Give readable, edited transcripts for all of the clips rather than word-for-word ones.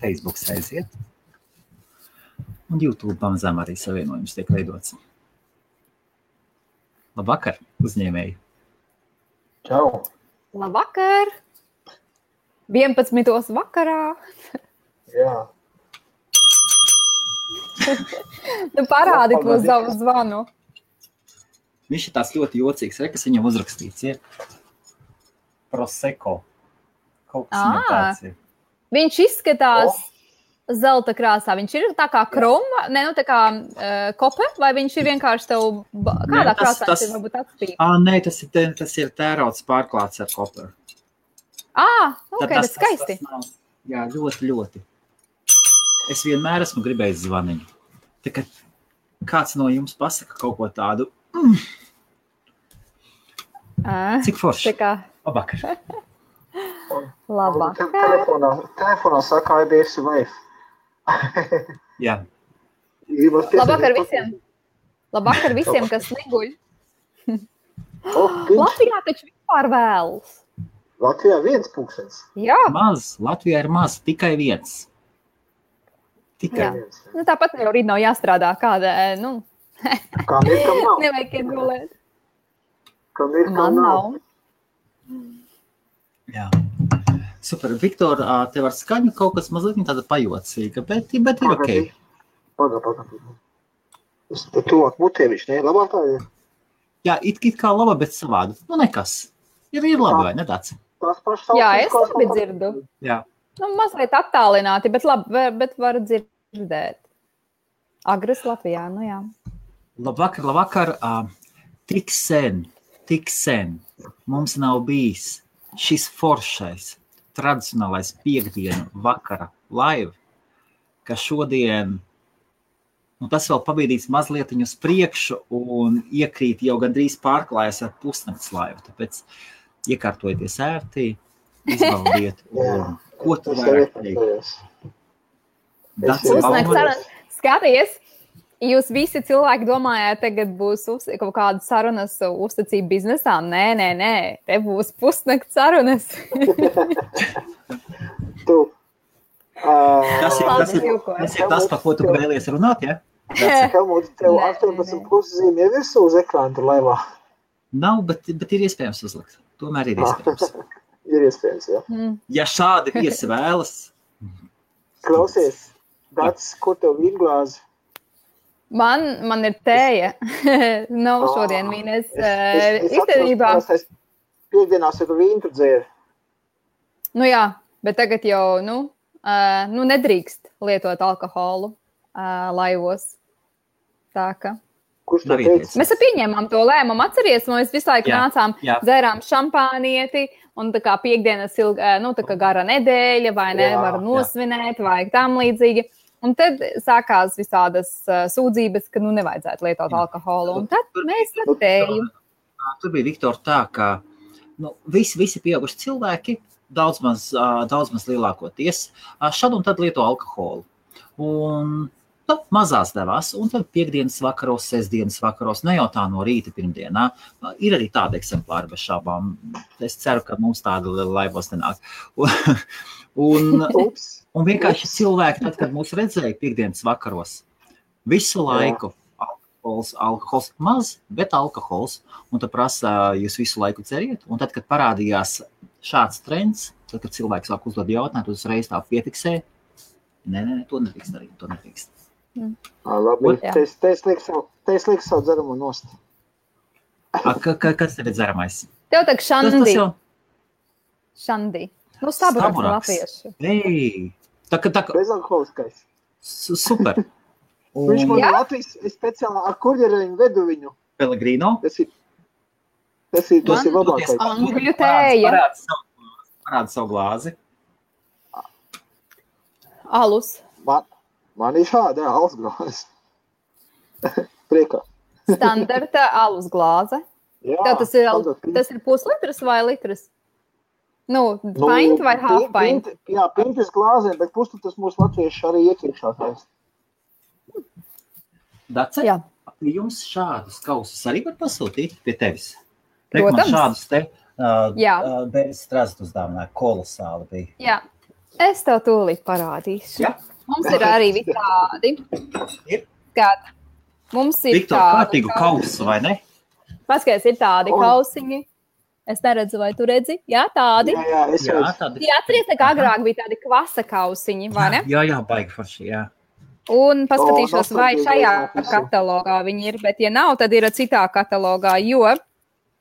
Facebook aiziet. Un YouTube pamazām arī savienojums tiek veidots. Labvakar, uzņēmēji. Čau. Labvakar. 11. vakarā. Jā. Tu parādi to savu zvanu. Viņš ir tāds ļoti jocīgs, kas viņam uzrakstīts, ir Prosecco. Kaut kas viņam tāds ir. Viņš izskatās zelta krāsā. Viņš ir tā kā kroma, tā kā kope, vai viņš ir vienkārši tev kādā krāsā viņš ir varbūt atspīd? Nē, tas ir tērauds pārklāts ar koperu. Tas skaisti. Jā, ļoti. Es vienmēr esmu gribējis zvaniņu. Tā kā kāds no jums pasaka kaut ko tādu. Cik forši? Labvakar. Labvakar. Telefonā saka IBS Wave. Jā. Labvakar visiem, kas neguļ. Latvijā taču vispār vēlas. Latvijā 1 pulkstens. Jā. Maz. Latvijā ir maz. Tikai 1. Tikai 1. Tāpat jau rīt nav jāstrādā kāda, Kam ir, kam nav. Nevajag iegulēt. Kam ir, kam nav. Jā. Super. Viktor, tev ar skaņu kaut kas mazliet tāda pajocīga, bet ir ok. Paga. Es tuvāk mutēvišķi, ne? Labāk tā ir? Jā, it kā laba, bet savādi. Nekas. Ir labi, vai ne tāds? Jā, es labi dzirdu. Jā. Mazliet attālināti, bet labi, bet var dzirdēt. Agres Latvijā, jā. Labvakar. Tik sen mums nav bijis šis foršais, tradicionālais piekdienu vakara live, ka šodien, tas vēl pabīdīts mazlietiņu uz priekšu un iekrīt jau gandrīz pārklājas ar pusnakts live, tāpēc iekārtojieties ērtī, izbaudiet, un ko tu vairāk teikt? Skaties, jūs visi cilvēki domājāt, tagad būs kaut kāda sarunas uzticība biznesā. Nē, te būs pusnakts sarunas. Tas ir tas, par ko tu vēlies runāt, ja? Helmut, tev 18 puszīme ir visu uz ekrānu tur laivā? Nav, bet ir iespējams uzlikt. Tomēr ir iespējams. Ir iespējams, jā. Ja šādi viesi vēlas. Klausies, Dats, kur tev vīnglāzi? Man ir tēja. Nav šodien vīnes. Īstenībā. Piekdienās ir vīnu tu dzēri. Jā, bet tagad jau, nedrīkst lietot alkoholu laivos. Tā ka. Kurš to teica? Mēs pieņēmām to lēmumu, atceries, mēs visu laiku nācām, dzērām šampānieti, un tā kā piekdienas tā kā gara nedēļa, vai nevar nosvinēt, vai tam līdzīgi. Un tad sākās visādas sūdzības, ka nevajadzētu lietot alkoholu, un tad mēs tēju. Tur bija, Viktor, tā, ka visi pieauguši cilvēki, daudz maz lielākoties, šad un tad lieto alkoholu. Un mazās devās, un tad piekdienas vakaros, sestdienas vakaros, ne jau tā no rīta pirmdienā. Ir arī tāda eksemplāra bez šābām. Es ceru, ka mums tāda laivos nenāk. Un vienkārši cilvēki, tad, kad mūs redzēja piekdienas vakaros, visu laiku alkohols maz, bet alkohols. Un tad prasa, jūs visu laiku dzeriet. Un tad, kad parādījās šāds trends, tad, kad cilvēks sāk uzdot jautājumu, uzreiz tā piefiksē. Nē, to nedrīkst darīt, to nedrīkst. Labi, te es lieku savu dzeramu nost. Kas tev ir dzeramais? Tev tak šandi. Šandi. Staburaks latviešu. Ei, bezalkoholiskais. Super. Viņš man Latvijas speciāli ar kurjereļiņu vedu viņu. Pellegrino? Tas ir labākais. Angļu tēja. Parāda savu glāzi. Alus. Man ir šāda, alus glāze. Priekā. Standarta alus glāze. Jā. Tas ir puslitras vai litras? Pint vai half pint? Jā, pintis glāzē, bet puslitras mūsu latvieši arī iekriekšā taisa. Dace, jums šādus kausus arī var pasūtīt pie tevis? Protams. Man šādus te bez strazdu uzdāvināja, kolosāli bija. Jā. Es tev tūlīt parādīšu. Ja? Mums ir arī tādi. Kāda? Mums ir Viktor, kārtīgu kausu, vai ne? Paskaties, ir tādi kausiņi. Es neredzu, vai tu redzi? Jā, tādi. Jā, es redzu. Tādi. Jā, atceries, ka agrāk bija tādi kvasa kausiņi, vai ne? Jā, baigi forši, jā. Un paskatīšos, vai šajā katalogā viņi ir, bet ja nav, tad ir citā katalogā, jo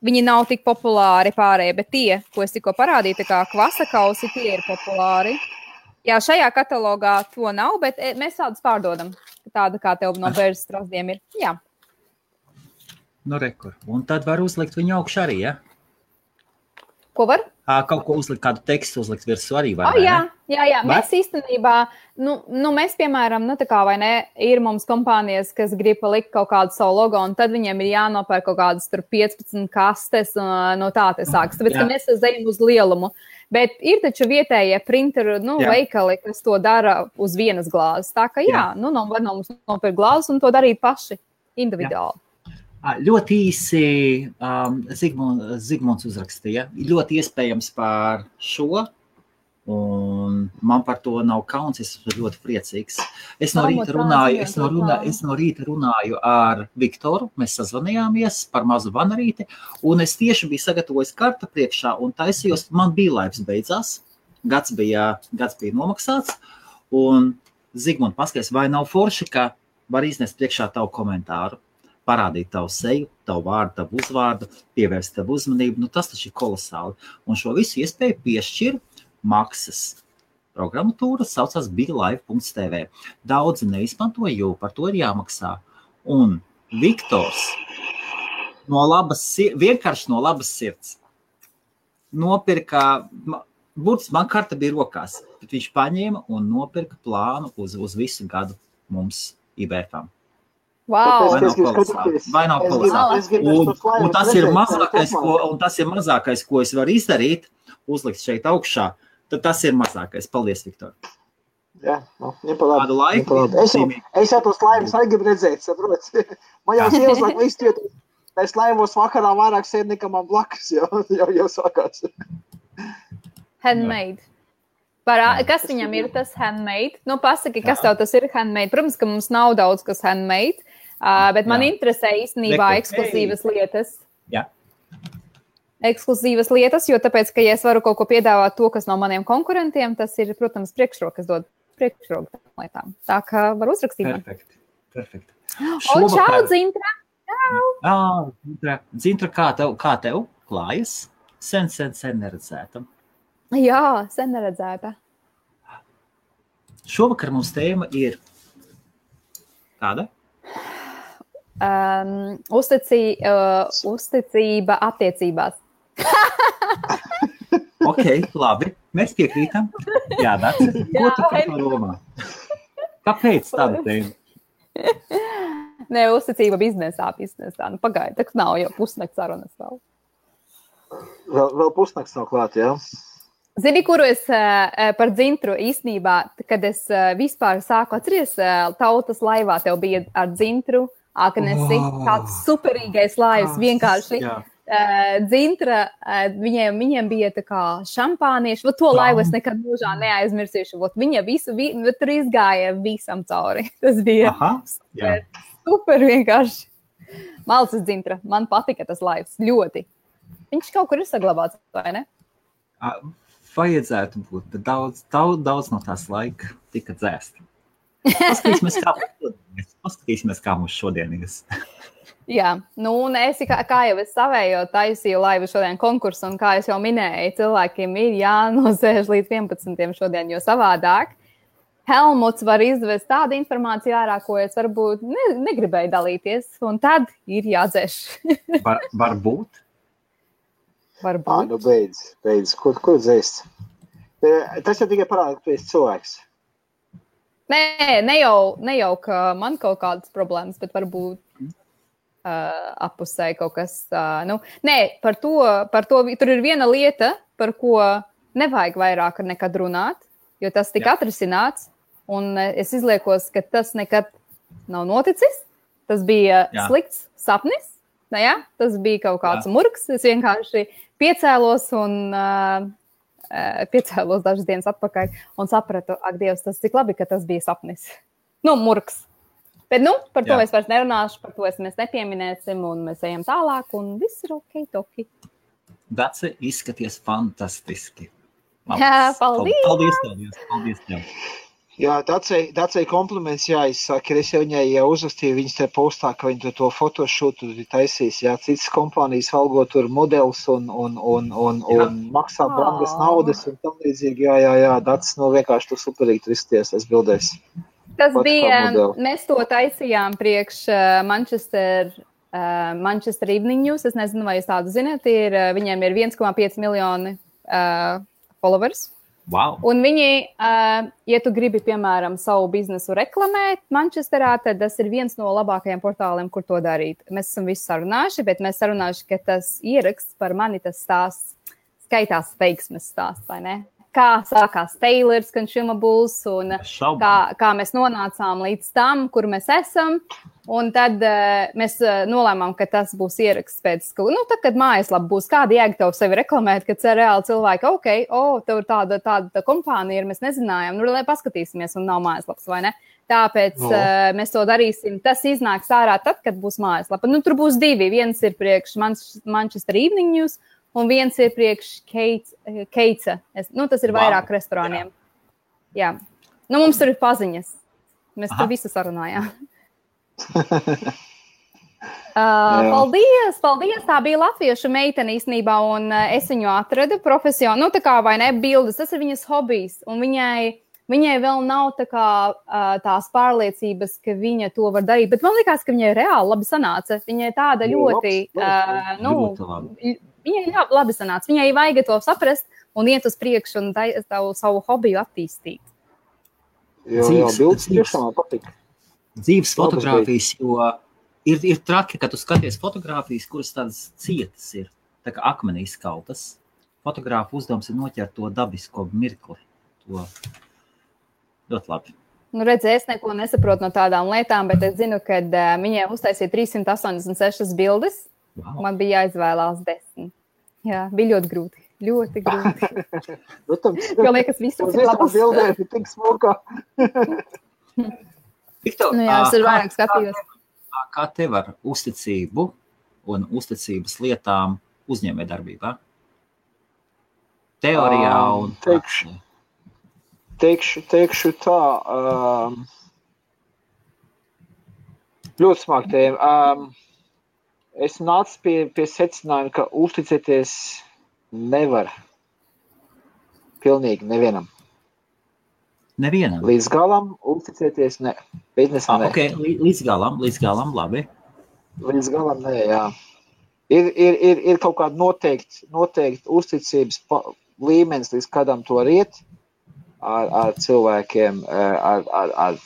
viņi nav tik populāri pārējie, bet tie, ko es tikko parādīju, tā kā kvasa kausi, tie ir populāri. Jā, šajā katalogā to nav, bet mēs tādus pārdodam. Tāda kā tev no bērnas strasdiem ir. Jā. Nu, rekur. Un tad var uzlikt viņu augšu arī, ja? Ko var? Kaut ko uzlikt, kādu tekstu uzlikt virsū arī var, jā. Mēs īstenībā, mēs, piemēram, tā kā vai ne, ir mums kompānijas, kas grib palikt kaut kādu savu logo, un tad viņiem ir jānopērk kaut kādas tur 15 kastes, no tā te sāks. Tāpēc, ka mēs ejam uz lielumu. Bet ir taču vietējie printeru, veikali, kas to dara uz vienas glāzes. Tā ka var no mums nopirkt glāzes un to darīt paši individuāli. Ļoti īsi Zigmunds uzrakstīja. Ļoti iespējams par šo, un man par to nav kauns, es esmu ļoti priecīgs. Es no rīta runāju ar Viktoru, mēs sazvanījāmies par mazu vanarīti, un es tieši biju sagatavojis karta priekšā, un taisījos, man bija laiks beidzās, gads bija nomaksāts, un Zigmund, paskaties, vai nav forši, ka var iznest priekšā tavu komentāru? Parādīt tavu seju, tavu vārdu, tavu uzvārdu, pievērst tavu uzmanību. Tas taču ir kolosāli. Un šo visu iespēju piešķir maksas programmatūra, saucās BigLive.tv. Daudzi neizmanto, jo par to ir jāmaksā. Un Viktors vienkārši no labas sirds nopirka, burtiski man karta bija rokās, bet viņš paņēma un nopirka plānu uz visu gadu mums IBFam. Wow. Vai nav kolosāli? Un tas ir mazākais, ko es varu izdarīt, uzlikt šeit augšā, tad tas ir mazākais. Paldies, Viktor. Jā, nepalādi. Es jau tos laimus arī gribu redzēt, saprot. Man jau sievas laik visu jūtu, es laimos vakarā vairāk sēd nekā man blakus, jau sākās. Handmade. Kas viņam ir tas handmade? Pasaki, kas tev tas ir handmade? Protams, ka mums nav daudz kas handmade, bet man interesē īstenībā ekskluzīvas lietas. Jā. Ekskluzīvas lietas, jo tāpēc, ka ja es varu kaut ko piedāvāt to, kas no maniem konkurentiem, tas ir, protams, priekšrokas dod priekšroku tām lietām. Tā kā var uzrakstīt. Perfekt. Čau, Dzintra! Dzintra, kā tev klājas? Sen neredzētam. Jā, sen neredzēta. Šovakar mums tēma ir kāda? Uzticība attiecībās. Ok, labi. Mēs piekrītam. Jā, Dārts. Ko tu par to domā? Kāpēc tāda tēma? Nē, uzticība biznesā. Pagaid, tak nav jau pusnakts sarunas vēl. Vēl pusnakts nav klāt, jā? Zini, kuru es par Dzintru īstenībā, kad es vispār sāku atceries, Tautas laivā tev bija ar Dzintru, Akanesi, tāds superīgais laivs, vienkārši. Dzintra, viņiem bija tā kā šampānieši, to laivu es nekad mūžā neaizmirsīšu, viņa tur izgāja visam cauri. Tas bija super vienkārši. Malcis Dzintra, man patika tas laivs, ļoti. Viņš kaut kur ir saglabāts, vai ne? Vajadzētu būt, bet daudz no tās laika tika dzēst. Paskatīsimies, kā mums šodien ir. Jā, un kā jau es savējo taisīju laivu šodien konkursu, un kā es jau minēju, cilvēkiem ir jānosēž līdz 11. šodien, jo savādāk Helmuts var izvest tādu informāciju ārā, ko es varbūt negribēju dalīties, un tad ir jādzēš. Varbūt? Nu beidz. Ko dzēst? Tas jau tikai parāda, ka tu esi cilvēks. Ne jau, ka man kaut kādas problēmas, bet varbūt appusēji kaut kas. Par to tur ir viena lieta, par ko nevajag vairāk nekad runāt, jo tas tika atrisināts, un es izliekos, ka tas nekad nav noticis. Tas bija slikts sapnis, tas bija kaut kāds murgs. Es vienkārši piecēlos un piecēlos dažas dienas atpakaļ un sapratu, ak, Dievs, tas cik labi, ka tas bija sapnis. Murks. Bet, par to es vairs nerunāšu, par to mēs nepieminēsim, un mēs ejam tālāk, un viss ir ok, toki. Dace, izskaties fantastiski. Jā, paldies! Paldies tev! Jā, Dacei kompliments jāizsaka, es jau viņai uzrakstīju viņas te postā, ka viņi to fotošūtu taisīs, citas kompānijas algo tur modelis un maksā brangas naudas un tam līdzīgi, jā, Dacis, vienkārši tu superīgi tur izties, es bildēs. Tas bija, mēs to taisījām priekš Manchester Evening News, es nezinu, vai jūs tādu zināt, viņiem ir 1,5 miljoni followers. Wow. Un viņi, ja tu gribi, piemēram, savu biznesu reklamēt Manchesterā, tad tas ir viens no labākajiem portāliem, kur to darīt. Mēs esam visu sarunājuši, bet mēs sarunājuši, ka tas ieraksts par mani tas stāsts skaitās veiksmes stāsts, vai ne? Kā sākās Taylor's Consumables un kā mēs nonācām līdz tam, kur mēs esam. Un tad mēs nolēmām, ka tas būs ieraksts pēc, tad, kad mājaslapa būs, kāda jēga tev sevi reklamēt, kad reāli cilvēki, tev ir tāda kompānija, mēs nezinājām, lai paskatīsimies un nav mājaslapas, vai ne? Tāpēc mēs to darīsim. Tas iznāks ārā tad, kad būs mājaslapa. Tur būs divi. Viens ir priekš Manchester Evening News, un viens ir priekš Keitsa. Tas ir vairāk restorāniem. Jā. Mums tur ir paziņas. Mēs tur visu sarunājām. Paldies! Tā bija latviešu meitene īstenībā, un es viņu atradu profesionāli. Tā kā vai ne, bildes, tas ir viņas hobijs, un viņai vēl nav tās pārliecības, ka viņa to var darīt, bet man likās, ka viņai reāli labi sanāca. Viņai tāda ļoti, viņai labi sanāca. Viņai vajag to saprast un iet uz priekšu un savu hobiju attīstīt. Jā, bildes tiešām patīk. Dzīves fotogrāfijas, jo ir traki, ka tu skaties fotogrāfijas, kuras tādas cietas ir, tā kā akmenī izkaltas. Fotogrāfa uzdevums ir noķert to dabisko mirkli. To ļoti labi. Redzi, es neko nesaprotu no tādām lietām, bet es zinu, ka viņai uztaisīja 386 bildes. Wow. Man bija jāizvēlās 10. Jā, bija ļoti grūti. Ļoti grūti. Jo liekas, viss ir labas. Bildēm ir tik smukā. Viktor, es ir vairāk skatījos. Kā tev ar uzticību un uzticības lietām uzņēmējdarbībā? Teorijā un praksē. Teikšu tā, ļoti smāk tēma. Es nācu pie secinājuma, ka uzticēties nevar pilnīgi nevienam. Nevienam? Līdz galam uzticēties ne. Biznesā ne. Okay. Līdz galam, labi. Līdz galam ne, jā. Ir kaut kāda noteikti uzticības līmenis, līdz kādam to var iet. Ar cilvēkiem, ar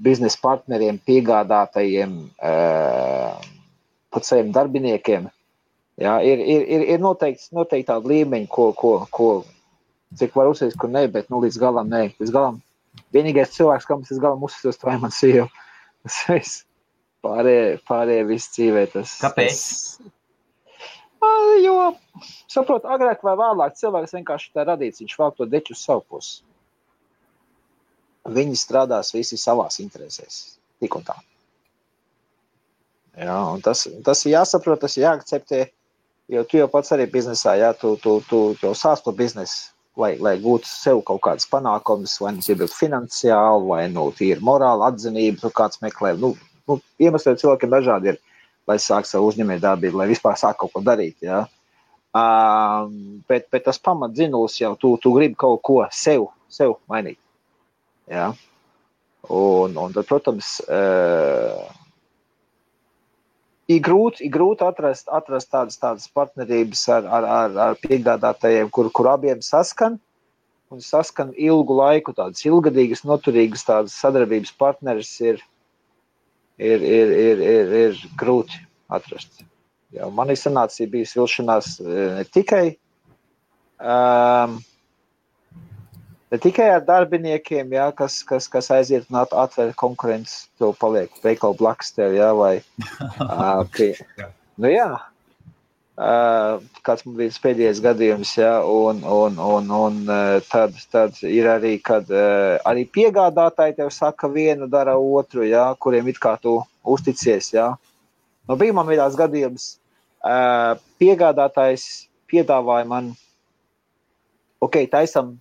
biznesa partneriem, piegādātajiem, pat saviem darbiniekiem. Jā, ir noteikti tāda līmeņa, ko cik var uzsist, kur ne, bet līdz galam ne. Līdz galam vienīgais cilvēks, kam es līdz galam uzsistos, tā ir man sieva. Pārējie viss dzīvē. Kāpēc? Jo, saprot, agrāk vai vēlāk cilvēks vienkārši tā radīts, viņš vēl to deķu uz savu pusi. Viņi strādās visi savās interesēs, tik un tā. Jā, un tas ir jāsaprot, tas ir jāakceptē, jo tu jau pats arī biznesā, jā, tu jau sāc to biznesu, lai gūtu sev kaut kādas panākumus, vai nu iebildu finansiāli, vai tīri morāli atzinību, kāds meklē. Iemesli cilvēkiem dažādi ir, lai sāk savu uzņēmējdarbību, lai vispār sāk kaut ko darīt, jā. Bet tas pamatdzinulis jau, tu gribi kaut ko sev mainīt. Jā. Un tad, protams, ir grūti atrast tādas partnerības ar piegādātājiem, kur abiem saskan ilgu laiku, tādas ilgadīgas, noturīgas tādas sadarbības partneris ir grūti atrast. Jā, man sanāca bijis vilšanās ne tikai ar darbiniekiem, jā, kas aiziet un atver konkurences, tev paliek veikalu blakus tev, jā, vai jā. kāds man bija pēdējais gadījums, ja, un tad ir arī, kad arī piegādātāji tev saka vienu, dara otru, ja, kuriem it kā tu uzticies, ja. Nu, bija man vienās gadījums, piegādātājs piedāvāja man, taisam,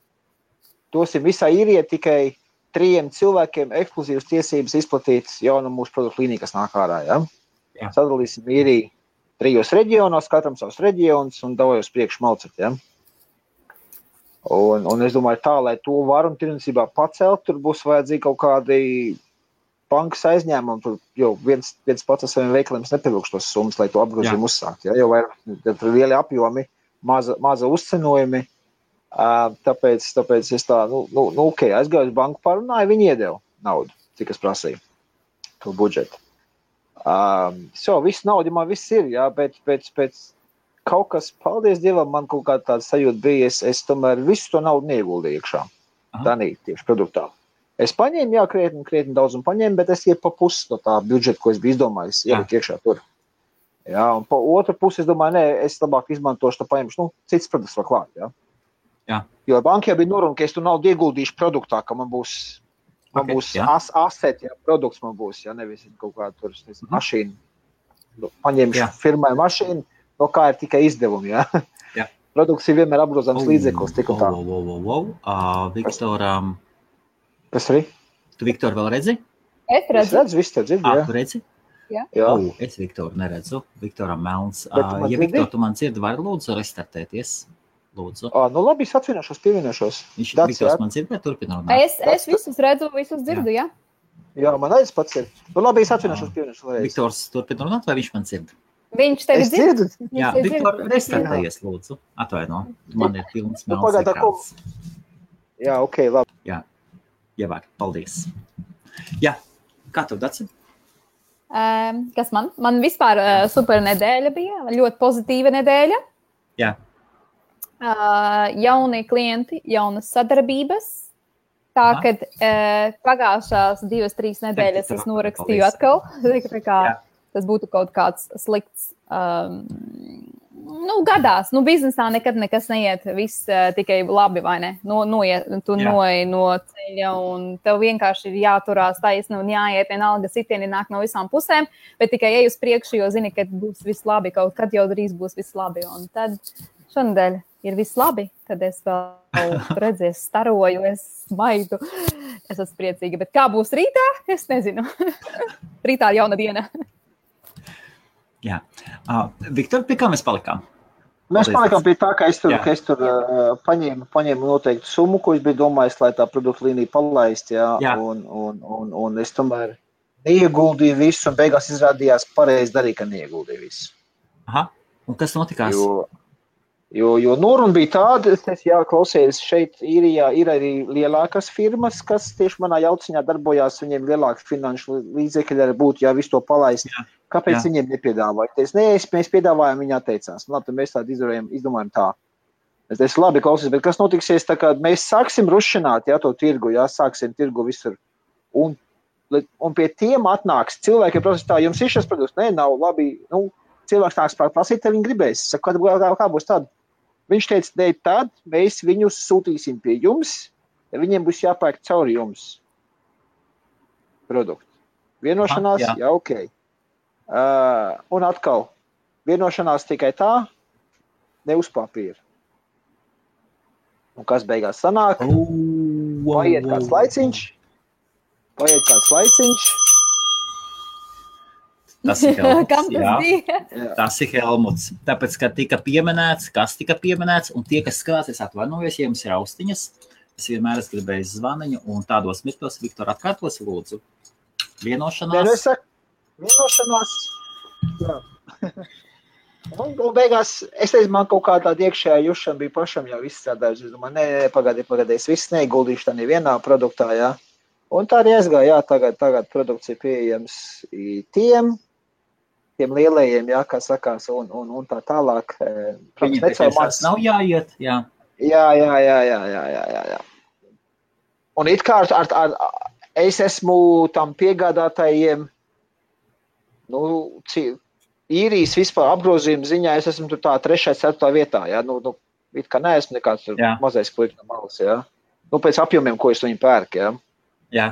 dosim visā īrijā tikai 3 cilvēkiem ekskluzīvas tiesības izplatīt jaunu mūsu produktu līniju, kas nāk ārā, ja. Sadalīsim īriju 3 reģionos, katram savs reģions un davai uz priekšu malcet, ja. Un es domāju tā, lai to var un tirdzniecībā pacelt, tur būs vajadzīgi kaut kādi bankas aizņēmumi, jo viens pats ar saviem veikaliem nepievilkš tos summas, lai to apgrozījumu uzsākt, ja, jo vairāk lieli apjomi, maza uzcenojumi, tāpēc es tā, aizgāju uz banku parunāju, viņi iedeva naudu, cik es prasīju, to budžetu. Viss nauda man viss ir, jā, bet pēc kaut kas, paldies Dievam, man kaut kāda tāda sajūta bija, es tomēr visu to naudu neieguldīju iekšā, tanī, tieši produktā. Es paņēmu, jā, krietni daudz un paņēmu, bet es pa pusi no tā budžeta, ko es biju izdomājis, ieliku iekšā tur. Jā, un pa otru pusi es domāju, es labāk izmantošu, tā paņemšu, cits produkts vēl klāt, jā. Jā. Jo bankā bija noruna, ka es tu naudu ieguldīšu produktā, ka man būs asset, jā, produkts man būs, jā, nevis kaut kā tur mašīna. Paņemšu firmai mašīnu, no kā ir tikai izdevumi, jā. Jā. Produkts ir vienmēr apgrozāms līdzeklis, tik un tā. Viktoram. Kas arī? Tu Viktoru vēl redzi? Es redzu, viss te dzird, jā. Tu redzi? Jā. Es Viktoru neredzu. Viktoram melns. Ja Viktor, tu man dzirdi, vari lūdzu restartēties? Lūdzu. Nu labi, es pievienošos. Viktors man dzird, vai turpina runāt? Es visus redzu, visus dzirdu, jā. Jā, man arī pats ir. Nu labi, es pievienošos. Viktors turpina runāt, vai viņš man dzird? Viņš tevi dzird? Jā, Viktor, restartējies, lūdzu. Atvaino, man ir pilns melns ekrāns. Jā, labi. Jā, ievāk, paldies. Jā, kā tev, Daci? Kas man? Man vispār super nedēļa bija, ļoti pozitīva nedēļa. Jā. Jauni klienti, jaunas sadarbības. Tā, kad pagājušās 2-3 nedēļas es norakstīju atkal, tas būtu kaut kāds slikts. Gadās, biznesā nekad nekas neiet, viss tikai labi, vai ne? Tu noej no ceļa un tev vienkārši ir jāturās taisni un jāiet vienalga sitieni nāk no visām pusēm, bet tikai ej uz priekšu, jo zini, ka būs viss labi, kaut kad jau drīz būs viss labi. Un tad šonadēļ ir viss labi, tad es vēl redzies, staroju, es smaidu, es esmu priecīga, bet kā būs rītā, es nezinu. Rītā jauna diena. Jā. Viktor, pie kā mēs palikām? Mēs palikām pie tā, ka es tur paņēmu noteiktu summu, ko es biju domājis, lai tā produktu līnija palaist, jā. Un es tomēr neieguldīju visu, un beigās izrādījās pareizi darīt, ka neieguldīju visu. Aha, un kas notikās? Jo noruna bija tāda, klausies, šeit Īrijā ir arī lielākas firmas, kas tieši manā jauciņā darbojās, viņiem lielāki finanšu līdzekļi arī būtu, ja visu to palaist. Jā. Kāpēc viņiem nepiedāvāja? Mēs piedāvājām, viņi atteicās. Labi, tad mēs tādu izdomājam tā. Es labi klausies, bet kas notiksies, tā kā mēs sāksim rušināt, to tirgu, sāksim tirgu visur. Un pie tiem atnāks cilvēki, protams, tā, jums ir šis produkts? Nē, nav labi. Cilvēks nāks prasīt, ja viņi gribēs. Saka, kā būs tad? Viņš teica, ne, tad mēs viņus sūtīsim pie jums, ja viņiem būs jāpērk cauri jums produktu. Vienošanās, ok. Un atkal, vienošanās tikai tā, ne uz papīra. Un kas beigās sanāk? Paiet kāds laiciņš. Tas ir Helmuts. Tas ir Helmuts. Tāpēc, ka tika pieminēts, kas tika pieminēts, un tie, kas skatās, es atvainojos, ja jums ir austiņas, es vienmēr esmu gribējis zvaniņu, un tādos mirkļos, Viktor, atkārtos, lūdzu. Vienošanās. Vienošanās. Jā. Un beigās, es teicu, man kaut kā tāda iekšējā jušana bija pašam jau izstrādājusi. Es domāju, pagādi, es viss neguldīšu tā nevienā produktā, jā. Un tā arī aizgāja, tagad produkts ir pieejams tiem lielajiem, kā sakās, un tā tālāk. Viņiem tas nav jāiet, jā. Jā. Un it kā es esmu tam piegādātājiem, īrijas vispār apgrozījuma ziņā es esmu tur tā 3. 4. vietā, jā, it kā neesmu nekāds tur mazais kliks no malas, jā. Pēc apjomiem, ko es viņu pērku, jā. Jā.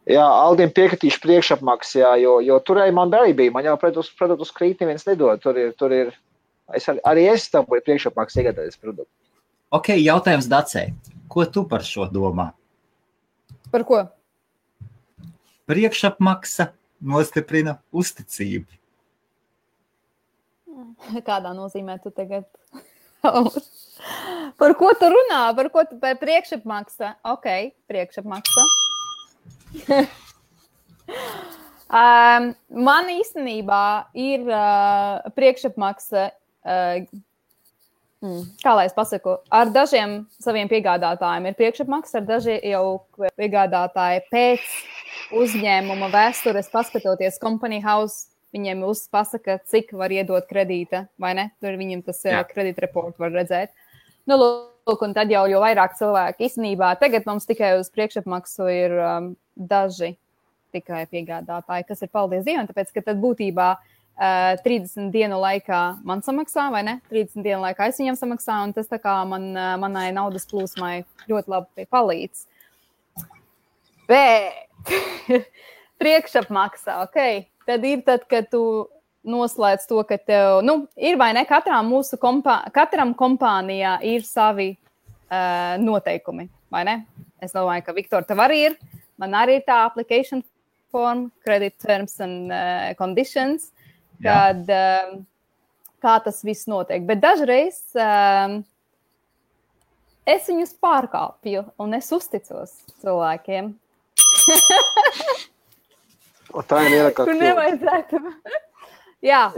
Jā, Aldim piekritīšu priekšapmaksas, jā, jo turēji man arī bija, man jau produktus krīt neviens nedod, tur ir, arī es tam būju priekšapmaksas iegādājies produktu. Ok, jautājums Dacei, ko tu par šo domā? Par ko? Priekšapmaksa nostiprina uzticību. Kādā nozīmē tu tagad? Par ko tu runā? Par priekšapmaksa? Ok, priekšapmaksa. Man īstenībā ir priekšapmaksa, kā lai es pasaku, ar dažiem saviem piegādātājiem ir priekšapmaksa, ar daži jau piegādātāji pēc uzņēmuma vēstures, paskatoties Company House, viņiem pasaka, cik var iedot kredīta, vai ne? Tur viņiem tas kredīt report var redzēt. Lūk, un tad jau vairāk cilvēki īstenībā. Tagad mums tikai uz priekšapmaksu ir daži tikai piegādātāji, kas ir paldies Dievam, tāpēc, ka tad būtībā 30 dienu laikā man samaksā, vai ne? 30 dienu laikā es viņam samaksā, un tas tā kā manai naudas plūsmai ļoti labi palīdz. Bet priekšapmaksā, ok. Tad ir tad, kad tu noslēdz to, ka tev, ir vai ne, katram kompānijā ir savi noteikumi, vai ne? Es domāju, ka Viktor, tev arī ir, man arī ir tā application form, credit terms and conditions, kad kā tas viss notiek. Bet dažreiz es viņus pārkāpju un es uzticos cilvēkiem. Tā ir ierakā. Kur nevajadzētu. Jā.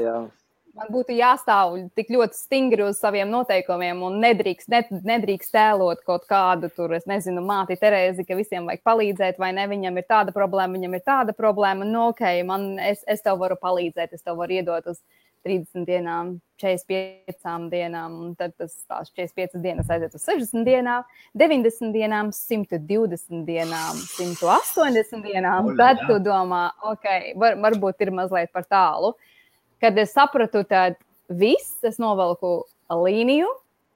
Man būtu jāstāv tik ļoti stingri uz saviem noteikumiem un nedrīkst tēlot kaut kādu tur, es nezinu, māti Terēzi, ka visiem vajag palīdzēt, vai ne, viņam ir tāda problēma, ok, es tev varu palīdzēt, es tev varu iedot uz 30 dienām, 45 dienām, un tad tās 45 dienas aiziet uz 60 dienām, 90 dienām, 120 dienām, 180 dienām, tad tu domā, ok, varbūt ir mazliet par tālu. Kad es sapratu, tad viss, es novelku līniju,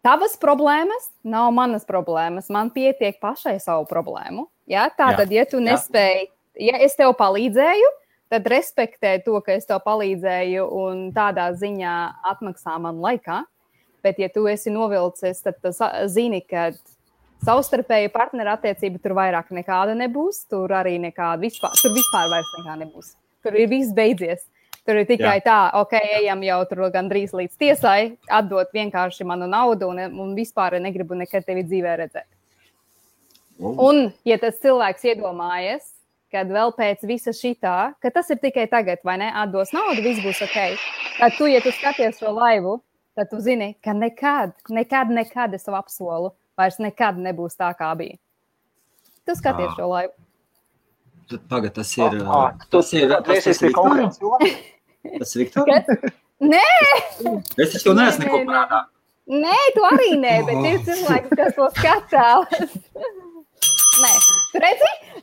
tavas problēmas nav manas problēmas, man pietiek pašai savu problēmu. Ja? Tātad, ja tu nespēji, ja es tev palīdzēju, tad respektē to, ka es tev palīdzēju un tādā ziņā atmaksā man laikā. Bet, ja tu esi novilcis, tad zini, ka savstarpēju partneru attiecība tur vairāk nekāda nebūs, tur arī nekāda vispār vairs nekā nebūs. Tur ir viss beidzies. Tur ir tikai tā, ok, ejam jau tur gandrīz līdz tiesai, atdot vienkārši manu naudu un vispār negribu nekad tevi dzīvē redzēt. Un, ja tas cilvēks iedomājas, kad vēl pēc visa šitā, ka tas ir tikai tagad, vai ne, atdos naudu, viss būs ok. Tad tu, ja tu skaties šo laivu, tad tu zini, ka nekad es tev apsolu, vairs nekad nebūs tā, kā bija. Tu skaties šo laivu. Tagad tas ir... Tas ir Viktor? Tas ir Viktor? Nē! Es taču neesmu neko prātā. Nē, tu arī nē, bet ir cilvēks, kas to skatās. Nē. Tu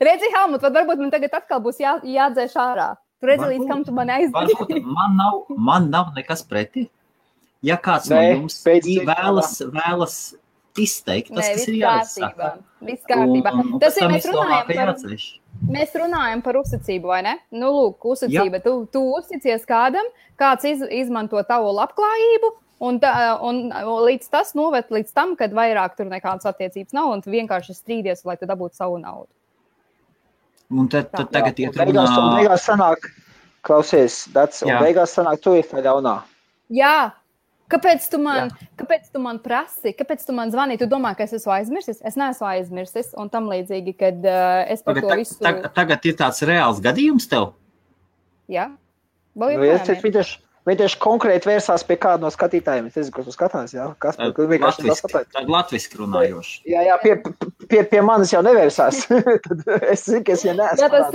redzi, Helmut, varbūt man tagad atkal būs jādzēš ārā. Tu redzi, līdz kam tu mani aizdzi. Man nav nekas pretī. Ja kāds no jums vēlas izteikt, tas ir jāsaka. Viss kārtībā. Tas ir, mēs runājam par uzticību, vai ne? Lūk, uzticība. Tu uzticies kādam, kāds izmanto tavu labklājību, un līdz tas noved līdz tam, kad vairāk tur nekādas attiecības nav, un tu vienkārši strīdies, lai tu dabūtu savu naudu. Un tad tagad iet runā... Beigās sanāk, klausies, beigās sanāk, tu ir tā ļaunā. Jā. Kāpēc tu man prasi? Kāpēc tu man zvani? Tu domā, ka es esmu aizmirsis? Es neesmu aizmirsis, un tam līdzīgi, kad es par to visu... Tagad ir tāds reāls gadījums tev? Jā. Viņi tieši konkrēti vērsās pie kāda no skatītājiem. Es nezinu, ko tu skatās, jā? Latviski runājoši. Jā, pie manis jau nevērsās. Tad es zinu, ka es jau neesmu. Jā, tas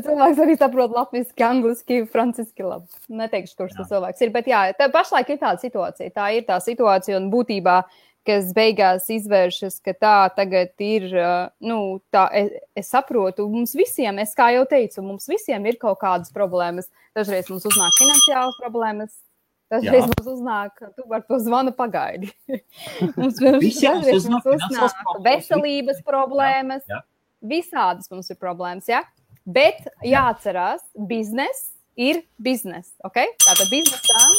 cilvēks arī saprot latviski, angliski, franciski labi. Neteikšu, kurš tas cilvēks ir, bet jā, pašlaik ir tāda situācija. Tā ir tā situācija, un būtībā kas beigās izvēršas, ka tā tagad ir, tā es saprotu, mums visiem, es kā jau teicu, mums visiem ir kaut kādas problēmas. Dažreiz mums uznāk finansiālas problēmas, dažreiz mums uznāk, tu par to zvanu pagaidi. Dažreiz mums uznāk veselības problēmas, visādas mums ir problēmas, ja? Bet jāatcerās, biznes ir biznes, ok? Tātad biznesām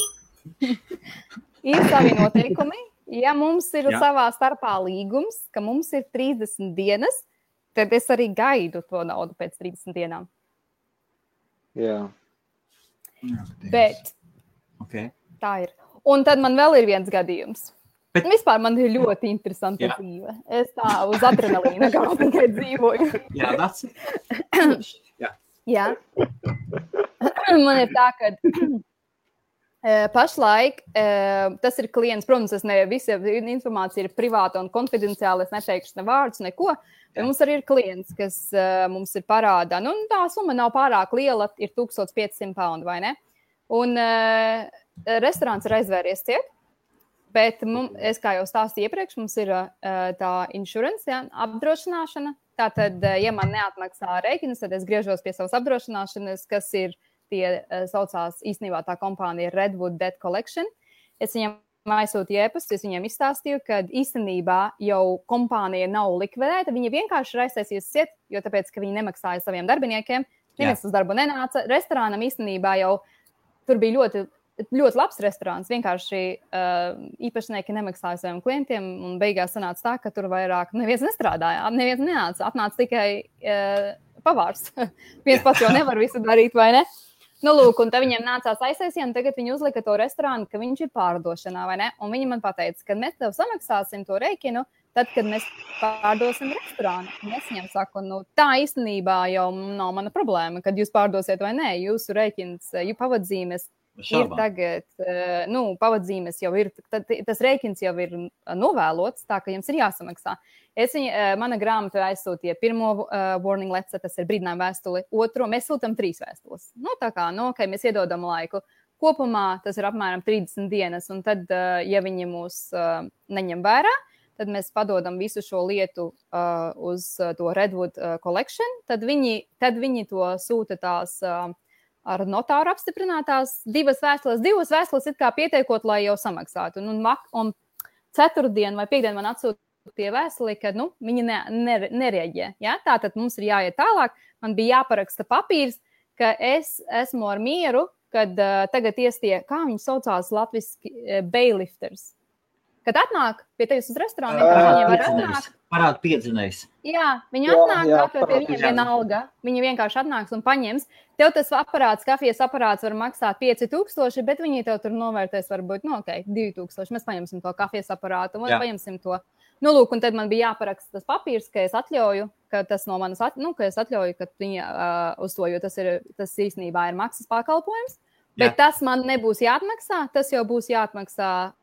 ir savi noteikumi. Ja mums ir savā starpā līgums, ka mums ir 30 dienas, tad es arī gaidu to naudu pēc 30 dienām. Jā. Bet tā ir. Un tad man vēl ir viens gadījums. Vispār man ir ļoti interesanta dzīve. Es tā uz adrenalīna kā tikai dzīvoju. Jā, that's Jā. Man ir tā, ka pašlaik tas ir klients, protams, visa informācija ir privāta un konfidenciāla, es neteikšu ne vārdus, neko, bet mums arī ir klients, kas mums ir parādā. Tā summa nav pārāk liela, ir 1500 pounds, vai ne? Un restorāns ir aizvēries ciet, bet es, kā jau stāstīju iepriekš, mums ir tā insurance, apdrošināšana. Tātad, ja man neatmaksā rēķinus, tad es griežos pie savas apdrošināšanas, kas ir tie saucās īstenībā tā kompānija Redwood Debt Collection. Es viņam aizsūtīju ēpastu, es viņiem izstāstīju, ka īstenībā jau kompānija nav likvidēta, viņa vienkārši ir aiztaisījusi ciet, jo tāpēc, ka viņi nemaksāja saviem darbiniekiem, neviens uz darbu nenāca. Restorānam īstenībā jau tur bija ļoti, ļoti labs restorāns, vienkārši īpašnieki nemaksāja saviem klientiem, un beigās sanāca tā, ka tur vairāk neviens nestrādāja, neviens nenāca, atnāca tikai pavārs. Viens pats jau nevar visu darīt, vai ne? Lūk, un tad viņiem nācās aiztaisīt, un tagad viņi uzlika to restorānu, ka viņš ir pārdošanā, vai ne? Un viņi man pateica, ka mēs tev samaksāsim to rēķinu, tad, kad mēs pārdosim restorānu. Un es viņiem saku, tā īstenībā jau nav mana problēma, kad jūs pārdosiet vai nē, jūsu rēķins, pavadzīmes ir tagad, pavadzīmes jau ir, tas rēķins jau ir novēlots, tā ka jums ir jāsamaksā. Mana grāmata aizsūtīja pirmo warning letter, tas ir brīdinājuma vēstuli, otro, mēs sūtam 3 vēstules. Tā kā, mēs iedodam laiku. Kopumā tas ir apmēram 30 dienas, un tad, ja viņi mūs neņem vērā, tad mēs padodam visu šo lietu uz to Redwood Collection, tad viņi to sūta tās ar notāru apstiprinātās 2 vēstules it kā pietiekot, lai jau samaksātu. Un ceturtdien vai piekdien man atsūtīja vēstuli, ka viņi nereaģē. Ja? Tātad mums ir jāiet tālāk. Man bija jāparaksta papīrs, ka es esmu ar mieru, kad tagad iestie, kā viņi saucās latviski, bailifters. Kad atnāk pie tevis uz restorānu, viņi var atnākt. Parāda piedzinējs. Jā, viņi atnāk, pie viņiem vienalga. Viņi vienkārši atnāks un paņems. Tev tas kafijas aparāts var maksāt 5000, bet viņi tev tur novērtēs varbūt, 2000. Mēs paņemsim to kafijas aparātu un paņemsim to. Lūk, un tad man bija jāparaksta tas papīrs, ka es atļauju, ka tas no manas, ka es atļauju, ka viņi uz to, jo tas īstenībā ir maksas pakalpojums. Bet tas man nebūs jāatmaksā, tas jau būs jāatmaksā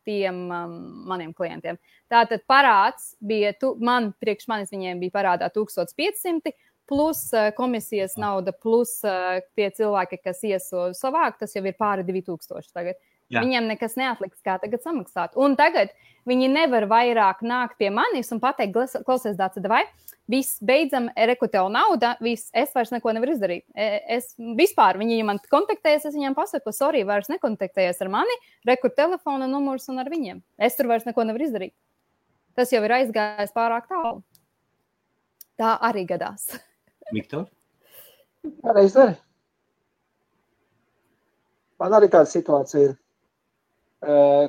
tiem maniem klientiem. Tātad parāds bija, priekš manis viņiem bija parādā 1500, plus komisijas nauda, plus tie cilvēki, kas savāk, tas jau ir pāri 2000 tagad. Jā. Viņiem nekas neatliks, kā tagad samaksāt. Un tagad viņi nevar vairāk nākt pie manis un pateikt, klausies, Dāca, vai viss beidzam, reku tev nauda, es vairs neko nevaru izdarīt. Vispār viņi man kontaktējas, es viņiem pasaku, sorry, vairs nekontaktējies ar mani, reku telefona numurs un ar viņiem. Es tur vairs neko nevaru izdarīt. Tas jau ir aizgājis pārāk tālu. Tā arī gadās. Viktor? Arī izdari. Man arī tāda situācija ir.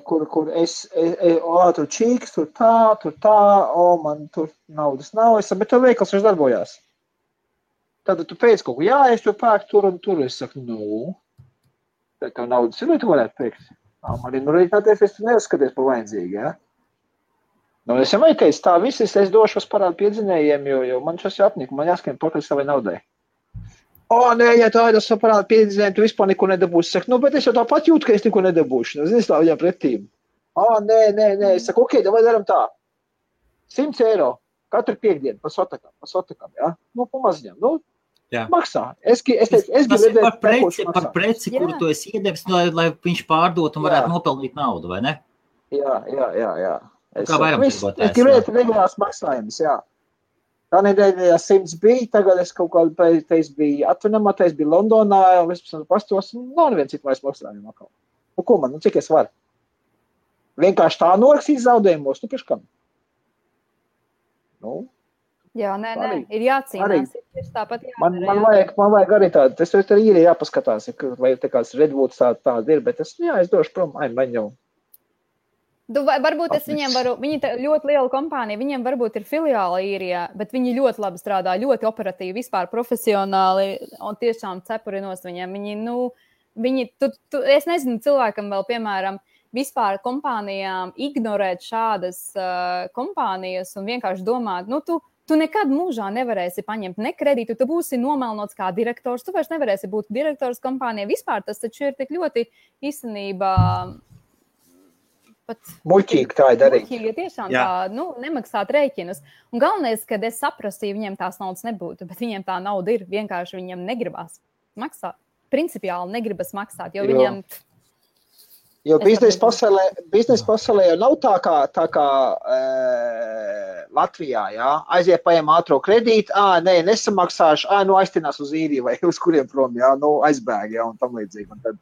Kur es tur čīks, tur tā, man tur naudas nav, bet tev veikals vairs darbojās. Tad tu pēc kaut ko, es to pērku tur un tur, es saku, tad tev naudas ir, vai tu varētu pēkt? Man ir, reiķināties, es tu neuzskaties par vajadzīgi, ja? Es jau teicu, tā viss, es došos parādu piedzinējiem, jo man šos jāapnika, man jāskiem pakaļ savai naudai. Nē, ja tā ir parāda piedzinējumi, tu vispār neko nedabūsi. Saku, bet es jau tāpat jūtu, ka es neko nedabūšu. Zini, tā viņam pretīm. Nē. Es saku, ok, vai daram tā. 100 eiro katru piekdienu pa sotakam, ja? Pamaziņam, maksā. Es gribu redzēt par preci, kuru tu esi iedevis, lai viņš pārdot un varētu nopelnīt naudu, vai ne? Jā. Kā vairumtirgotājs. Es gribētu regulās maksājumus, jā. Tā nedēļā 100 bija, tagad es kaut kādu pēc biju atvinamā, es biju Londonā, un es pastos, nav neviens citu vairs maksājumu atkal. Ko man, cik es varu? Vienkārši tā norakstīt zaudējumos, priekškam? Jā, nē, ir jācīnās. Ir tāpat jādara, man vajag arī tādu, es arī ir jāpaskatās, vai te kāds Redwoods tāda ir, bet es došu prom, man jau. Varbūt es viņiem varu, viņi ļoti liela kompānija, viņiem varbūt ir filiāla īrijā, bet viņi ļoti labi strādā, ļoti operatīvi, vispār profesionāli un tiešām cepurinos viņiem. Es nezinu cilvēkam vēl, piemēram, vispār kompānijām ignorēt šādas kompānijas un vienkārši domāt, tu nekad mūžā nevarēsi paņemt ne kredītu, tu būsi nomelnots kā direktors, tu vairs nevarēsi būt direktors kompānijā. Vispār tas taču ir tik ļoti īstenībā... Muļķīgi tā ir darīt. Muļķīgi, tiešām tā, nemaksāt rēķinus. Un galvenais, kad es saprastu, ja viņiem tās naudas nebūtu, bet viņiem tā nauda ir, vienkārši viņiem negribas maksāt. Principiāli negribas maksāt, jo viņiem... Jo biznesa pasaulē jau nav tā kā Latvijā, jā. Aiziet paņem ātro kredītu, nesamaksāšu, aiztinās uz īriju vai uz kuriem prom, jā, aizbēg, jā, un tam līdzīgi. Un tad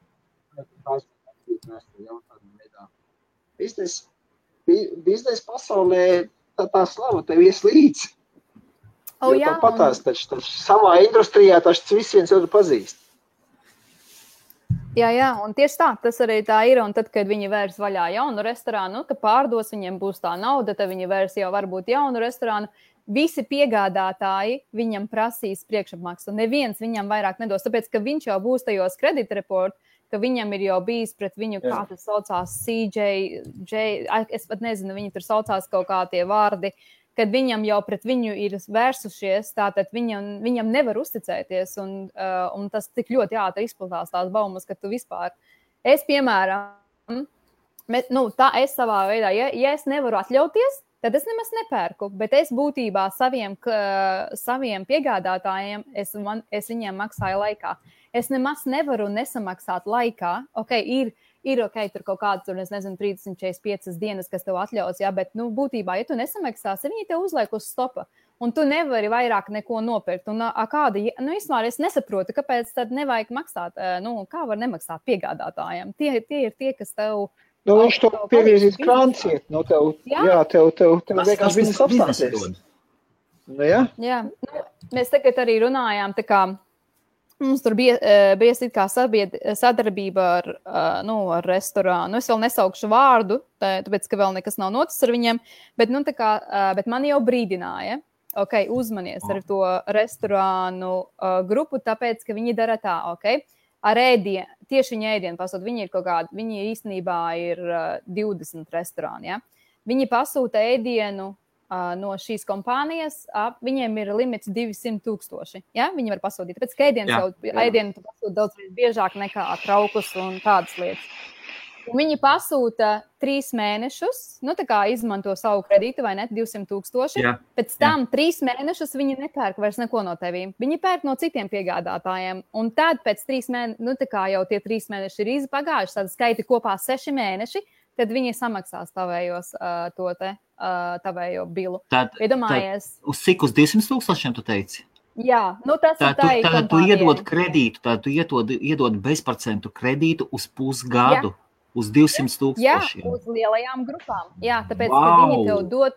biznesa pasaulē tā slava tev ies līdzi. Jā, tāpatās, taču savā industrijā taču visi viens otru pazīst. Jā, un tieši tā, tas arī tā ir, un tad, kad viņi vērs vaļā jaunu restorānu, ka pārdos, viņiem būs tā nauda, tad viņi vērs jau varbūt jaunu restorānu, visi piegādātāji viņam prasīs priekšapmaksu, neviens viņam vairāk nedos, tāpēc, ka viņš jau būs tajos kreditreportu, ka viņam ir jau bijis pret viņu, kā tas saucās, es pat nezinu, viņi tur saucās kaut kā tie vārdi, kad viņam jau pret viņu ir vērsušies, tātad viņam nevar uzticēties, un tas tik ļoti ātri izplatās tās baumas, ka tu vispār, es piemēram, es savā veidā, ja es nevaru atļauties, tad es nemaz nepērku, bet es būtībā saviem piegādātājiem, es viņiem maksāju laikā. Es nemaz nevaru nesamaksāt laikā. Ir tur kaut kāds, tur, es nezinu, 345 dienas, kas tev atļaus, jā, bet, būtībā, ja tu nesamaksāsi, viņi tev uzliek uz stopa, un tu nevari vairāk neko nopirkt. Un vispār es nesaprotu, kāpēc tad nevajag maksāt, kā var nemaksāt piegādātājiem. Tie ir tie, kas tev... viņš tev pieviezīs krānciet, tev vienkārši viss apstāsies. Jā, mēs tagad arī runājām, tā kā, mums tur bija kā sadarbība ar restorānu. Es vēl nesaukšu vārdu, tāpēc, ka vēl nekas nav noticis ar viņiem, bet man jau brīdināja, uzmanies ar to restorānu grupu, tāpēc, ka viņi dara tā, ar ēdienu, tieši viņa ēdienu pasūta, viņi īstenībā ir 20 restorāni, ja? Viņi pasūta ēdienu no šīs kompānijas, viņiem ir limits 200,000. Ja? Viņi var pasūtīt, tāpēc, ka ēdienu tu pasūti daudz biežāk nekā traukus un tādas lietas. Un viņi pasūta 3 mēnešus, tā kā izmanto savu kredītu, vai ne, 200,000. Pēc tam 3 mēnešus viņi nepērk vairs neko no tevīm. Viņi pērk no citiem piegādātājiem. Un tad pēc 3 mēnešiem, tā kā jau tie 3 mēneši ir pagājuši, tad skaiti kopā 6 mēneši, tad viņi samaksās tavējo bilu. Tad uz cik uz 200,000 tu teici? Jā, tas ir tā ir kompānijai. Tu iedod kredītu, tad tu iedod bezprocentu kredītu uz pusgadu, uz 200,000. Jā, uz lielajām grupām. Jā, tāpēc, ka viņi tev dod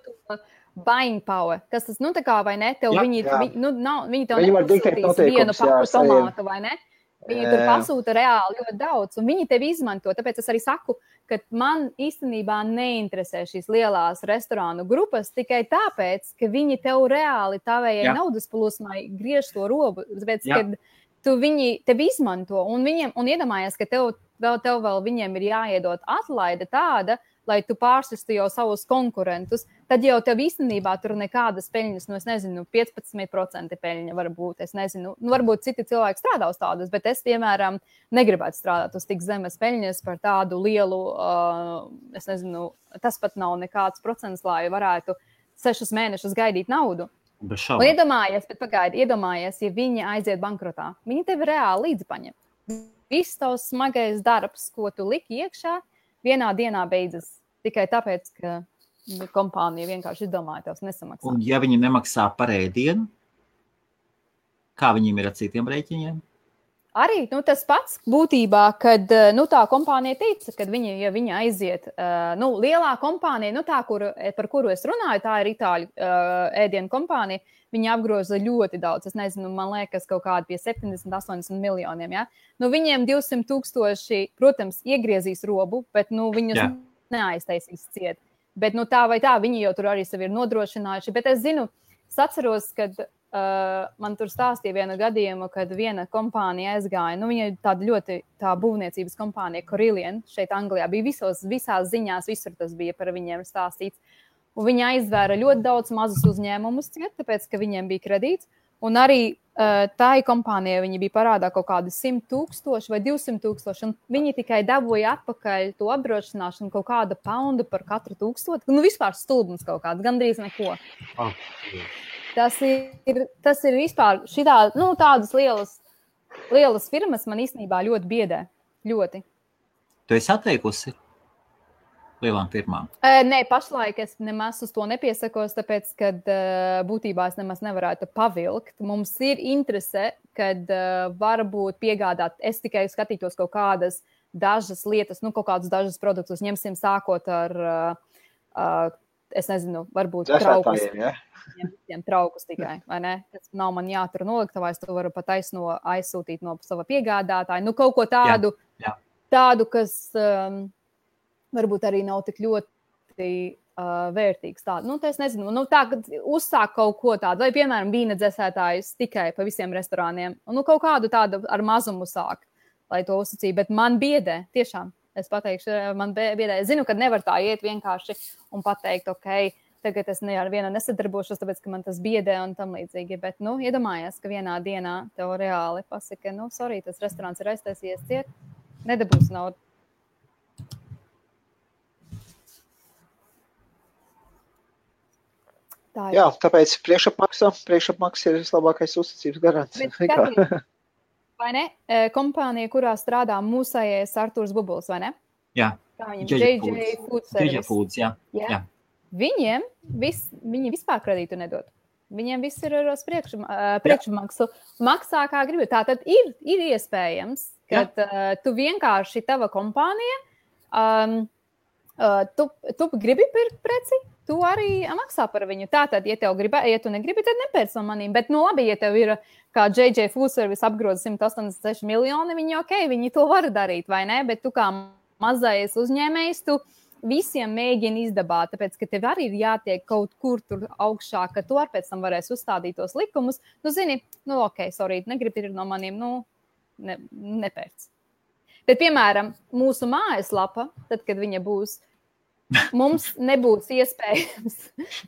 buying power, kas tas, tā kā, vai ne, tev viņi tev nepasūtīs vienu paku tomātu, vai ne? Viņi tur pasūta reāli ļoti daudz, un viņi tevi izmanto. Tāpēc es arī saku, ka man īstenībā neinteresē šīs lielās restorānu grupas tikai tāpēc, ka viņi tev reāli tavējai naudas plūsmai griež to robu. Tāpēc, ka viņi tevi izmanto, un iedomājies, ka tev vēl viņiem ir jāiedod atlaide tāda, lai tu pārsistu jau savus konkurentus, tad jau tev īstenībā tur nekādas peļņas, es nezinu, 15% peļņa var būt, es nezinu, varbūt citi cilvēki strādā uz tādas, bet es, piemēram, negribētu strādāt uz tik zemes peļņas par tādu lielu, es nezinu, tas pat nav nekāds procents, lai varētu 6 mēnešus gaidīt naudu. Un iedomājies, ja viņi aiziet bankrotā, viņi tevi reāli līdzi paņem. Viss tavs smagais darbs, ko tu liki iekšā, vienā dienā beidzas. tikai tāpēc, ka kompānija vienkārši izdomāja tos nesamaksāt. Un ja viņi nemaksā par ēdienu, kā viņiem ir ar citiem rēķiniem? Arī tas pats būtībā, kad tā kompānija teica, ka ja viņa aiziet, lielā kompānija, par kuru es runāju, tā ir Itāļu ēdienu kompānija, viņi apgroza ļoti daudz, es nezinu, man liekas kaut kādi pie 70-80 miljoniem, ja? Viņiem 200,000, protams, iegriezīs robu, bet, viņus neaiztaisīs ciet. Bet, tā vai tā, viņi jau tur arī sevi ir nodrošinājuši, bet es zinu, atceros, kad man tur stāstīja vienu gadījumu, kad viena kompānija aizgāja, viņa ir tāda ļoti tā būvniecības kompānija, Corillian, šeit Anglijā, bija visās ziņās, visur tas bija par viņiem stāstīts, un viņi aizvēra ļoti daudz mazus uzņēmumus, tāpēc, ka viņiem bija kredīts, un arī tā kompānija, viņi bija parādā kaut kādi 100,000 vai 200,000, un viņi tikai dabūja atpakaļ to apdrošināšanu kaut kāda poundu par katru 1000, vispār stulbums kaut kāds, gandrīz neko. Tas ir vispār tādas lielas firmas man īstenībā ļoti biedē. Ļoti. Tu esi atteikusi lielām firmām? Nē, pašlaik es nemaz uz to nepiesakos, tāpēc, kad būtībā es nemaz nevarētu pavilkt. Mums ir interese, kad varbūt piegādāt, es tikai skatītos kaut kādas dažas lietas, kaut kādus dažus produktus, ņemsim sākot ar, es nezinu, varbūt traukus. Visiem traukus tikai, vai ne? Tas nav man jātur noliktavā, es to varu pat aizsūtīt no sava piegādātāja. Kaut ko tādu, tādu, kas varbūt arī nav tik ļoti vērtīgs. Tādu. Es nezinu, tā, kad uzsāk kaut ko tādu, vai, piemēram, vīna dzēsētājs tikai pa visiem restorāniem, un kaut kādu tādu ar mazumu sāk, lai to uzsacīja, bet man biedē, tiešām, es pateikšu, man biedē. Es zinu, ka nevar tā iet vienkārši un pateikt, ok, tagad es ar vienu nesadarbošos, tāpēc, ka man tas biedē un tam līdzīgi. Bet, iedomājies, ka vienā dienā tev reāli pasaka, sorry, tas restorāns ir aiztaisies ciet, nedabūs naudu. Jā, tāpēc priekšapmaksa ir vislabākais uzticības garants. Vai ne? Kompānija, kurā strādā mūsējais Artūrs Bubuls, vai ne? Jā. Kā viņam? JJ Food Service. JJ Foods, jā. Viņi vispār kredītu nedod. Viņiem viss ir ar priekšmaksu. Maksā kā gribi. Tātad ir iespējams, ka tu vienkārši tava kompānija, tu gribi pirkt preci, tu arī maksā par viņu. Tātad, ja tu negribi, tad nepērc no manīm. Bet, labi, ja tev ir kā JJ Food Service apgroza 186 miljoni, viņi to var darīt, vai ne? Bet tu kā mazais uzņēmējs, tu visiem mēģini izdabāt, tāpēc, ka tev arī ir jātiek kaut kur tur augšā, ka tu ar pēc tam varēsi uzstādīt tos likumus. Zini, ok, sorry, negribi ir no maniem, nepērc. Bet, piemēram, mūsu mājaslapa, tad, kad viņa būs, mums nebūs iespējams,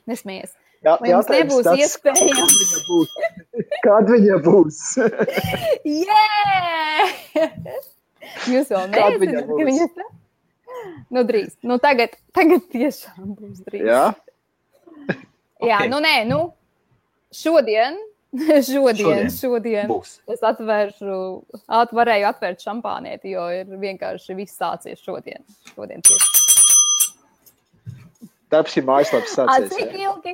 nesmies, mums nebūs iespējams. Kad viņa būs? Jūs vēl neesat, ka viņa tā? Drīz. Tagad tiešām būs drīz. Jā? Jā, šodien būs. Es varēju atvērt šampānieti, jo ir vienkārši viss sācies šodien. Šodien tieši. Darbs ir mājaslaps sācies. Cik ilgi?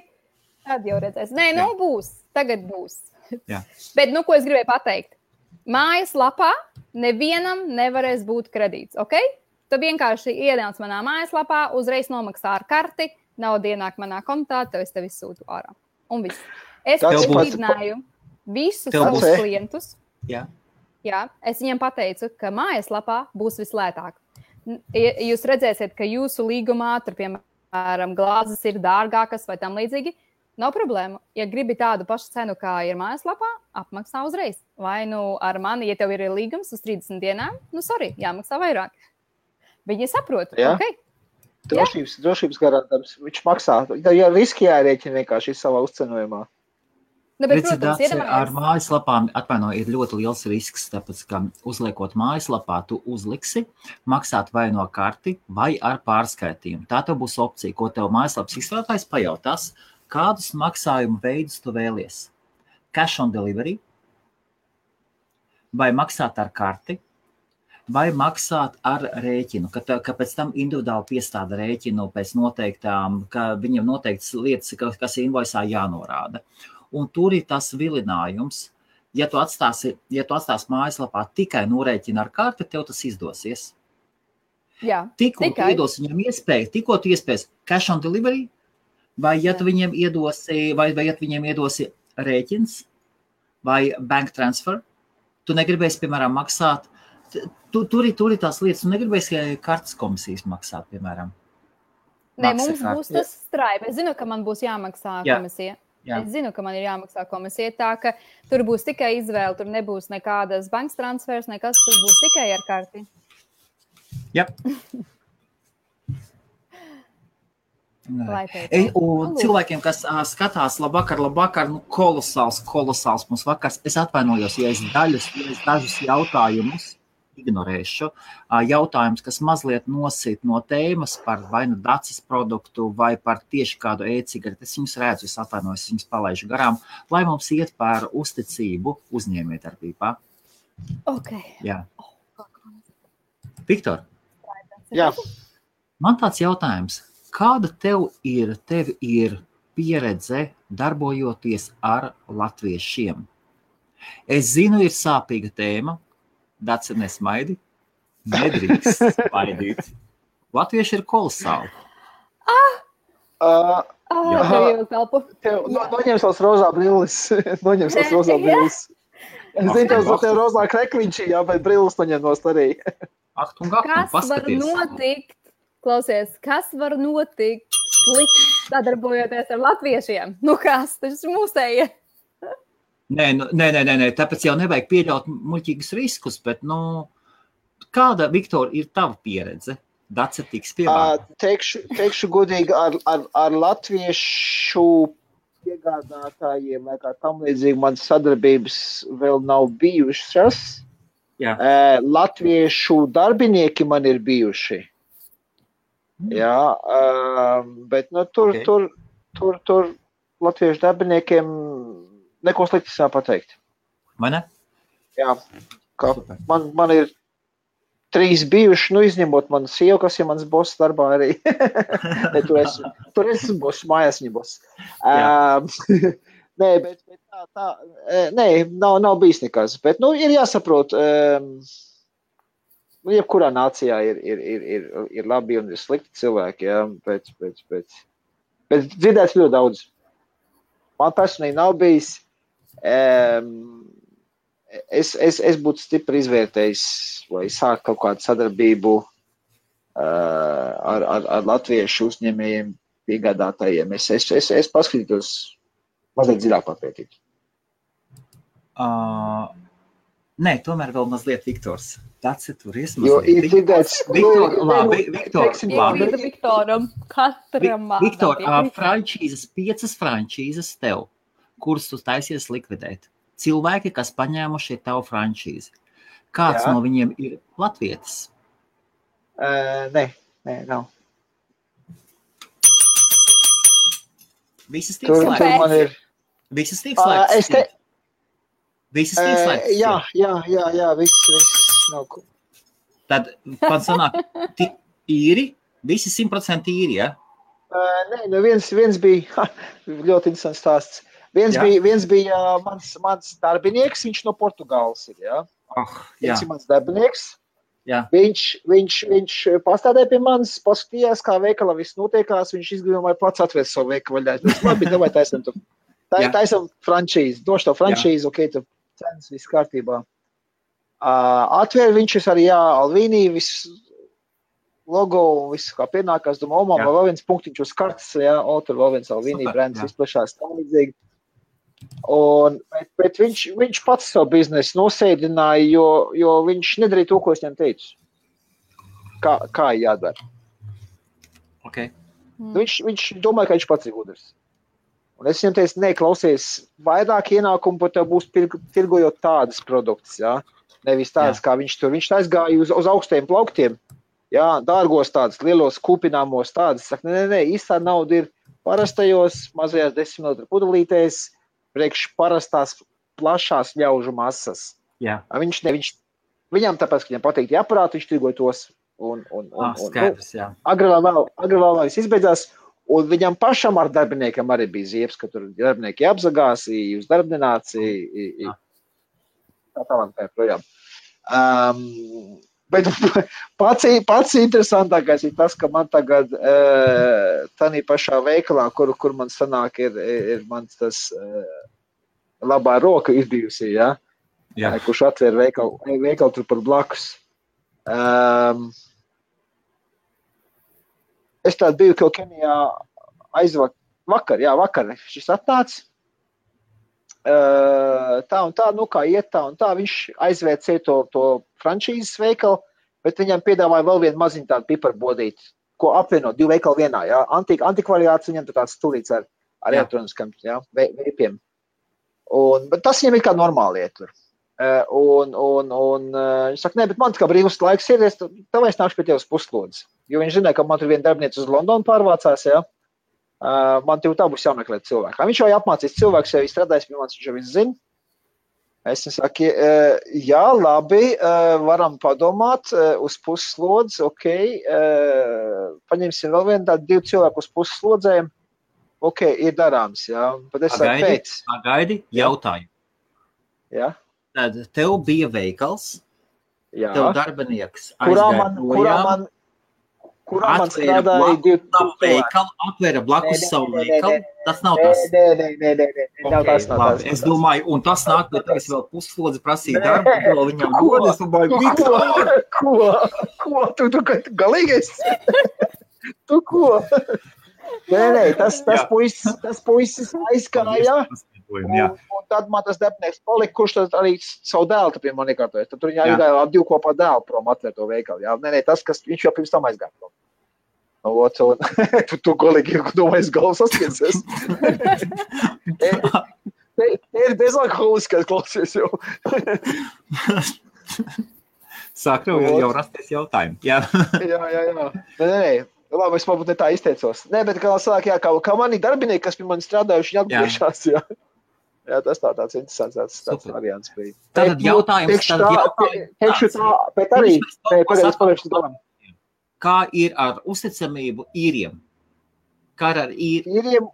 Tad jau redzēs. Nē, būs. Tagad būs. Jā. Bet, ko es gribēju pateikt? Mājaslapā nevienam nevarēs būt kredīts, ok? Tu vienkārši ienāc manā mājaslapā, uzreiz nomaksā ar karti, nauda ienāk manā kontā, tev izsūtu ārā. Un viss. Es brīdināju visus savus klientus. Jā. Jā, es viņiem pateicu, ka mājaslapā būs vislētāk. Jūs redzēsiet, ka jūsu līgumā, tur, piemēram, glāzes ir dārgākas vai tam līdzīgi, nav problēmu. Ja gribi tādu pašu cenu, kā ir mājaslapā, apmaksā uzreiz. Vai ar mani, ja tev ir līgums uz 30 dienām, jāmaksā vairāk. Viņi saprot, ok. Drošības garantams, viņš maksā. Ja riski jārēķina vienkārši savā uzcenojumā. Ar mājaslapām, ir ļoti liels risks, tāpēc, ka uzliekot mājaslapā, tu uzliksi maksāt vai no karti, vai ar pārskaitījumu. Tā tev būs opcija, ko tev mājaslapas izstrādājs pajautās, kādus maksājumu veidus tu vēlies. Cash on delivery, vai maksāt ar karti, vai maksāt ar rēķinu, ka pēc tam individuāli piestāda rēķinu pēc noteiktām, ka viņam noteiktas lietas, kas invoicā jānorāda. Un tur ir tas vilinājums, ja tu atstāsi mājaslapā tikai norēķinu ar karti, tev tas izdosies. Jā, tikko tu iedos viņam iespējas cash on delivery, vai ja tu viņiem iedosi, vai ja tu viņiem iedosi rēķins vai bank transfer, tu negribēsi, piemēram, maksāt. Tur ir tās lietas, tu negribēsi kartes komisijas maksāt, piemēram. Nē, mums būs tas Stripe. Es zinu, ka man būs jāmaksā komisija. Jā. Es zinu, ka man ir jāmaksā komisija, tā ka tur būs tikai izvēle, tur nebūs nekādas bankas transfers, nekas, tas būs tikai ar karti. Jā. Un cilvēkiem, kas skatās labvakar, kolosāls mums vakars. Es atvainojos, ja es dažus jautājumus ignorēšu. Jautājums, kas mazliet nosit no tēmas par vai nu dacis produktu vai par tieši kādu e-cigareti. Es viņus redzu, es atvainojos, es viņus palaižu garām, lai mums iet par uzticību uzņēmējdarbībā. Ok. Jā. Viktor. Jā. Man tāds jautājums. Kāda tev ir pieredze darbojoties ar latviešiem? Es zinu, ir sāpīga tēma. Daci nesmaidi. Nedrīkst smaidīt. Latvieši ir kolosāli. Noņems tās rozā brilles. Es zinu, tev rozā krekliņš, jā, bet brilles noņem nost arī. Kas var notikt? Klausies, kas var notikt slikti sadarbojoties ar latviešiem? Nu kas, tas ir mūsējie. Nē, tāpēc jau nevajag pieļaut muļķīgus riskus, bet, kāda, Viktor, ir tava pieredze? Dace tiks pievārta. Teikšu godīgi, ar latviešu piegādātājiem, vai kā tam līdzīgi, man sadarbības vēl nav bijušas. Jā. Latviešu darbinieki man ir bijuši. Jā, bet tur latviešu darbiniekiem neko slikti sā pateikt. Vai ne? Jā, man ir 3 bijuši, izņemot manu sievu, kas ir mans boss darbā arī. Tur es boss, mājās viņa boss. Nē, bet nav bijis nekas. Bet, ir jāsaprot, jebkurā nācijā ir labi un ir slikti cilvēki, jā, bet dzirdēts ļoti daudz. Man personīgi nav bijis. Es būtu stipri izvērtējis, vai sākt kaut kādu sadarbību ar latviešu uzņēmējiem, piegādātājiem. Es paskatītos mazliet dziļāk papētīt. Nē, tomēr vēl mazliet Viktors. Tāds ir tur iesmazliet. Jo ir dzirdēts... Viktoram, katram Viktor, 5 frančīzes tev, kurus tu taisies likvidēt. Cilvēki, kas paņēmuši tavu frančīzi. Kāds no viņiem ir latvietis? Nē, nav. Visas tiek slēgts. Visas tiek slēgts. Visas tiek slēgts. Jā, viss nav. Tad, man sanāk, īri, visi 100% īri, ja? Nē, viens bija, ļoti interesants stāsts. Viens bija mans darbinieks, viņš no Portugāles ir, jā. Viens ir mans darbinieks. Jā. Viņš pastādēja pie manis, paskatījās, kā veikalā viss notiekās, viņš izdomāja plats atvērt savu veikalu vaļā. Labi, davai taisam frančīzi, došu to frančīzi, ok, tu cenas, viss kārtībā. Atvēr viņš arī, Alvīnī, viss logo, viss kā pienākās, domā, vēl viens punktiņš uz kartes, tur vēl viens Alvīnī brands izplešās tā līdzīgi. Bet viņš pats savu biznesu nosēdināja, jo viņš nedarīja to, ko es viņam teicu. Kā jādara. Okay. Viņš domāja, ka viņš pats ir gudrs. Un es viņam teicu, klausies, vairāk ienākumu pat tev būs tirgojot tādas produktus, jā. Nevis tādas, kā viņš tur. Viņš aizgāja uz augstiem plauktiem, jā, dārgos tādas, lielos kūpināmos tādas. Saka, nē, īstā nauda ir parastajos, mazajās 10 ml pudelītēs, priekš parastās plašās ļaužu masas. Jā. Viņš Viņam tāpēc, ka viņam patīk tie aparāti, viņš tirgoja tos. Skaidrs, jā. Agri vēl viss izbeidzās, un viņam pašam ar darbiniekiem arī bija ziepes, ka tur darbinieki apzagās, jūs darbināci, tā tālāk tā projām. Bet pats interesantākais ir tas, ka man tagad tādā pašā veikalā, kur man sanāk, ir mans tas labā roka izbijusi, ja? Kurš atver veikalu tur par blakus. Es tādu biju kaut Kenijā vakar šis atnāca. Tā un tā, kā iet tā un tā, viņš aizvēcēja to frančīzes veikalu, bet viņam piedāvāja vēl vienu maziņu tādu piperbodīti, ko apvienot 2 veikalu vienā, jā. Antikvariāts viņam tāds stulīts ar elektroniskam, jā, veipiem. Bet tas viņam ir kā normāli iet tur. Viņš saka, nē, bet man kā brīvs laiks ir, tev es nākšu pie tev uz puslodzi. Jo viņš zināja, ka man tur viena darbiniece uz Londonu pārvācās, jā. Man tev tā būs jāmeklē cilvēku. Viņš jau apmācīs cilvēks, jau strādājis pie manis, viņš jau viss zina. Es saku, jā, labi, varam padomāt uz puslodzi, ok, paņemsim vēl vienu tādu 2 cilvēku uz puslodzēm, ok, ir darāms, jā. Bet es saku, pēc. Pagaidi, jautāju. Jā. Tad tev bija veikals, tev darbinieks kurā man strādāja 2 veikalu, atvēra blakus savu veikalu, tas nav tas. Nē, es domāju, un tas nāk, bet es vēl puslodzi prasīju darbu, vēl viņam dod, es domāju, Viktor! Ko? Tu galīgais? Tu ko? Nē, tas puisis aizkāja. Un tad man tas darbinieks palika, kurš tad arī savu dēlu pie man iekārtojas. Tad tur viņā aizgāja ar 2 kopā dēlu prom atvērt to veikalu. Jā. Nē, tas, kas viņš jau pirms tam aizgāja prom. Tu kolīgi domājies galvas saskiensies. Te ir bezalkoholiskais klausies jau. Sāk jau rasties jautājumi. Jā. Nē. Labi, es varbūt ne tā izteicos. Nē, bet kā sāk, kā mani darbinieki, kas pie mani strādājuši, viņi atgriežās, jā. Jā, tas tāds interesants tāds variants bija. Tātad jautājums. Bet arī, pagādās galam. Kā ir ar uzticamību īriem? Kā ar īriem?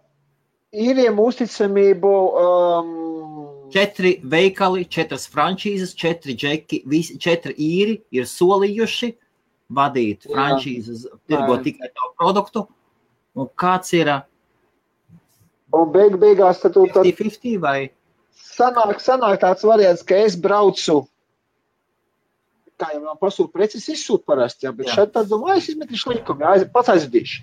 Īriem uzticamību... 4 veikali, 4 frančīzes, 4 džeki, 4 īri ir solījuši vadīt frančīzes, tirgot tikai tavu produktu. Un kāds ir... Un beigās tad 50-50 vai? Sanāk tāds variants, ka es braucu, kā jau man pasūtu preces izsūt parasti, jā, bet šeit tad domāju, es izmetīšu likumu, jā, pats aizvedīšu.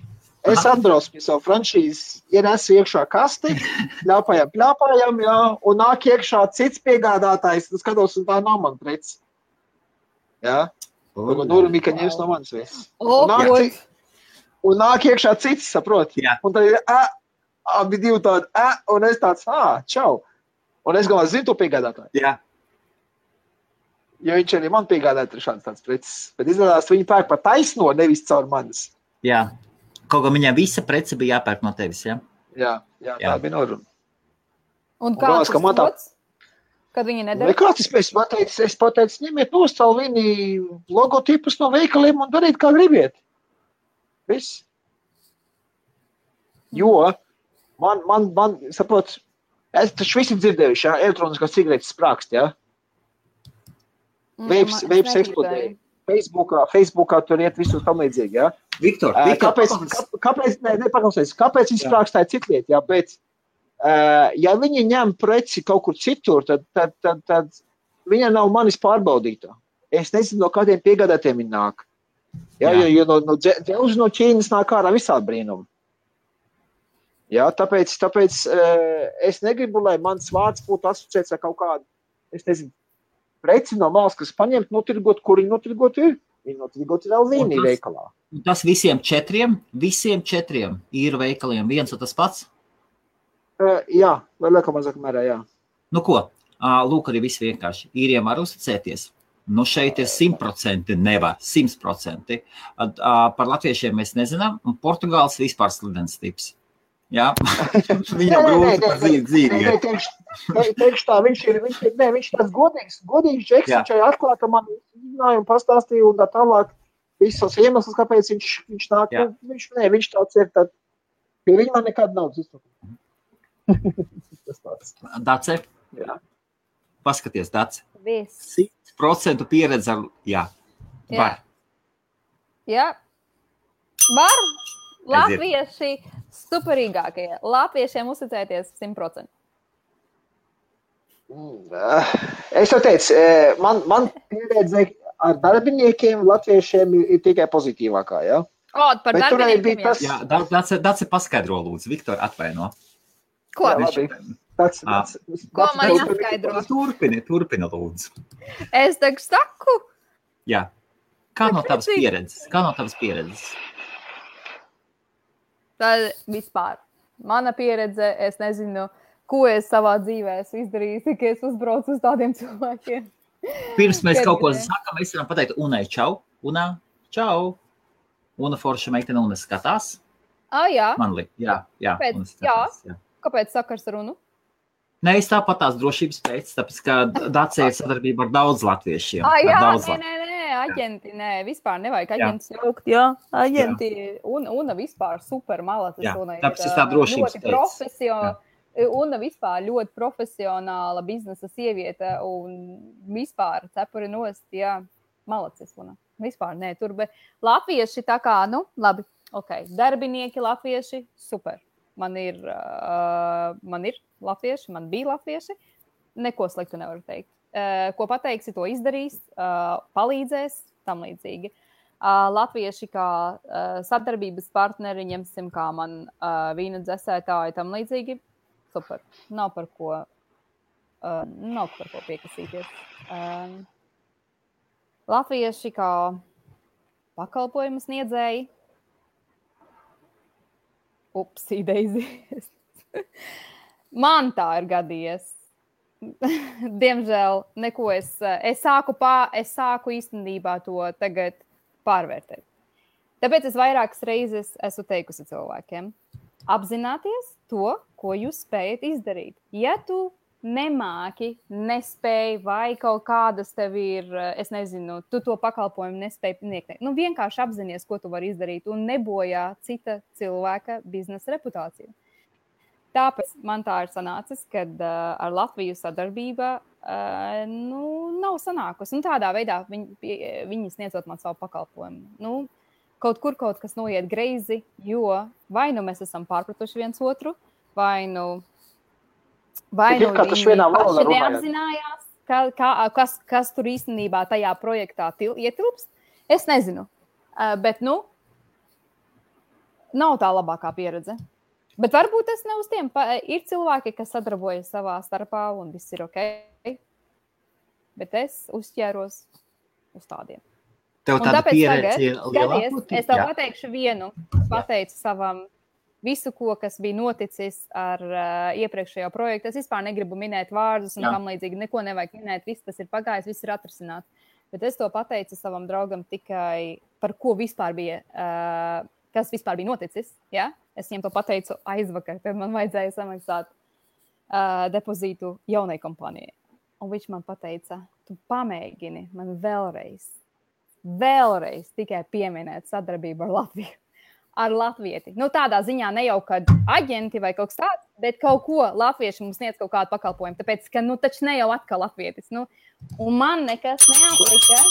Es atbraucu pie savu frančīzes, ienesu iekšā kasti, pļāpājam, jā, un nāk iekšā cits piegādātājs, skatos, un tā nav man preces. Jā. Nurumika ņems no manis viss. Un nāk iekšā cits, saprot? Jā. Un tad ir, abi 2 tādi, un es tāds, čau. Un es galvā zinu to piegādātāju. Jā. Jo viņš arī man piegādāja šāds tāds preces. Bet izrādās, viņi pērk par taisno, nevis caur manis. Jā. Kaut kā viņam visa prece bija jāpērk no tevis, jā? Jā, tā bija noruna. Un kāds tas lots? Kad viņi nedara? Kāds es pateicu, ņemiet nostālu viņi logotipus no veikaliem un dariet, kā gribiet. Viss. Jo man saprot, es taču visi dzirdējuši, jā, elektroniskās cigaretes sprākst, jā. Veips eksplodēja. Facebookā tur iet visus tam līdzīgi, jā. Viktor, kāpēc viņi sprākstāja citliet, jā, bet ja viņi ņem preci kaut kur citur, tad viņa nav manis pārbaudītā. Es nezinu, no kādiem piegādātiem viņi nāk. Jā, jo no Ķīnas nāk ārā visādi brīnumi. Jā, tāpēc es negribu, lai mans vārds būtu asociēts ar kaut kādu, es nezinu, preci no malas, kas paņemt, notirgot, kur viņi notirgot ir. Viņi notirgot ir vēl vienī veikalā. Tas visiem 4 īru veikaliem viens un tas pats? Jā, vai liekam mazāk mērā, jā. Nu ko, lūk arī viss vienkārši. Īriem var uzticēties. Nu šeit ir 100%, nevar 100%. Par latviešiem mēs nezinām, un Portugāls vispār slidens tips. Jā, viņam grūti par dzīvi. Teikšu tā, viņš tāds godīgs džeks, viņš arī atklāja, ka man izrunāja un pastāstīja un tā tālāk visos iemeslus, kāpēc viņš nāk. Viņš tāds ir, tad pie viņa man nekad nav izsaka. Dace? Jā. Paskaties, Dace. 100% pieredze ar, var. Jā. Var. Latvieši superīgākie. Latviešiem uzticēties 100%. Es jau teicu, man pieredze ar darbiniekiem latviešiem ir tikai pozitīvākā, jā? Par darbiniekiem, tas... Jā, Dace paskaidro, lūdzu. Viktor, atvaino. Ko? Ko man jāskaidro? Turpina, lūdzu. Es tagad saku. Jā. Kā no tavas pieredzes? Tad vispār. Mana pieredze, es nezinu, ko es savā dzīvē esmu izdarījis, tik es uzbraucu uz tādiem cilvēkiem. Pirms mēs kaut ko sakam, mēs varam pateikt Unai čau. Una, čau. Una forša meitene, Una skatās. Jā. Man liek, jā. Kāpēc sakars ar Unu? Nē, es tāpat tās drošības pēc, tāpēc, ka Dace ir sadarbība ar daudz latviešiem. Aģenti, vispār nevajag aģentus jaukt, aģenti, Una vispār super malacis. Tāpēc es tā drošības pēc. Una vispār ļoti profesionāla biznesa sieviete un vispār cepuri nost, malacis Una. Vispār, tur, bet latvieši tā kā, labi, darbinieki latvieši, super. Man ir latvieši, man bija latvieši, neko sliktu nevaru teikt. Ko pateiksi, to izdarīs, palīdzēs, tam līdzīgi. Latvieši kā sadarbības partneri, ņemsim kā man vīna dzesētāji, tam līdzīgi, super. Nav par ko piekasīties. Latvieši kā pakalpojumu sniedzēji, upsī, Daisy. Man tā ir gadījies. Diemžēl neko es sāku īstenībā to tagad pārvērtēt. Tāpēc es vairākas reizes esmu teikusi cilvēkiem, apzināties to, ko jūs spējat izdarīt. Ja tu nemāki, nespēj vai kaut kādas tev ir, es nezinu, tu to pakalpojumu nespēj sniegt. Vienkārši apzinies, ko tu vari izdarīt un nebojā cita cilvēka biznesa reputāciju. Tāpēc man tā ir sanācis, kad ar Latviju sadarbība nav sanākusi. Tādā veidā viņi sniedzot man savu pakalpojumu. Kaut kas noiet greizi, jo vai mēs esam pārpratuši viens otru, vai viņi paši neapzinājās, kas tur īstenībā tajā projektā ietilpst. Es nezinu, bet nav tā labākā pieredze. Bet varbūt tas ne uz tiem. Ir cilvēki, kas sadarbojas savā starpā un viss ir ok. Bet es uzķēros uz tādiem. Tev tāda pieredze ir lielāka? Es tev pateikšu vienu. Pateicu savam visu, kas bija noticis ar iepriekšējo projektu. Es vispār negribu minēt vārdus un tam līdzīgi. Neko nevajag minēt. Viss tas ir pagājis, viss ir atrisināts. Bet es to pateicu savam draugam tikai par ko vispār bija, kas vispār bija noticis. Ja? Es viņam to pateicu aizvakar, tad man vajadzēja samaksāt depozītu jaunai kompānijai. Un viņš man pateica, tu pamēģini man vēlreiz tikai pieminēt sadarbību ar Latviju. Ar latvieti. Tādā ziņā ne jau, kad aģenti vai kaut kas tāds, bet kaut ko latvieši mums sniedz kaut kādu pakalpojumu. Tāpēc, ka taču ne jau atkal latvietis. Un man nekas neaplika.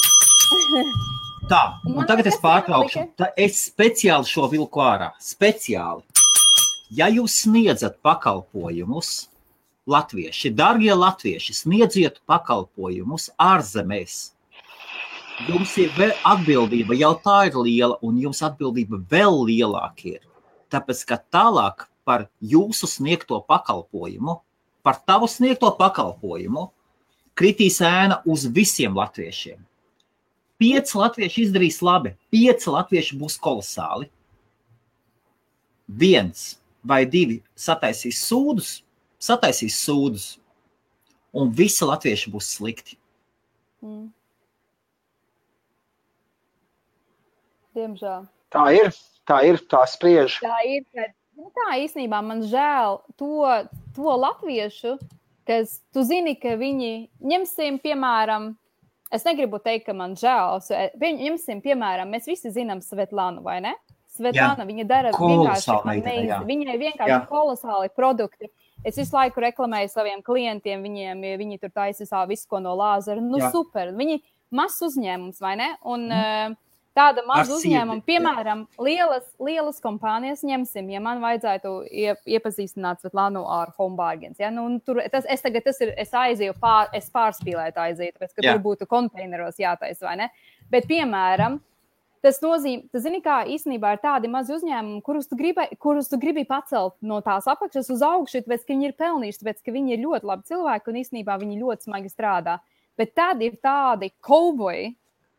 Tā, un tagad es pārtraukšu. Es speciāli šo vilku ārā. Speciāli. Ja jūs sniedzat pakalpojumus, latvieši, dargie latvieši, sniedziet pakalpojumus ārzemēs, jums ir atbildība, jau tā ir liela, un jums atbildība vēl lielāka ir. Tāpēc, ka tālāk par jūsu sniegto pakalpojumu, par tavu sniegto pakalpojumu, kritīs ēna uz visiem latviešiem. 5 latvieši izdarīs labi, 5 latvieši būs kolosāli. 1 vai 2 sataisīs sūdus, un visi latvieši būs slikti. Diemžēl. Tā ir, tā spriež. Tā ir, kad Tā īstenībā man žēl to latviešu, kas tu zini, ka viņi ņemsim, piemēram, es negribu teikt, ka man žēl, ņemsim, piemēram, mēs visi zinām Svetlānu, vai ne? Svetlāna, viņa dara vienkārši amazing, viņai vienkārši kolosāli produkti. Es visu laiku reklamēju saviem klientiem, viņi tur taisa visu, ko no lāzera. Super, viņi mazs uzņēmums, vai ne? Un tāda maza uzņēmuma, piemēram, lielas kompānijas ņemsim, ja man vajadzētu iepazīstināt Svetlānu ar Home Bargains. Ja? Es aizēju, es pārspīlētu aiziet, tāpēc, ka tur būtu konteineros jātaisa, vai ne? Bet, piemēram, tas nozīmē, zini, kā īstenībā ir tādi mazi uzņēmumi, kurus tu gribi pacelt no tās apakšas uz augšu, tāpēc, ka viņi ir pelnījuši, tāpēc, ka viņi ir ļoti labi cilvēki un īstenībā viņi ļoti smagi strādā. Bet tad ir tādi kauboji,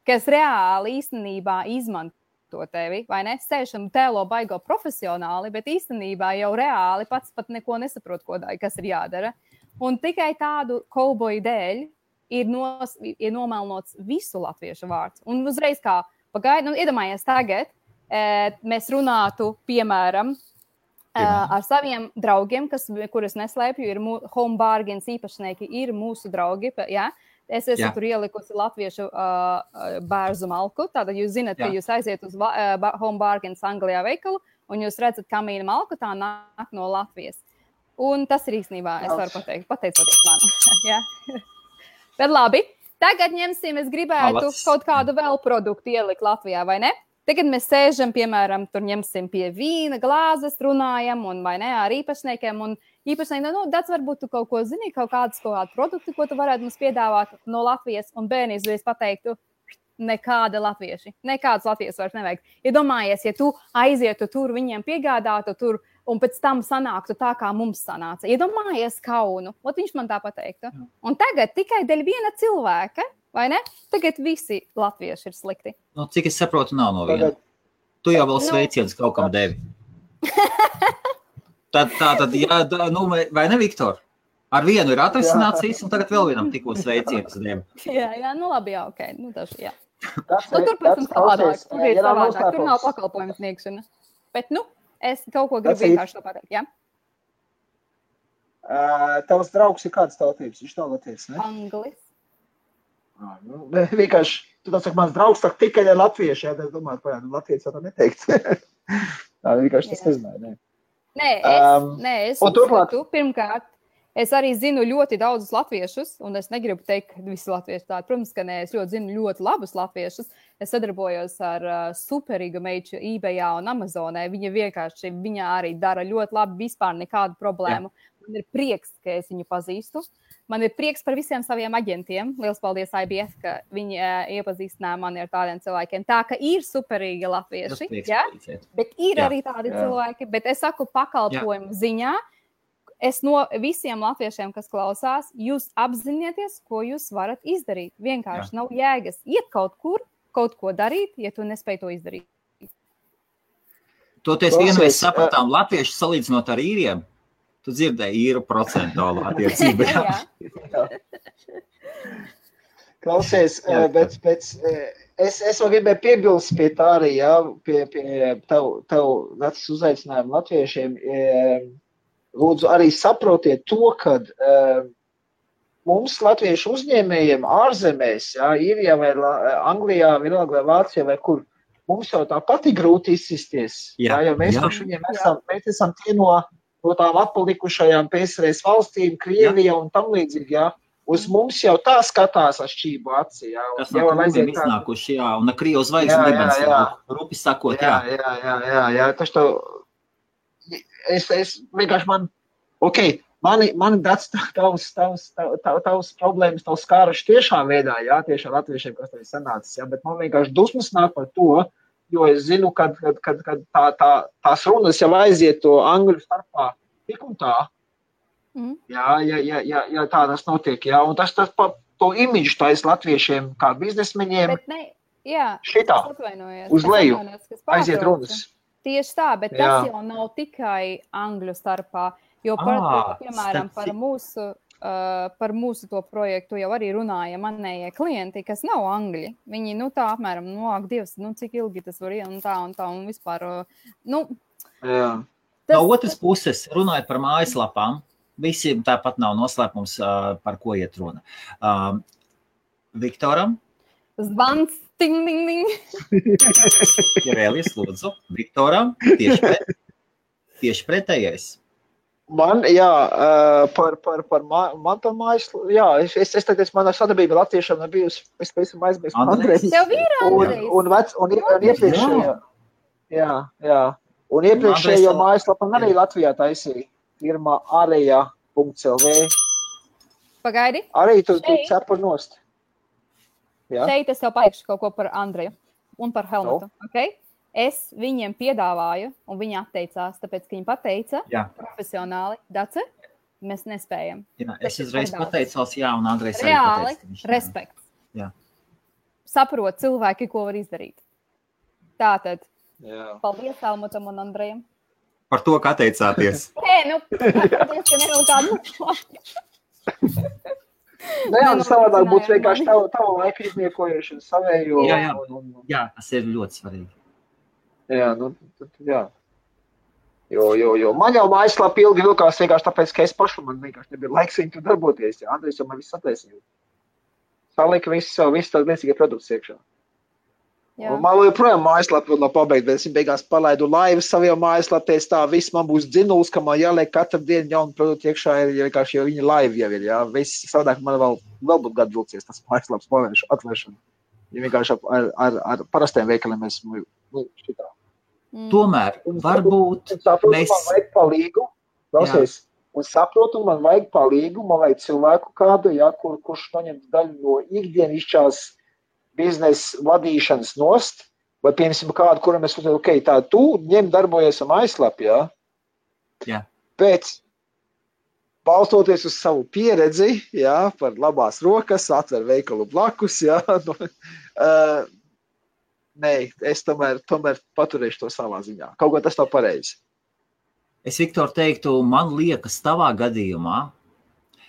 kas reāli īstenībā izmanto tevi, vai ne? Sēž un tēlo baigo profesionāli, bet īstenībā jau reāli pats pat neko nesaprot, kas ir jādara. Un tikai tādu kauboju dēļ ir nomelnots visu latviešu vārds. Un uzreiz kā pagaidi, iedomājies tagad, mēs runātu, piemēram, ar saviem draugiem, kurus neslēpju, ir Home Bargains īpašnieki, ir mūsu draugi, ja? Es esmu tur ielikusi latviešu bērzu malku, tātad jūs zināt, ka jūs aiziet uz Home Bargains Anglijā veikalu, un jūs redzat kamīna malku, tā nāk no Latvijas. Un tas ir īstenībā, es varu pateicoties man. Ja? Bet labi. Tagad ņemsim, es gribētu kaut kādu vēl produktu ielikt Latvijā, vai ne? Tagad mēs sēžam, piemēram, tur ņemsim pie vīna glāzes, runājam, un vai ne, ar īpašniekiem, un īpašnieki, Dats, varbūt tu kaut ko zini, kaut kādu produktu, ko tu varētu mums piedāvāt no Latvijas, un bērni izreiz pateiktu, nekādas latviešu vairs nevajag. Iedomājies, ja tu aizietu tur, viņiem piegādātu tur, un pēc tam sanāktu tā, kā mums sanāca. Iedomājies kaunu, viņš man tā pateiktu. Un tagad tikai dēļ viena cilvēka, vai ne? Tagad visi latvieši ir slikti. Cik es saprotu, nav no viena. Tu jau vēl sveiciens kaut kam devi. Tad, vai ne, Viktor? Ar vienu ir atrisināts viss, un tagad vēl vienam tikko sveiciens devi. Jā, ok. Jā. Tur, protams, savādāk. Tur ir savādāk. Tur nav pakalpojums sniegšana. Bet, es kaut ko gribu vienkārši to pateikt, jā? Tavs draugs ir kādas tautības? Viņš nav latviečs, ne? Anglis. Vienkārši, tu tā saka, mans draugs tak tikai ar latviešu, jā, es domāju, latviešu tā neteikt. Tā vienkārši tas nezināja, ne? Nē, es uzskatu, pirmkārt, es arī zinu ļoti daudzus latviešus, un es negribu teikt, ka visi latvieši tādi. Protams, ka nē, es ļoti zinu ļoti labus latviešus. Es sadarbojos ar superīgu meiču eBayā un Amazonē. Viņa arī dara ļoti labi, vispār nekādu problēmu. Man ir prieks, ka es viņu pazīstu. Man ir prieks par visiem saviem aģentiem. Liels paldies IBF, ka viņi iepazīstināja mani ar tādiem cilvēkiem. Tā, ka ir superīgi latvieši, ja? Bet ir arī tādi cilvēki. Bet es saku pakalpojumu ziņā, es no visiem latviešiem, kas klausās, jūs apzinieties, ko jūs varat izdarīt. Vienkārši nav jēgas iet kaut kur, kaut ko darīt, ja tu nespēj to izdarīt. Toties vienreiz sapratām latviešu salīdzinot ar īriem. Tu dzirdēji īru procentuālu attiecību. Klausies, bet es vēl gribēju piebilst pie tā arī, pie tev vecs uzaicinājumu latviešiem. Lūdzu, arī saprotiet to, ka mums latviešu uzņēmējiem ārzemēs, Īrijā vai Anglijā, vienalga vai Vācijā vai kur, mums jau tāpat ir grūti izsisties. Jo mēs esam tie no tām atpalikušajām PSRS valstīm, Krievija un tam līdzīgi, Uz mums jau tā skatās ar šķību acī, Tas no krūmiem iznākuši, un ar Krievu zvaigzni dibens, rupi sakot, Jā, tas to... Es vienkārši mani Dats tavs problēmas, tavs skāruši tiešā veidā, tieši ar latviešiem, kas tev ir sanācis, bet man vienkārši dusmas nāk par to, jo es zinu, kad tās runas jau aiziet to angļu starpā tik un tā, ja tā tas notiek, un tas to imidžu tais latviešiem kā biznesmeņiem šitā, uz leju, aiziet runas. Tieši tā, bet tas jau nav tikai angļu starpā, jo, piemēram, par mūsu to projektu jau arī runāja manējie klienti, kas nav angļi. Viņi, tā apmēram, ak, Dievs, cik ilgi tas var un tā, un vispār, No otras puses, runājot par mājaslapām, visiem tāpat nav noslēpums, par ko iet runa. Viktoram? Zvans, ting, ting, ting. Ja vēl lūdzu. Viktoram, tieši pretējais. Man, par mājaslapu, es tagad, manā sadarbība latviešiem nav bijusi, es esmu aizmirst Andrejs. Tev ir Andrejs. Un iepriekšējo, un iepriekšējo mājaslapu arī Latvijā taisīja, firma areja.lv. Pagaidi. Arī tu cepur nost. Jā. Šeit es tev pateikšu kaut ko par Andreju un par Helmutu, okay? Es viņiem piedāvāju, un viņi atteicās, tāpēc, ka viņi pateica profesionāli, Dace, mēs nespējam. Jā, es uzreiz pateicos, un Andrejs arī reāli, pateica. respekts. Jā. Saprot cilvēki, ko var izdarīt. Tātad, paldies Helmutam un Andrejam. Par to, ka atteicāties. Paldies, ka nevēl kādu. Savādāk būtu vienkārši tavu laiku izniekojuši savējo. Jā, tas ir ļoti svarīgi. Jā. Jo. Man jau mājaslapa ilgi vilkās vienkārši tāpēc, ka es pašu man vienkārši nebija laiks viņu tur darboties. Jā, Andrejs jau man viss attaisīja. Salika visu tādu liecīgie produktus iekšā. Un man joprojām mājaslapa vēl nav pabeigta, bet es beigās palaidu laivu saviem mājaslapēs, tā viss man būs dzinuls, ka man jāliek katru dienu jaunu produktu iekšā, jo viņa laiva jau ir, jā. Viss savādāk man vēl būtu gadu vilcies tas mājaslapas atvēršana. Ja vienkārši ar parastiem veikaliem esmu šitā. Tomēr, varbūt mēs... Man vajag palīgu, un saprotu, man vajag palīgu, man vajag cilvēku kādu, kurš noņem daļu no ikdienišķās biznesa vadīšanas nost, vai piemēram kādu, kuram es uzsver, tā tu ņem darbojies ar mājaslapu, Pēc balstoties uz savu pieredzi, par labās rokas, atver veikalu blakus, nē, es tomēr paturēšu to savā ziņā. Kaut ko tas nav pareizi. Es, Viktor, teiktu, man liekas, tavā gadījumā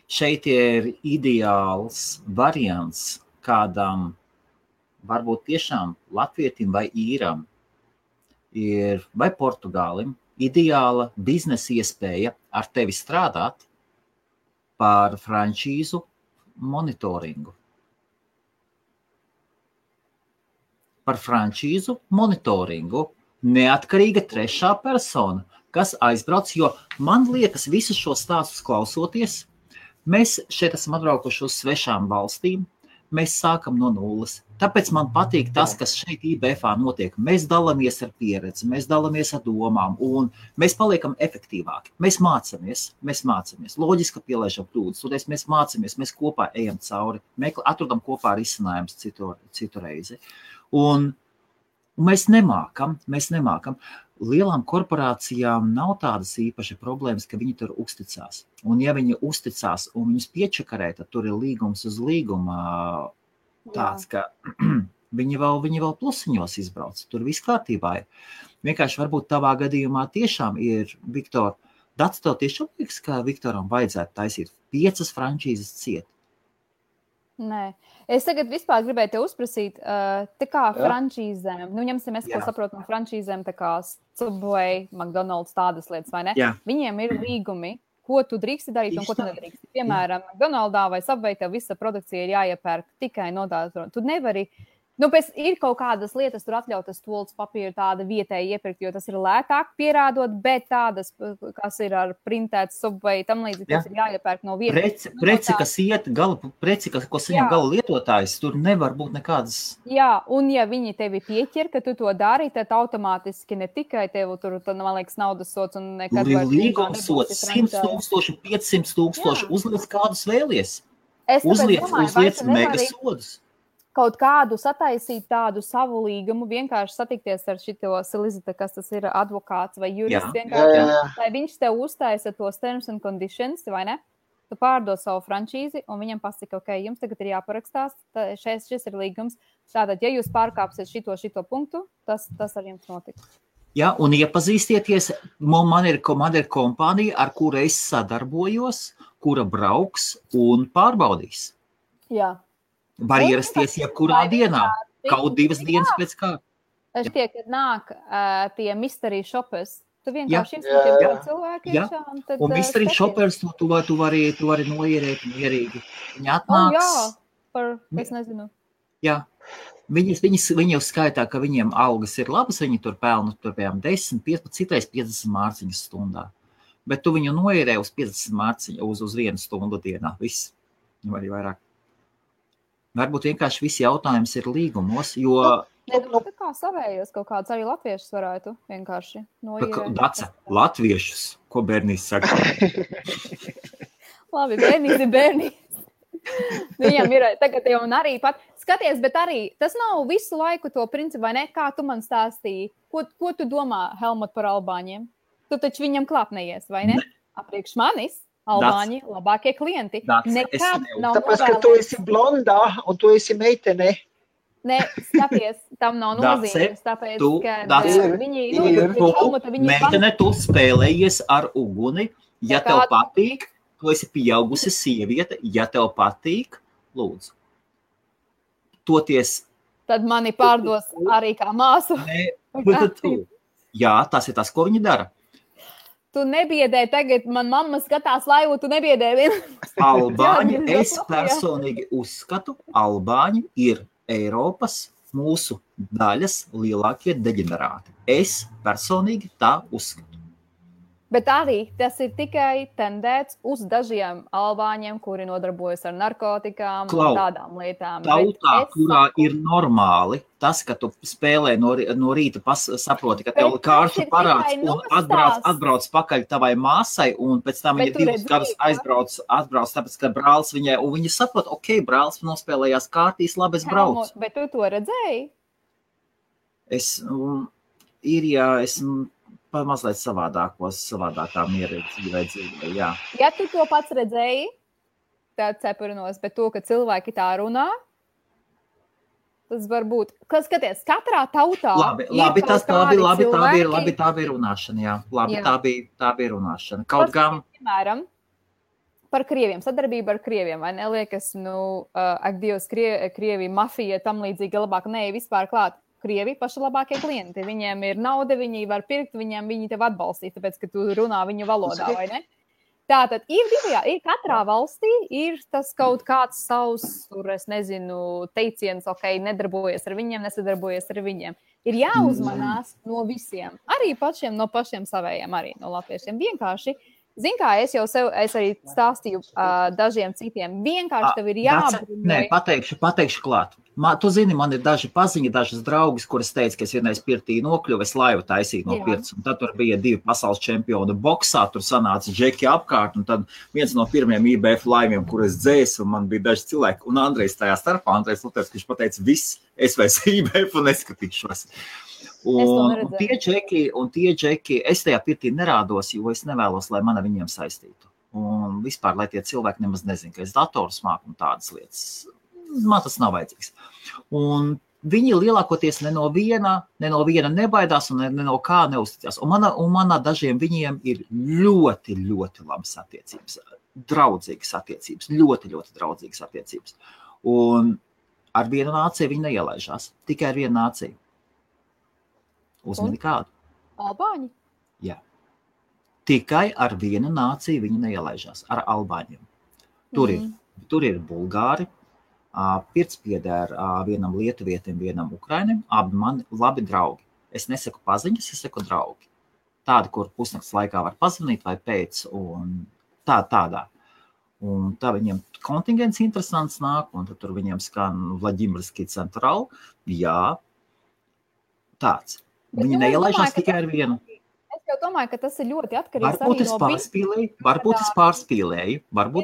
šeit ir ideāls variants kādam, varbūt tiešām latvietim vai īram, vai portugālim, ideāla biznesa iespēja ar tevi strādāt par frančīzu monitoringu. Par frančīzu monitoringu neatkarīga trešā persona, kas aizbrauc, jo man liekas, visus šos stāstus klausoties, mēs šeit esam atbraukuši uz svešām valstīm, mēs sākam no nulles. Tāpēc man patīk tas, kas šeit IBF-ā notiek. Mēs dalāmies ar pieredzi, mēs dalāmies ar domām, un mēs paliekam efektīvāki. Mēs mācamies. Loģiski, ka pielaižam kļūdas, un mēs mācamies, mēs kopā ejam cauri, atrodam kopā risinājums citu reizi. Un mēs nemākam. Lielām korporācijām nav tādas īpaši problēmas, ka viņi tur uzticās. Un ja viņi uzticās un viņus piečakarē, tad tur ir līgums uz līguma tāds, ka viņi vēl plusiņos izbrauc. Tur viss kārtībā ir. Vienkārši varbūt tavā gadījumā tiešām ir, Viktor, Dats, tev tiešām liekas, ka Viktoram vajadzētu taisīt 5 frančīzes ciet. Nē. Es tagad vispār gribēju te uzprasīt, tā kā frančīzēm, ņemsim es, ko saprotu no frančīzēm, tā kā Subway, McDonald's, tādas lietas, vai ne? Jā. Viņiem ir līgumi, ko tu drīksti darīt un ko tu nedrīksti. Piemēram, McDonald'ā vai Subway tev visa produkcija ir jāiepērk tikai no tādas. Tu nevari, pēc ir kaut kādas lietas, tur atļautas tolts papīru tāda vietēji iepirkt, jo tas ir lētāk pierādot, bet tādas, kas ir ar printēts Subway, tam līdzīgi, tas ir jāiepērk no vietas. Preci, ko saņem gala lietotājs, tur nevar būt nekādas. Jā, un ja viņi tevi pieķer, ka tu to dari, tad automātiski ne tikai tev tur, man liekas, naudas sots un nekad vairs. Tur ir līgums sots 100,000, 500,000, uzliec kādus vēlies. Uzliec mega sodus. Kaut kādu sataisīt tādu savu līgumu, vienkārši satikties ar šito Silizita, kas tas ir advokāts vai jurists, vienkārši, lai viņš tev uztaisa tos terms and conditions, vai ne? Tu pārdod savu frančīzi, un viņam pasaka, ok, jums tagad ir jāparakstās, šis ir līgums. Tātad, ja jūs pārkāpsiet šito punktu, tas ar jums notiks. Jā, un iepazīstieties, man ir kompānija, ar kuru es sadarbojos, kura brauks un pārbaudīs. Jā. Var ierasties jebkurā dienā, kaut 2 dienas pēc kā. Šķiet, kad nāk tie mystery shoppers, Tu vienkārši iesūti cilvēki iekšā. Un viss arī šopers, tu vari noierēt mierīgi. Viņi atnāks. Es nezinu. Jā. Viņi uzskaitā, ka viņiem algas ir labas, viņi tur pelna piemēram 10, 15, citreiz 50 mārciņas stundā. Bet tu viņu noierē uz 50 mārciņu, uz 1 stundu dienā. Viss. Vai vairāk. Varbūt vienkārši visi jautājums ir līgumos, jo... Tā kā savējos kaut kāds arī latviešus varētu vienkārši noierēt. Dace, latviešus, ko bērnīs saka? Labi, bērnīs ir bērnīs. Viņam ir tagad jau un arī pat... Skaties, bet arī tas nav visu laiku to principu, vai ne? Kā tu man stāstīji? Ko tu domā, Helmut, par albāņiem? Tu taču viņam klāpnējies, vai ne? Apriekš manis. Albāņi, labākie klienti. Nekad nav tāpēc, ka tu esi blondā un tu esi meitene. Nē, skaties, tam nav nozīmes, tāpēc, ka viņi... Meitene, tu spēlējies ar uguni, ja tev patīk, tu esi pieaugusi sieviete, ja tev patīk, lūdzu. Toties... Tad mani pārdos arī kā māsu. Jā, tas ir tas, ko viņi dara. Tu nebiedē tagad, man mamma skatās laivu, tu nebiedē vienu. Albāņi, es personīgi uzskatu, albāņi ir Eiropas mūsu daļas lielākie deģenerāti. Es personīgi tā uzskatu. Bet arī tas ir tikai tendēts uz dažiem albāņiem, kuri nodarbojas ar narkotikām un tādām lietām. Tautā, kurā ir normāli tas, ka tu spēlē no rīta saproti, ka tev kāršu parāds un atbrauc pakaļ tavai māsai un pēc tam viņa 2 gadus atbrauc, tāpēc, ka brālis viņai, un viņa saprot, ok, brālis nospēlējās kārtīs, labi, es braucu. Bet tu to redzēji? Esmu mazliet savādākā miera dzīvē, jā. Ja tu to pats redzēji, tad cepurinos, bet to, ka cilvēki tā runā, tas var būt. Skaties, katrā tautā... Labi, tā bija runāšana, jā. Tā bija runāšana. Kaut gan... Piemēram, par krieviem, sadarbība ar krieviem, vai neliekas, ak Dievs, Krievija, mafija, tam līdzīgi labāk, vispār klāt. Krievi paši labākie klienti. Viņiem ir nauda, viņi var pirkt, viņi tev atbalstīt, tāpēc, ka tu runā viņu valodā, vai ne? Tātad ir katrā valstī ir tas kaut kāds savs, es nezinu, teiciens, ok, nedarbojies ar viņiem, nesadarbojies ar viņiem. Ir jāuzmanās no visiem, arī no pašiem savējiem, arī no latviešiem. Vienkārši, zin kā, es arī stāstīju dažiem citiem, vienkārši tev ir jābrunē. Nē, pateikšu klāt. Tu zini, man ir daži paziņi, dažas draugas, kuras teica, ka es vienreiz pirtī nokļuvu, es laivu taisīju no pirts, un tad tur bija 2 pasaules čempioni boksā, tur sanāca džeki apkārt, un tad viens no pirmiem IBF laiviem, kur es dzēsu, un man bija daži cilvēki, un Andrejs tajā starpā, Andrejs Luters, viņš pateica, viss, es vairs IBF un neskatīšos. Un tie džeki, es tajā pirtī nerādos, jo es nevēlos, lai mani viņiem saistītu. Un vispār, lai tie cilvēki nemaz nezin, ka es dators māku un tādas lietas. Man tas nav vajadzīgs. Un viņi lielākoties ne no viena nebaidās un ne no kā neuzticās. Un manā dažiem viņiem ir ļoti, ļoti labas attiecības, draudzīgas attiecības, ļoti, ļoti draudzīgas attiecības. Un ar vienu nāciju viņi neielaižās, tikai ar vienu nāciju. Uzmini kādu? Albāņi? Jā. Tikai ar vienu nāciju viņi neielaižās, ar albāņiem. Tur ir bulgāri, Pirts pieder vienam lietuvietim, vienam ukrainim, abi mani labi draugi. Es nesaku paziņas, es saku draugi. Tādi, kur pusnakts laikā var pazvanīt vai pēc, un tādā. Un tā viņiem kontingents interesants nāk, un tad tur viņiem skan Vladimirsky Central. Jā, tāds. Viņi neielaižās tikai ar vienu. Es domāju, ka tas ir ļoti atkarīgs arī no Varbūt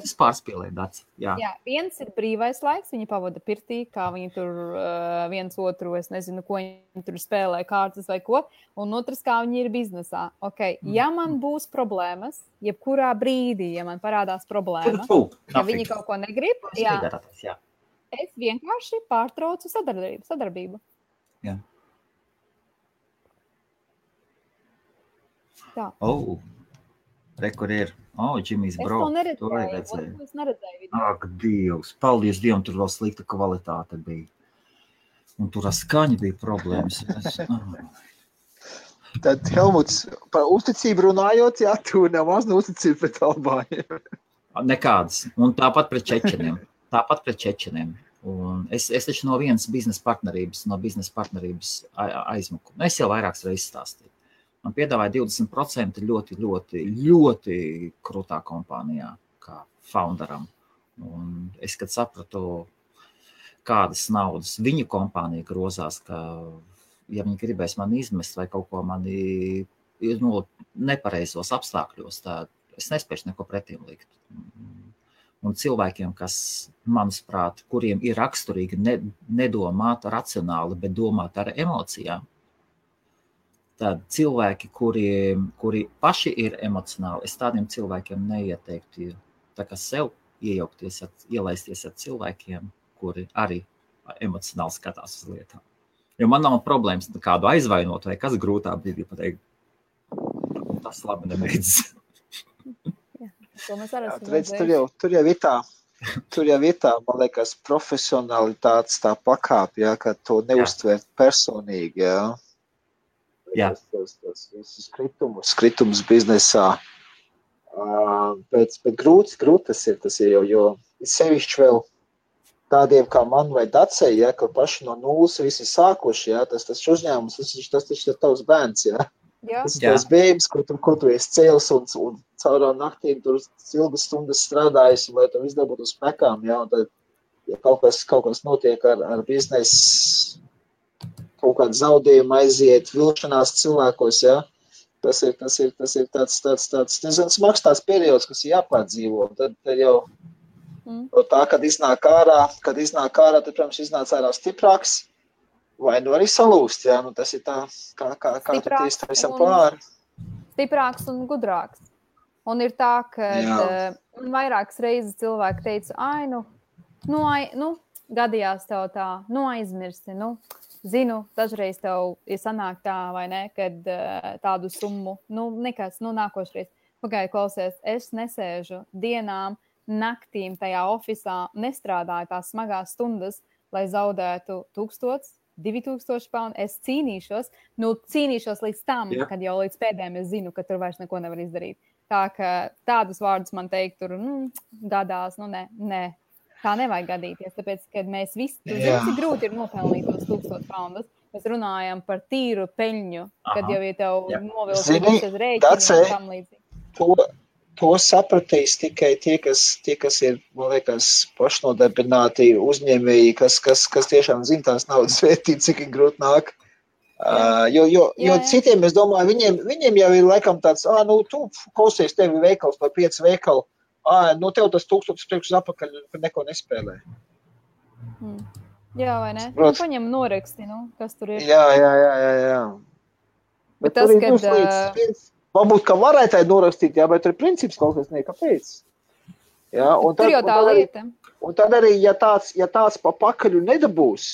es pārspīlēju, Daci. Jā, viens ir brīvais laiks, viņi pavada pirtī, kā viņi tur viens otru, es nezinu, ko viņi tur spēlē, kārtas vai ko, un otrs, kā viņi ir biznesā. Okay. Ja man būs problēmas, jebkurā brīdī, ja man parādās problēma, ja viņi kaut ko negrib, es vienkārši pārtraucu sadarbību. Jā. Tā. Kur ir? Džimijs Bro. Es neredzēju. Ak, Dievs. Paldies Dievam, tur vēl slikta kvalitāte bija. Un tur ar skaņu bija problēmas. Tad, Helmuts, par uzticību runājot, jā, tu nemaz neuzticību pret Albāņiem. Nekādas. Un tāpat pret čečeniem. Un es taču no vienas biznesa partnerības aizmuku. Es jau vairākas reizes stāstīju. Man piedāvāja 20% ļoti, ļoti, ļoti krūtā kompānijā, kā founderam. Un es, kad sapratu, kādas naudas viņu kompānija grozās, ka, ja viņi gribēs mani izmest vai kaut ko mani nepareizos apstākļos, tad es nespēšu neko pretīm likt. Un cilvēkiem, kas, manuprāt, kuriem ir raksturīgi nedomāt racionāli, bet domāt ar emocijām, tad cilvēki, kuri paši ir emocionāli, es tādiem cilvēkiem neieteiktu tā kā sev ielaisties ar cilvēkiem, kuri arī emocionāli skatās uz lietām. Jo man nav problēmas kādu aizvainot vai kas grūtā brīdī pateikt. Tas labi nebeidzas. Tur jau ir tā, man liekas, profesionalitātes tā pakāpe, jā, ka to neuztver personīgi, jā. Jā. Tas skritums biznesā. Bet grūti tas ir, jo sevišķi vēl tādiem kā man vai Dacei, ja, ka paši no nulles visi sākuši, ja, tas uzņēmums, tas ir tavs bērns, ja. Tas ir tavs bēbis, ko tu esi cēlis un caurā naktīm tur ilgas stundas strādājis, lai tu izdabūtu uz pekām, ja, un tad, ja kaut kas notiek ar biznesu, kaut kādu zaudējumu aiziet, vilšanās cilvēkos, ja, tas ir tāds nezinu, smags tās periods, kas ir jāpārdzīvo, tad jau tā, kad iznāk ārā, tad, protams, iznāc ārā stiprāks, vai nu arī salūst, jā, nu tas ir tā, kā tu tiesi tam visam pāri. Stiprāks un gudrāks. Un ir tā, ka vairākas reizes cilvēki teica, gadījās tev tā, aizmirsti, zinu, dažreiz tev ir sanāk tā, vai ne, kad tādu summu, nekas, nākošreiz. Pagāju, klausies, es nesēžu dienām, naktīm tajā ofisā, nestrādāju tās smagās stundas, lai zaudētu 1000, 2000 poundu. Es cīnīšos līdz tam, kad jau līdz pēdējiem es zinu, ka tur vairs neko nevar izdarīt. Tā, ka tādus vārdus man teikt, tur, gadās, nē. Tā nevajag gadīties, tāpēc, kad mēs visi, cik grūti ir nopelnīt tos 1000 poundus. Mēs runājam par tīru peļņu, kad jau ir tev novilkums uz rēķinu un tam līdzīgi. To sapratīs tikai tie, kas ir, man liekas, pašnodarbināti uzņēmēji, kas tiešām zina tās naudas vērtību, cik ir grūti nāk. Jo citiem, es domāju, viņiem jau ir laikam tāds, tu klausies, tevi veikals vai 5 veikali, tev tas 1000 priekš uz apakaļ, kad neko nespēlē. Jā, vai ne? Paņem noraksti, kas tur ir. Jā. Bet tas, kad... Varbūt, ka varētu norakstīt, bet tur ir princips kaut kas kāpēc. Jā, tur jau tā lieta. Un tad arī, ja tāds pa pakaļu nedabūs,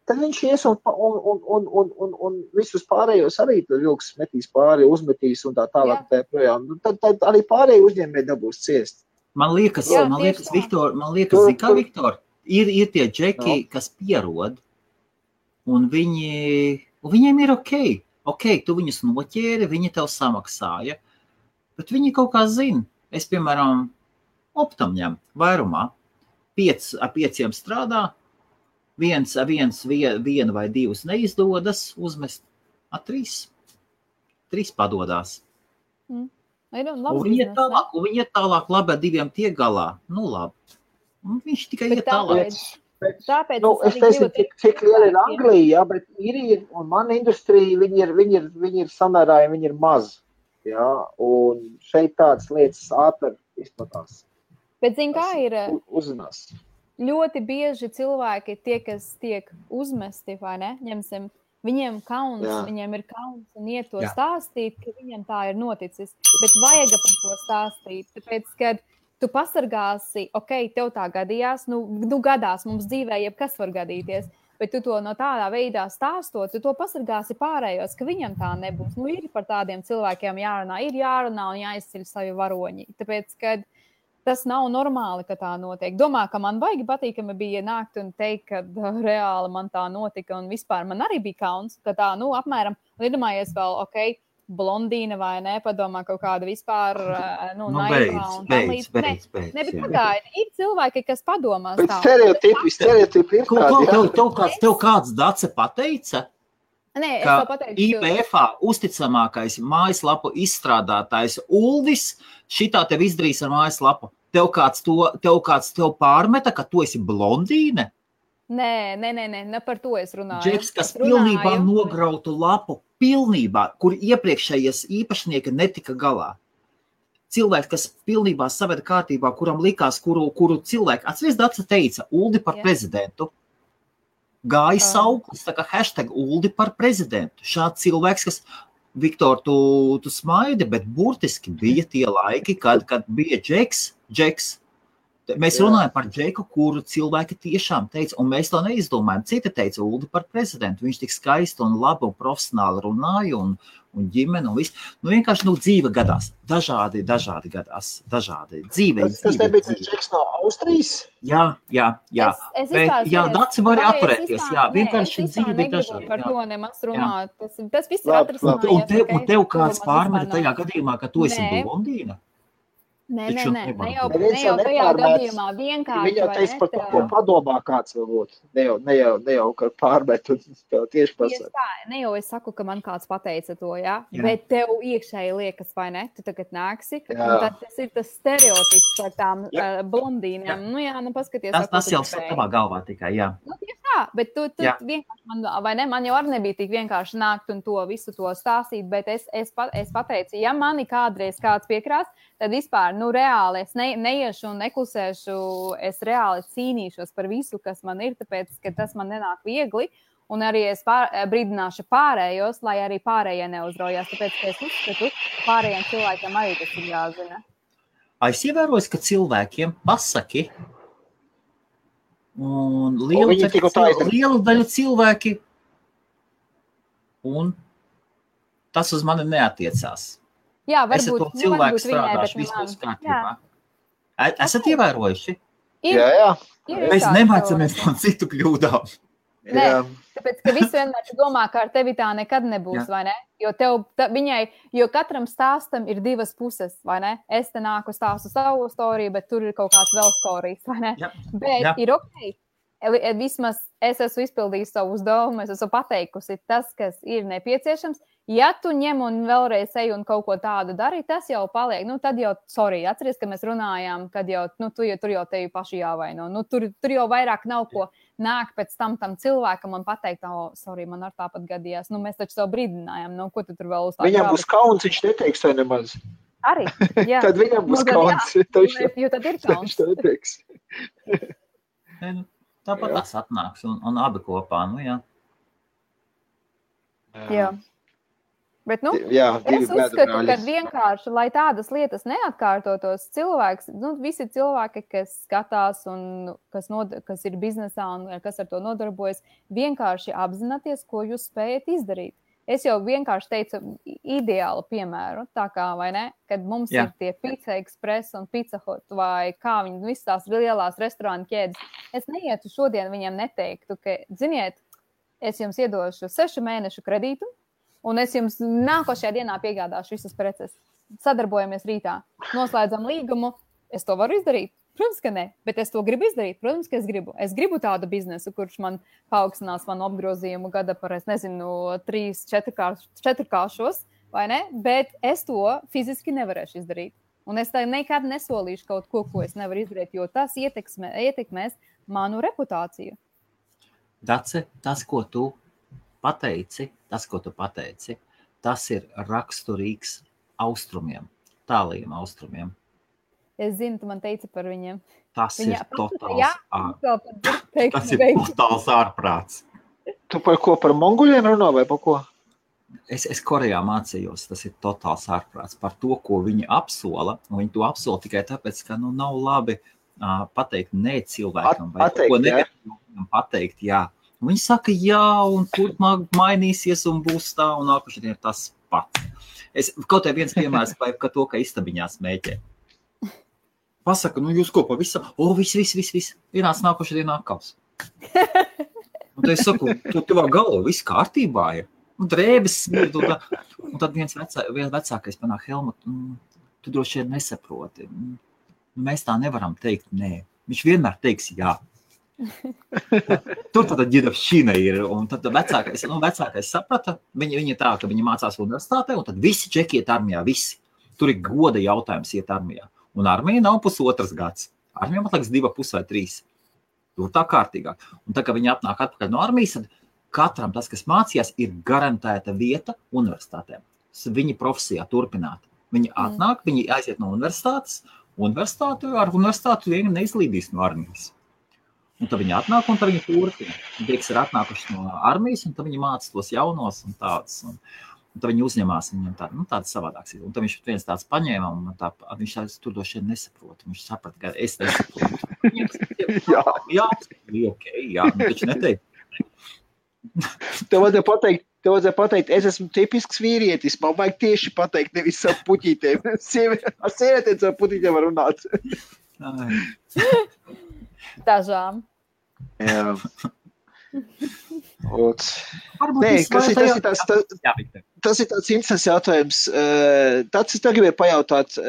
tad viņš ies un visus pārējos arī vilks metīs pāri, uzmetīs un tā tālāk tā projām. Tad arī pārējie uzņēmēji dabūs ciest. Man liekas, Viktor, Viktor, ir tie džeki, kas pierod, un viņiem ir okei. Ok, tu viņus noķēri, viņi tev samaksāja, bet viņi kaut kā zina. Es, piemēram, optam ņem vairumā, 5 strādā, viena vai 2 neizdodas uzmest, 3 padodās. Un viņi iet tālāk, labi, ar 2 tiek galā. Labi. Un viņš tikai iet tālāk. Tāpēc es teicu, cik liela ir Anglija, bet ir, un mana industrija, viņi ir samērā, viņi ir maz. Jā, un šeit tādas lietas ātri izplatās. Bet zin, kā ir? Uzzinās. Ļoti bieži cilvēki, tie, kas tiek uzmesti, vai ne, ņemsim, viņiem kauns, viņiem ir kauns un iet to stāstīt, ka viņiem tā ir noticis. Bet vajag par to stāstīt, tāpēc, kad tu pasargāsi, tev tā gadījās, gadās mums dzīvē, jebkas var gadīties, bet tu to no tādā veidā stāstot, tu to pasargāsi pārējos, ka viņam tā nebūs. Ir par tādiem cilvēkiem jārunā un jāizceļ savi varoņi, tāpēc, kad tas nav normāli, ka tā notiek. Domā, ka man vajag patīkami bija nākt un teikt, ka reāli man tā notika un vispār man arī bija kauns, ka tā, apmēram, iedomājies vēl, blondīna vai ne, padomā kaut kāda vispār, naivā un tam līdz. Beidz. Bet pagaidi, ir cilvēki, kas padomās tā. Bet stereotipi ir tādi. Tev kāds Dace pateica, Nē, ka IPF-ā uzticamākais mājaslapu izstrādātājs Uldis šitā tev izdarīs ar mājaslapu. Tev kāds tev pārmeta, ka tu esi blondīne? Nē, ne par to es runāju. Džeks, kas pilnībā nograutu lapu, kur iepriekšējais īpašnieki netika galā. Cilvēks, kas pilnībā saveda kārtībā, kuram likās, kuru cilvēku, atceries, Dace teica, Uldi par prezidentu. Gāja sauklis, tā kā hashtag Uldi par prezidentu. Šāds cilvēks, kas, Viktor, tu smaidi, bet burtiski bija tie laiki, kad bija Džeks. Mēs runājam par Džeku, kuru cilvēki tiešām teica, un mēs to neizdomājam. Citi teica Uldi par prezidentu. Viņš tik skaisti un labi un profesionāli runāja un ģimene un viss. Vienkārši dzīve gadās. Dažādi gadās. Dzīve. Tas nebija Džeks no Austrijas? Jā. Dace var atturēties. Vienkārši dzīve bija dažādi. Par to nemaz runāt. Tas viss ir atrisinājums. Un tev kāds pārmeta tajā gadījumā, ka tu esi blondīna? Nē, ne jau tajā gadījumā vienkārši. Viņa teica par to, ko padomā kāds varbūt. Ne jau ka pārmet un tieši pasaka. Ne jau es saku, ka man kāds pateica to, jā? Bet tev iekšēji liekas, vai ne? Tu tagad nāksi. Un tad tas ir tas stereotips par tām blondīnām. Paskaties. Tas jau savā galvā tikai, jā. Tieši tā, bet tu vienkārši man jau arī nebija tik vienkārši nākt un to visu to stāstīt, bet es pateicu, ja mani kādreiz kāds piekrās, tad vispār, reāli es neiešu un neklusēšu, es reāli cīnīšos par visu, kas man ir, tāpēc, ka tas man nenāk viegli, un arī es brīdināšu pārējos, lai arī pārējie neuzraujās, tāpēc, ka es uzskatu, pārējiem cilvēkiem arī tas ir jāzina. Es ievēroju, ka cilvēkiem pasaki, un liela daļa cilvēki, un tas uz mani neatiecās. Jā, varbūt, to cilvēku strādāšu, viss būs kārtībā. Esat ievērojuši? Jā. Mēs nemācamies no citu kļūdām. Nē, tāpēc, ka viss vienmēr domā, ka ar tevi tā nekad nebūs, vai ne? Jo katram stāstam ir divas puses, vai ne? Es te nāku stāstu savu storiju, bet tur ir kaut kāds vēl storijas, vai ne? Bet ir ok. Vismaz es esmu izpildījis savu uzdevumu, es esmu pateikusi tas, kas ir nepieciešams. Ja tu ņem un vēlreiz ej un kaut ko tādu dari, tas jau paliek. Tad jau, atceries, ka mēs runājām, kad jau, tur jau tevi paši jāvaino. Tur jau vairāk nav ko nāk pēc tam cilvēkam un pateikt, man ar tāpat gadījās. Mēs taču savu brīdinājām, ko tu tur vēl uzstāt. Viņam būs kauns, viņš neteiks vai nemaz. Arī, jā. Tad viņam būs kauns. Jo tad ir kauns. Viņš to neteiks. Tāpat tas atnāks un abi kopā, jā. Jā. Bet, es uzskatu, ka vienkārši, lai tādas lietas neatkārtotos, visi cilvēki, kas skatās un kas ir biznesā un kas ar to nodarbojas, vienkārši apzināties, ko jūs spējat izdarīt. Es jau vienkārši teicu ideālu piemēru, tā kā, vai ne, kad mums ir tie Pizza Express un Pizza Hut vai kā viņi visas tās lielās restorānu ķēdes. Es neietu šodien viņiem neteiktu, ka, ziniet, es jums iedošu 6 mēnešu kredītu, un es jums nākošajā dienā piegādāšu visas preces. Sadarbojamies rītā. Noslēdzam līgumu. Es to varu izdarīt? Protams, ka ne. Bet es to gribu izdarīt? Protams, ka es gribu. Es gribu tādu biznesu, kurš man paaugstinās manu apgrozījumu gada par, 3-4 kāršos, vai ne? Bet es to fiziski nevarēšu izdarīt. Un es tā nekad nesolīšu kaut ko es nevaru izdarīt, jo tas ietekmēs manu reputāciju. Dace, tas, ko tu pateici, tas ir raksturīgs austrumiem, tālajiem austrumiem. Es zinu, tu man teici par viņiem. Tas ir totāls ārprāts. Tu par ko, par monguļiem runā vai par ko? Es Korejā mācījos, tas ir totāls ārprāts par to, ko viņi apsola. Un viņi to apsola tikai tāpēc, ka nav labi pateikt ne cilvēkam vai ko negatīvam pateikt, jā. Viņi saka, jā, un turpmāk mainīsies un būs tā, un nākošais ir tas pats. Kaut viens piemērs par to, ka istabiņā smēķē. Pasaka, jūs ko pavisam? Viss. Vienāds nākošajā dienā atkals. Un tad es saku, tu tevā galva, viss kārtībā ir. un drēbes smird, un tad viens vecākais panāk, Helmut, tu droši vien nesaproti. Mēs tā nevaram teikt, nē. Viņš vienmēr teiks jā. Tur tāda ģidavšķina ir, un tad vecākais saprata, viņi tā, ka viņi mācās universitātē, un tad visi čeki iet armijā, visi. Tur ir goda jautājums iet armijā. Un armija nav pusotras gads. Armija man liekas 2,5 vai 3. Tur tā kārtīgāk. Un tā, ka viņi atnāk atpakaļ no armijas, tad katram tas, kas mācījās, ir garantēta vieta universitātēm. Viņi profesijā turpināt. Viņi atnāk, viņi aiziet no universitātes, ar universitāti vieni neizlīdīs no armijas. Un tad viņi atnāk, un tad viņi turpina. Tieks ir atnākuši no armijas, un tad viņi māca tos jaunos un tādus. Un tad viņi uzņemās viņam tādas savādākas. Un tad viņš viens tāds paņēma, un viņš tāds tur došiem nesaprot. Viņš saprata, ka es nesaprotu. Jā, taču neteikt. Tev vajadzēja pateikt, es esmu tipisks vīrietis, man vajag tieši pateikt, nevis savu puķītēm. Ar sievietēm savu puķītēm var runāt. Dažām. Jā. Tas ir tāds interesants jautājums. Tāds es tev gribēju pajautāt,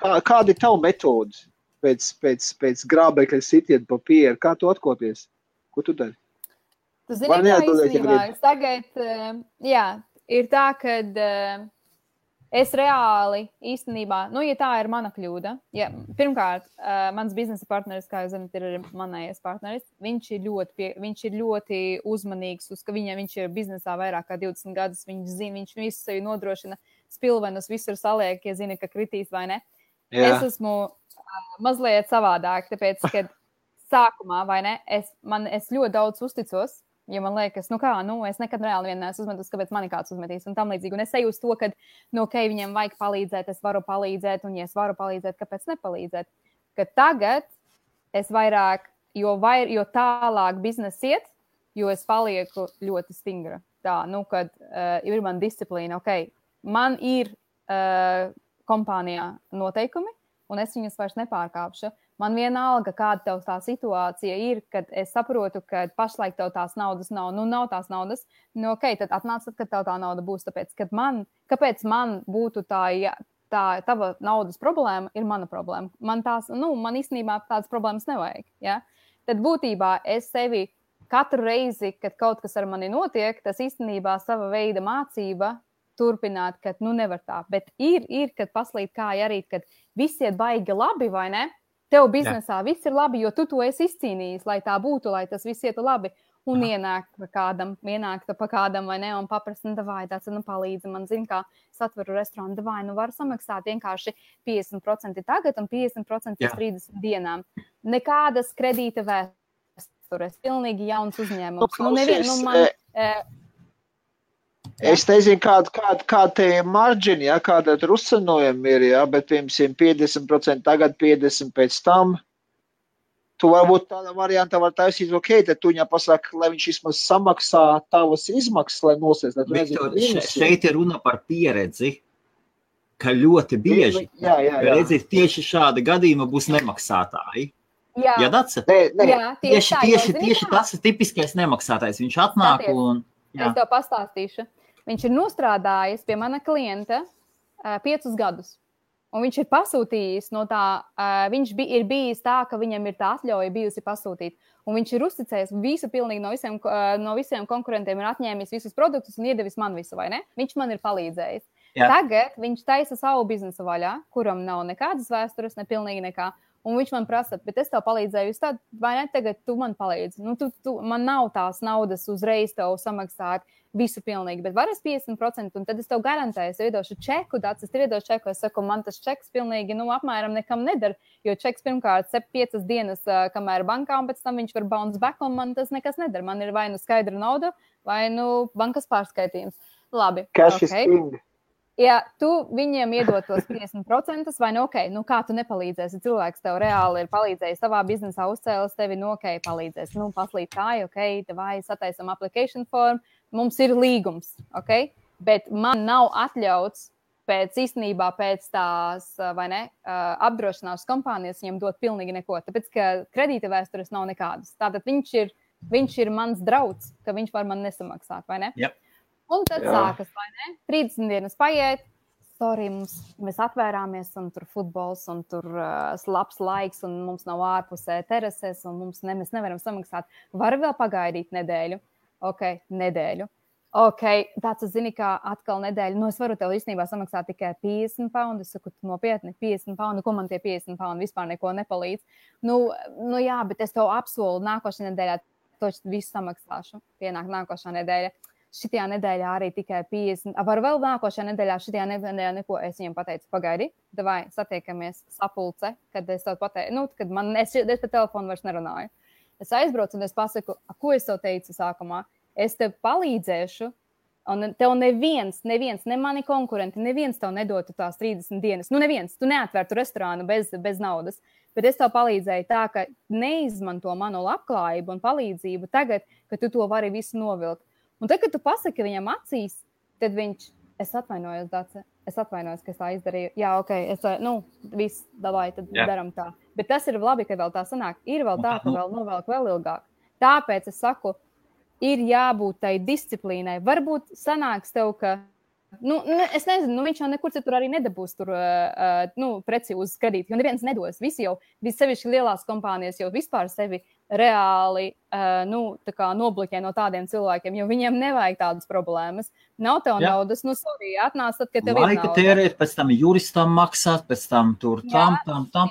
kāda ir tava metode pēc grābekļa sitiena papīra? Kā tu atkopies? Ko tu dari? Tu zini, kā īstenībā, tagad, ir tā, kad es reāli īstenībā, ja tā ir mana kļūda, pirmkārt, mans biznesa partneris, kā jūs zināt, ir manējais partneris, viņš ir ļoti uzmanīgs, ka viņš ir biznesā vairāk kā 20 gadus, viņš visu sevi nodrošina, spilvenus visur saliek, ja zina, ka kritīs vai ne. Jā. Es esmu mazliet savādāk, tāpēc, kad sākumā, vai ne, es ļoti daudz uzticos, ja man liekas, es nekad reāli vien neesmu uzmetus, kāpēc mani kāds uzmetīs un tam līdzīgi. Un es eju uz to, ka, viņam vajag palīdzēt, es varu palīdzēt, un ja es varu palīdzēt, kāpēc nepalīdzēt? Ka tagad es vairāk, jo tālāk biznesa iet, jo es palieku ļoti stingra. Tā, kad ir man disciplīna, man ir kompānijā noteikumi, un es viņus vairs nepārkāpšu. Man vienalga, kāda tev tā situācija ir, kad es saprotu, ka pašlaik tev tās naudas nav. Nav tās naudas. Tad atnāc, kad tev tā nauda būs. Tāpēc, kāpēc man būtu tā tava naudas problēma, ir mana problēma. Man īstenībā tādas problēmas nevajag. Ja? Tad būtībā es sevi katru reizi, kad kaut kas ar mani notiek, tas īstenībā sava veida mācība turpināt, ka nevar tā. Bet ir kad paslīd kāja arī, kad viss iet baigi labi, vai ne? Tev biznesā viss ir labi, jo tu to esi izcīnījis, lai tā būtu, lai tas viss ietu labi. Un ienāk pa kādam, vai ne, un paprasta, davai, tāds, palīdzi man, zin, kā es atveru restorānu, davai, var samaksāt vienkārši 50% tagad un 50% pēc 30 dienām. Nekādas kredīta vēstures, pilnīgi jauns uzņēmums. Es nezinu, kāda te marģini, kāda rusanojumi ir, bet piemēram 50% tagad, 50% pēc tam. Tu varbūt tāda varianta var taisīt, tad tu viņam pasaka, lai viņš vismaz samaksā tavas izmaksas, lai nosēs. Viktor, šeit ir runa par pieredzi, ka ļoti bieži, redzēt, tieši šāda gadījuma būs nemaksātāji. Jā, Dace? Tieši tas ir tipiskais nemaksātājs. Viņš atnāk un... Jā. Es tev pastāstīšu. Viņš ir nostrādājis pie mana klienta 5 gadus. Un viņš ir pasūtījis no tā, ir bijis tā, ka viņam ir tā atļauja bijusi pasūtīt. Un viņš ir uzticējis visu pilnīgi no visiem konkurentiem, ir atņēmis visus produktus un iedevis man visu, vai ne? Viņš man ir palīdzējis. Jā. Tagad viņš taisa savu biznesu vaļā, kuram nav nekādas vēstures, ne pilnīgi nekā. Un viņš man prasa, bet es tev palīdzēju, tad, vai ne, tagad tu man palīdzi. Man nav tās naudas uzreiz tev samaksāt visu pilnīgi, bet var es 50%, un tad es tev garantēju, es iedošu čeku, es iedošu čeku, es saku, man tas čeks pilnīgi, apmēram nekam nedara, jo čeks pirmkārt 5 dienas, kamēr bankā, un pēc tam viņš var bounce back, un man tas nekas nedara. Man ir vai skaidra nauda, vai bankas pārskaitījums. Labi, Cash is king. Ja tu viņiem iedod tos 50%, vai kā tu nepalīdzēsi? Cilvēks tev reāli ir palīdzējis savā biznesā, uzcēlis tevi, palīdzēs. Paslīt tā, vai sataisam application form, mums ir līgums, bet man nav atļauts pēc tās, vai ne, apdrošināšanas kompānijas viņam dot pilnīgi neko, tāpēc, ka kredīta vēstures nav nekādas. Tātad viņš ir viņš ir mans draugs, ka viņš var man nesamaksāt, vai ne? Yep. Un tad sākas, vai ne? 30 dienas paiet, sorry, mēs atvērāmies un tur futbols un tur labs laiks un mums nav ārpusē terases un mēs nevaram samaksāt. Var vēl pagaidīt nedēļu? Ok, nedēļu. Ok, tāds, zini, kā atkal nedēļa. Nu, es varu tev īstenībā samaksāt tikai 50 poundu. Es saku, nopietni, 50 poundu. Ko man tie 50 poundu vispār neko nepalīdz? Nu jā, bet es tev apsolu nākošajā nedēļā toči visu samaksāšu. Pienāk nākošā nedēļa. Šitajā nedēļā arī tikai 50. Var vēl nākošajā nedēļā, šitajā nedēļā neko. Es viņiem pateicu, pagaidi, davai satiekamies sapulce, kad es tev pateicu, kad es pa telefonu vairs nerunāju. Es aizbraucu un es pasaku, ko es tev teicu sākumā. Es tev palīdzēšu, un tev neviens, ne mani konkurenti, neviens tev nedotu tās 30 dienas. Nu, neviens, tu neatvērtu restorānu bez naudas, bet es tev palīdzēju tā, ka neizmanto manu labklājību un palīdzību tagad, ka tu to vari visu novilkt. Un tad, kad tu pasaki viņam acīs, tad viņš, es atvainojos, Dace, ka es tā izdarīju. Jā, ok, viss, davai, tad daram tā. Bet tas ir labi, ka vēl tā sanāk. Ir vēl tā, ka vēl novelk vēl ilgāk. Tāpēc es saku, ir jābūt tai disciplīnai. Varbūt sanāks tev, ka, es nezinu, viņš jau nekur citur arī nedabūs tur preci uz kredītu, jo neviens nedos. Visi jau, sevišķi lielās kompānijas jau vispār sevi reāli tā kā nobloķē no tādiem cilvēkiem, jo viņiem nevajag tādas problēmas. Nav tev naudas, sorry, atnāc tad, kad tev ir nauda. Laika tērēt, pēc tam juristam maksāt, pēc tam tur tam,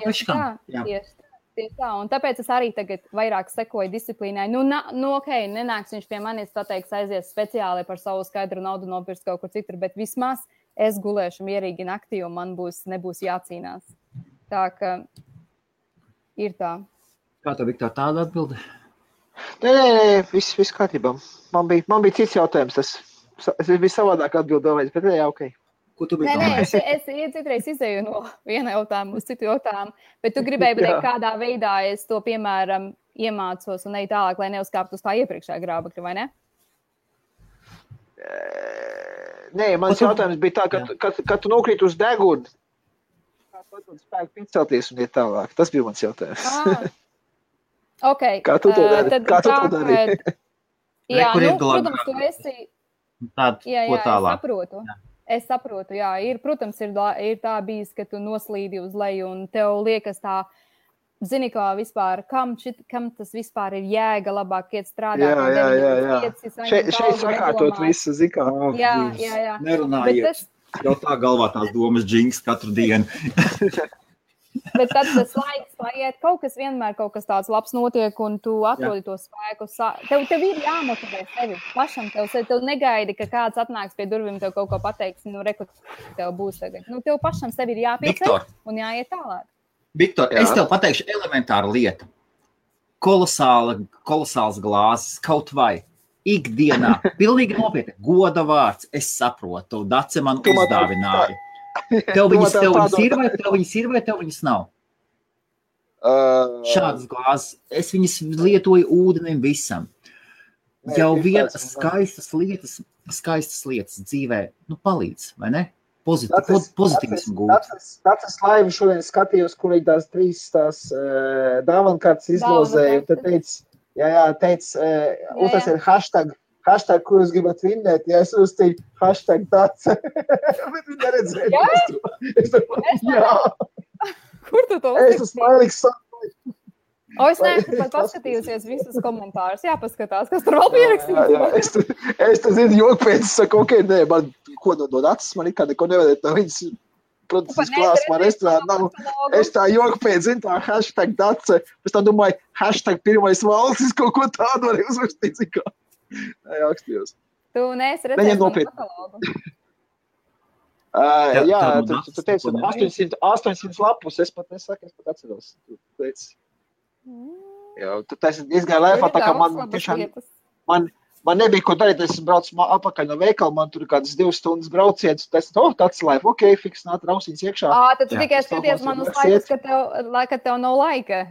peškam. Tieši tā, un tāpēc es arī tagad vairāk sekoju disciplīnai. Ok, nenāks viņš pie manis pateiks aizies speciāli par savu skaidru naudu nopirkt kaut kur citur, bet vismaz es gulēšu mierīgi naktī un man nebūs jācīnās. Tā ka ir tā. Kā tev, Viktor, tāda atbilde? Nē, viss kārtībā. Man bija cits jautājums, es biju savādāk atbildējis, bet jā, ok. Ko tu biji domājis? Es citreiz izēju no viena jautājuma uz citu jautājumu, bet tu gribēji pateikt, kādā veidā es to, piemēram, iemācos un eju tālāk, lai neuzkāptu uz tā iepriekšējā grābekļa, vai ne? Nē, mans jautājums bija tā, ka tu nokrīt uz deguni, kā tu spēku picelties un iet tālāk. Tas bija mans jautājums. Ok. Kā tu to dari? Jā, protams, tu esi... Ko tālāk? Es saprotu, jā, protams, ir tā bijis, ka tu noslīdi uz leju un tev liekas tā, zini, kā vispār, kam tas vispār ir jēga labāk iet strādāt. Jā. Šeit sakārtot visu, zini, kā. Jā. Nerunājiet. Jau tā galvā tās domas džings katru dienu. Bet tad tas laiks paiet, kaut kas tāds labs notiek, un tu atrodi to spēku. Tev ir jāmotivē sevi pašam. Tev negaidi, ka kāds atnāks pie durvīm, tev kaut ko pateiks, reku, tev būs tagad. Tev pašam sevi ir jāpieceļ un jāiet tālāk. Viktor, es tev pateikšu elementāru lietu. Kolosāls glāzes, kaut vai ikdienā. Pilnīgi nopietni, goda vārds, es saprotu, Dace man uzdāvināja. Tev viņas ir vai tev viņas nav? Šādas glāzes. Es viņas lietoju ūdenim visam. Jau vienas skaistas lietas dzīvē, palīdz, vai ne? Pozitīvismu gūt. Tas laivi šodien skatījos, kur viņi tās 3 dāvankartes izlozēja, un tad teica, un tas ir hashtag, ko jūs gribat vinnēt, ja es uzstīju #tāds. Bet viņi neredzēja. Jā. Kur tu to uzstīji? Es esmu mailīgs sākumā. Es neesmu pat paskatījusies visus komentārus. Jāpaskatās, kas tur vēl pierakstīts. Jā. Es te zinu, joku pēc, es saku, ok, nē, man ko no acis, man ikā neko nevedēt no viņas. Protams, es klāstu man restorānu nav. Es tā joku pēc, zinu, tā #Dace. Es tā domāju, #pirmais valstis, kaut ko tādu varēja uzrakstīt, zinu kā. Jā, akstījos. Tu neesi redzējis manu katalogu? Jā, tu teici, 800 lapus, es pat atceros. Tu teici. Jā, tu teici diezgan lēfā, tā kā man tiešām, man nebija ko darīt, es braucu apakaļ no veikala, man tur kādas 2 stundas brauciens, tu teici, tāds lēf, ok, fiks, nāt rausiņas iekšā. Tad tu tikai skaties man uz laikus, ka tev nav laika.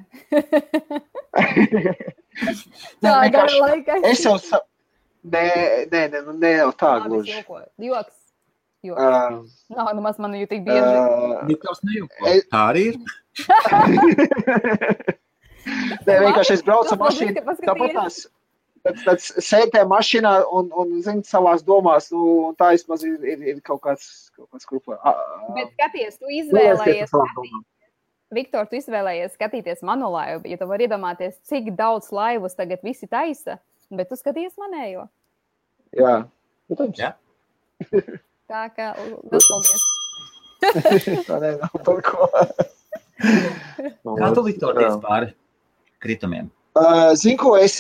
Tā, gara laika. Es jau Nē, jau tā gluži. Joks. Nav nemaz man jau tik bieži. Viktors nejauko. Tā arī ir. Nē, vienkārši es braucu mašīnu. Tad sētē mašīnā un zini, savās domās, un tā vismaz ir kaut kāds grupā. Bet skaties, tu izvēlējies Viktor, tu izvēlējies skatīties manu laivu, ja tu vari iedomāties, cik daudz laivus tagad visi taisa, bet tu skaties manējo. Jā, protams. Jā. Tā kā, paldies. Tā nav par ko. Kā tu, Viktor, tiec pāri kritumiem? Zini ko, es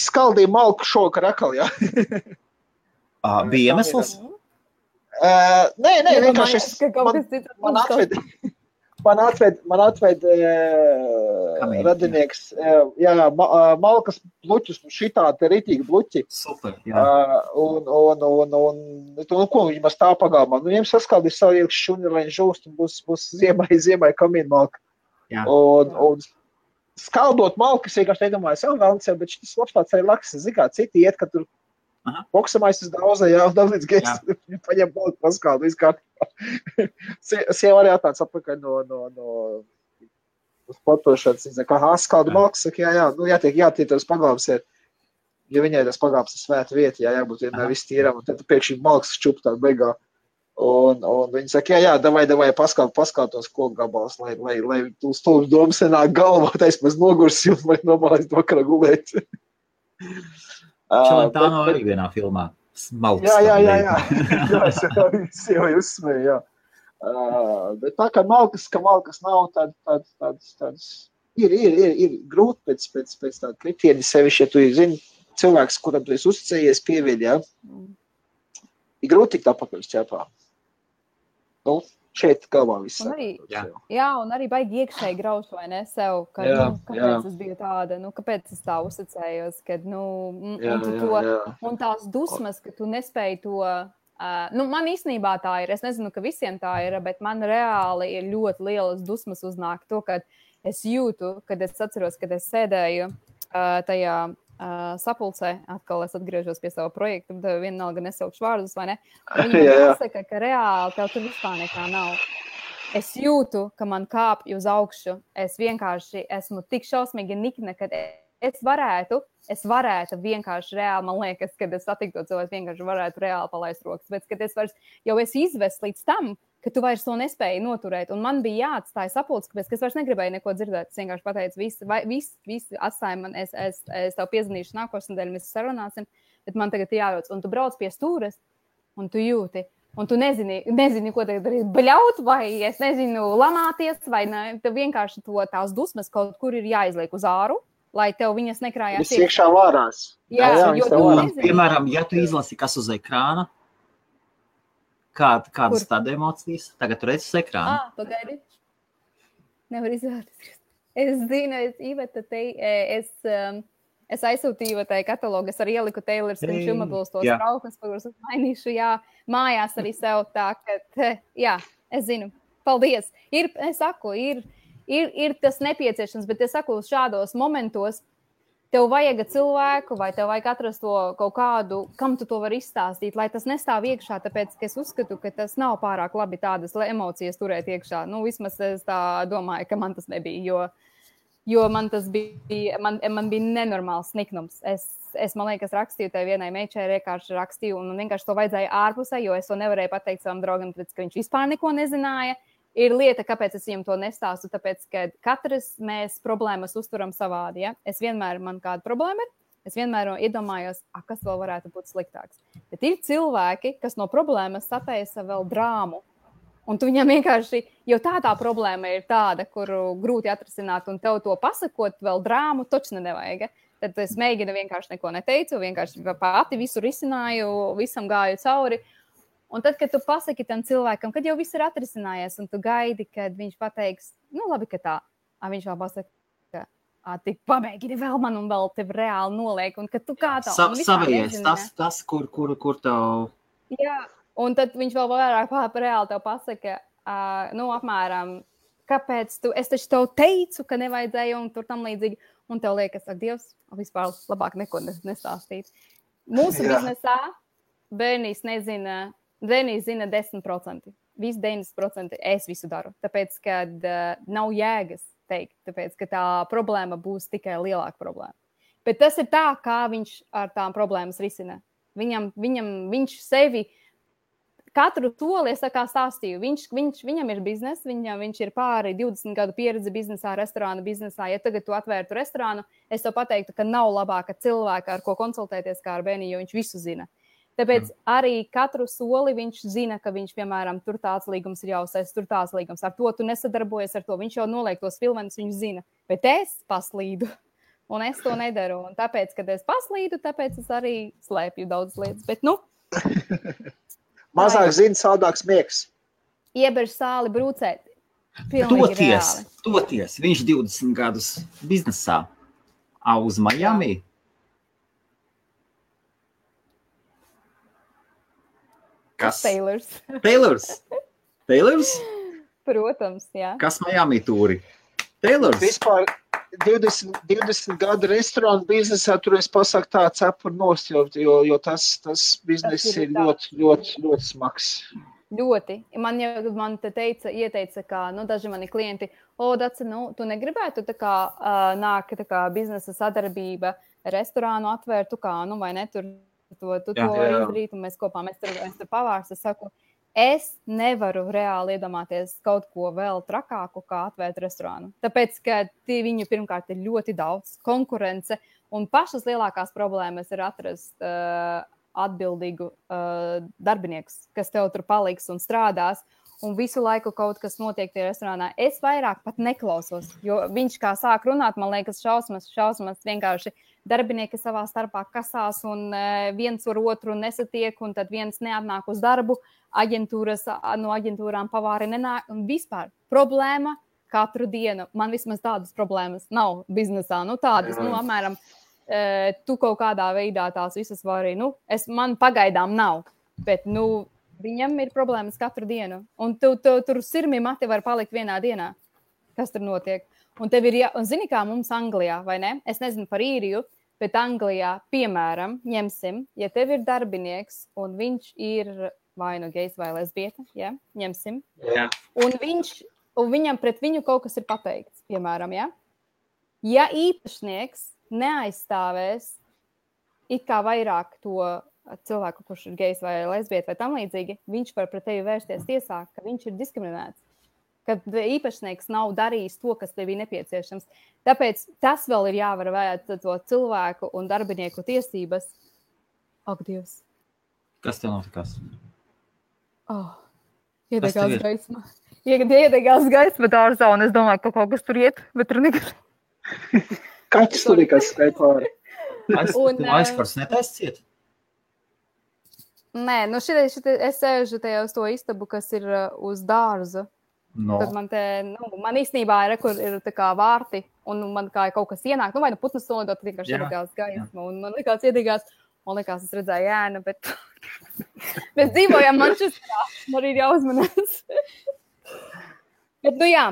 skaldīju malku šokar akal, jā. Bija iemesls? Nē, vienkārši man atved radinieks, jā, malkas bluķus, šitā te ritīgi bluķi. Super, jā. Un ko viņi maz tā pagalmā? Viņiem saskaldīs savu iekš šuni, lai viņi žūst, un būs ziemai kamīna malka. Jā. Un skaldot malkas, vienkārši nedomāju, bet šis labs tāds arī laks, zikā, citi iet, ka tur boksamais uz dauza, jā, un līdz gēs, viņi paņem malku paskaldu, izkārtībā. Sieva arī atnāc atpakaļ no sportošanas, kā skaldu malkas, saka, jā, jātiek tas pagalms ir, jo viņai tas pagalms ir svēta vieta, jābūt vienmēr viss tīram, un tad pēkšņi malkas čup tā beigā. Un viņi saka, jā, davai paskalt tos koku gabals, lai tu stulbs domas nenāk galvā, tais mēs nogursi un vai nomālēs vakarā gulēt. Tā nav arī vienā filmā. Smalks. Jā, es jau uzsmēju, jā. Bet tā kā malkas nav, tāds ir grūti pēc tāda kritieni sevišķi, ja tu zini, cilvēks, kuram tu esi uzticējies, pieviļ, jā. Ir grūti tikt apakaļ šķēpā. Nu, šeit galvā viss. Un arī baigi iekšēji grauš, vai ne, sev, ka, kāpēc es biju tāda, kāpēc es tā uzticējos, kad, un tās dusmas, ka tu nespēji to, man īstenībā tā ir, es nezinu, ka visiem tā ir, bet man reāli ir ļoti lielas dusmas uznāk to, kad es jūtu, kad es atceros, kad es sēdēju tajā sapulcē, atkal es atgriežos pie sava projekta, bet vienalga nesaukšu vārdus, vai ne? Viņi pasaka, ka reāli tev tur vispār nekā nav. Es jūtu, ka man kāpj uz augšu. Es vienkārši esmu tik šausmīgi nikna, kad es varētu vienkārši reāli, man liekas, kad es satiktu to cilvēku, vienkārši varētu reāli palaist rokas, bet kad es vairs jau esi izvests līdz tam, ka tu vairs to nespēji noturēt. Un man bija jāatstāja sapulce, kāpēc es vairs negribēju neko dzirdēt. Es vienkārši pateicu, visi atstāja man, es tev piezvanīšu nākošais nedēļa, mēs sarunāsim, bet man tagad jārodas. Un tu brauc pie stūres, un tu jūti, un tu nezini, ko tagad darīt, bļaut, vai es nezinu, lamāties, vai ne, tev vienkārši tās dusmas kaut kur ir jāizliek uz āru, lai tev viņas nekrājās. Viss iekšā vārās. Jā, piemēram, ja tu izlasi, kas uz ekrāna, kādas tāda emocijas? Tagad tu redzi uz ekrāna. Pagaidi. Nevar izvēlēties. Es zinu, es aizsūtīju tai katalogu, es arī ieliku Taylor's Consumables tos trauknes, kurus es mainīšu, mājās arī sev tā, ka, es zinu. Paldies. Es saku, ir tas nepieciešams, bet es saku, šādos momentos tev vajag cilvēku, vai tev vajag atrast to kaut kādu, kam tu to vari izstāstīt, lai tas nestāv iekšā, tāpēc, ka es uzskatu, ka tas nav pārāk labi tādas emocijas turēt iekšā. Vismaz es tā domāju, ka man tas nebija, jo man tas bija, man bija nenormāls niknums. Es man liekas, rakstīju tai vienai meičai, vienkārši rakstīju, un vienkārši to vajadzēja ārpusē, jo es to nevarēju pateikt savam draugam, tāpēc, ka viņš vispār neko nezināja. Ir lieta, kāpēc es viņam to nestāstu, tāpēc, ka katrs mēs problēmas uzturam savādi, ja? Man kāda problēma ir, es vienmēr iedomājos, kas vēl varētu būt sliktāks. Bet ir cilvēki, kas no problēmas sataisa vēl drāmu, un tu viņam vienkārši, jo tā problēma ir tāda, kuru grūti atrisināt, un tev to pasakot vēl drāmu, točne nevajag. Tad es mēģinu vienkārši neko neteicu, vienkārši pati visu risināju, visam gāju cauri. Un tad, kad tu pasaki tam cilvēkam, kad jau viss ir atrisinājies, un tu gaidi, kad viņš pateiks, labi, ka tā, viņš vēl pasaka, tik pamēģini vēl man un vēl tev reāli noliek, un kad tu kā tā. Savies, tas, kur tev. Jā, un tad viņš vēl vairāk reāli tev pasaka, apmēram, kāpēc es taču tev teicu, ka nevajadzēja, un tur tam līdzīgi, un tev liekas, ak, Dievs, vispār labāk neko nestāstīt. Mūsu biznesā bērnīs nezina 10%. Visi 90% es visu daru. Tāpēc, kad nav jēgas teikt, tāpēc, ka tā problēma būs tikai lielāka problēma. Bet tas ir tā, kā viņš ar tām problēmas risina. Viņš sevi katru soli, es tā kā stāstīju, viņam ir bizness, viņš ir pāri 20 gadu pieredze biznesā, restorānu biznesā. Ja tagad tu atvērtu restorānu, es tev pateiktu, ka nav labāka cilvēka, ar ko konsultēties kā ar Beniju, jo viņš visu zina. Tāpēc arī katru soli viņš zina, ka viņš, piemēram, tur tāds līgums ir jāuzsēst, tur tāds līgums. Ar to tu nesadarbojies, ar to viņš jau noliek tos filmenis, viņš zina. Bet es paslīdu, un es to nedaru. Un tāpēc, kad es paslīdu, tāpēc es arī slēpju daudz lietas. Bet, mazāk zina, saldāks miegs. Ieberž sāli brūcēt. Toties. Viņš 20 gadus biznesā. Uz Miami. Kas? Taylors? Protams, jā. Kas Miami tūri? Taylors? Vispār 20 gadu restorānu biznesā tur es pasaku tā cepur nost, jo tas bizness ir ļoti smags. Ļoti. Man te ieteica, ka daži mani klienti, Daci, tu negribētu tā kā nāk tā kā biznesa sadarbība restorānu atvērtu kā, vai ne, tur to izdarīt, un mēs kopā, mēs tur pavārs. Es saku, es nevaru reāli iedomāties kaut ko vēl trakāku, kā atvērt restorānu. Tāpēc, ka viņu pirmkārt ir ļoti daudz konkurence, un pašas lielākās problēmas ir atrast atbildīgu darbiniekus, kas tev tur paliks un strādās, un visu laiku kaut kas notiek tie restorānā. Es vairāk pat neklausos, jo viņš kā sāk runāt, man liekas, šausmas vienkārši darbinieki savā starpā kasās un viens ar otru nesatiek, un tad viens neatnāk uz darbu, no aģentūrām pavāri nenāk, un vispār problēma katru dienu. Man vismaz tādas problēmas nav biznesā, tādas, apmēram, tu kaut kādā veidā tās visas vari, man pagaidām nav, bet, viņam ir problēmas katru dienu, un tu tur sirmi mati var palikt vienā dienā, kas tur notiek. Un tev ir, un zini kā mums Anglijā, vai ne? Es nezinu par Īriju, bet Anglijā, piemēram, ņemsim, ja tev ir darbinieks, un viņš ir vai gejs vai lesbieta, ja? Ņemsim. Jā. Un viņam pret viņu kaut kas ir pateikts, piemēram, ja? Ja īpašnieks neaizstāvēs it kā vairāk to cilvēku, kurš ir gejs vai lesbieta vai tam līdzīgi, viņš var pret tevi vērsties tiesā, ka viņš ir diskriminēts, ka īpašnieks nav darījis to, kas tev ir nepieciešams. Tāpēc tas vēl ir jāvar vērēt to cilvēku un darbinieku tiesības. Ak, Dievs. Kas tev notikās? Iedegās gaisma. Iedegās gaisma dārzā, un es domāju, ka kaut kas tur iet, bet tur nekas. Kaķis tur nekas skai pāri. Aizkars netaist ciet? Nē, es sēžu tajā uz to istabu, kas ir uz dārza. Tad man īstenībā ir tā kā vārti, un man kā kaut kas ienāk, vai putnas solidot, vienkārši iedegās gaisma, un man likās iedegās, es redzēju ēnu, bet mēs dzīvojam Manchesterā, man arī ir jāuzmanās. Bet, jā,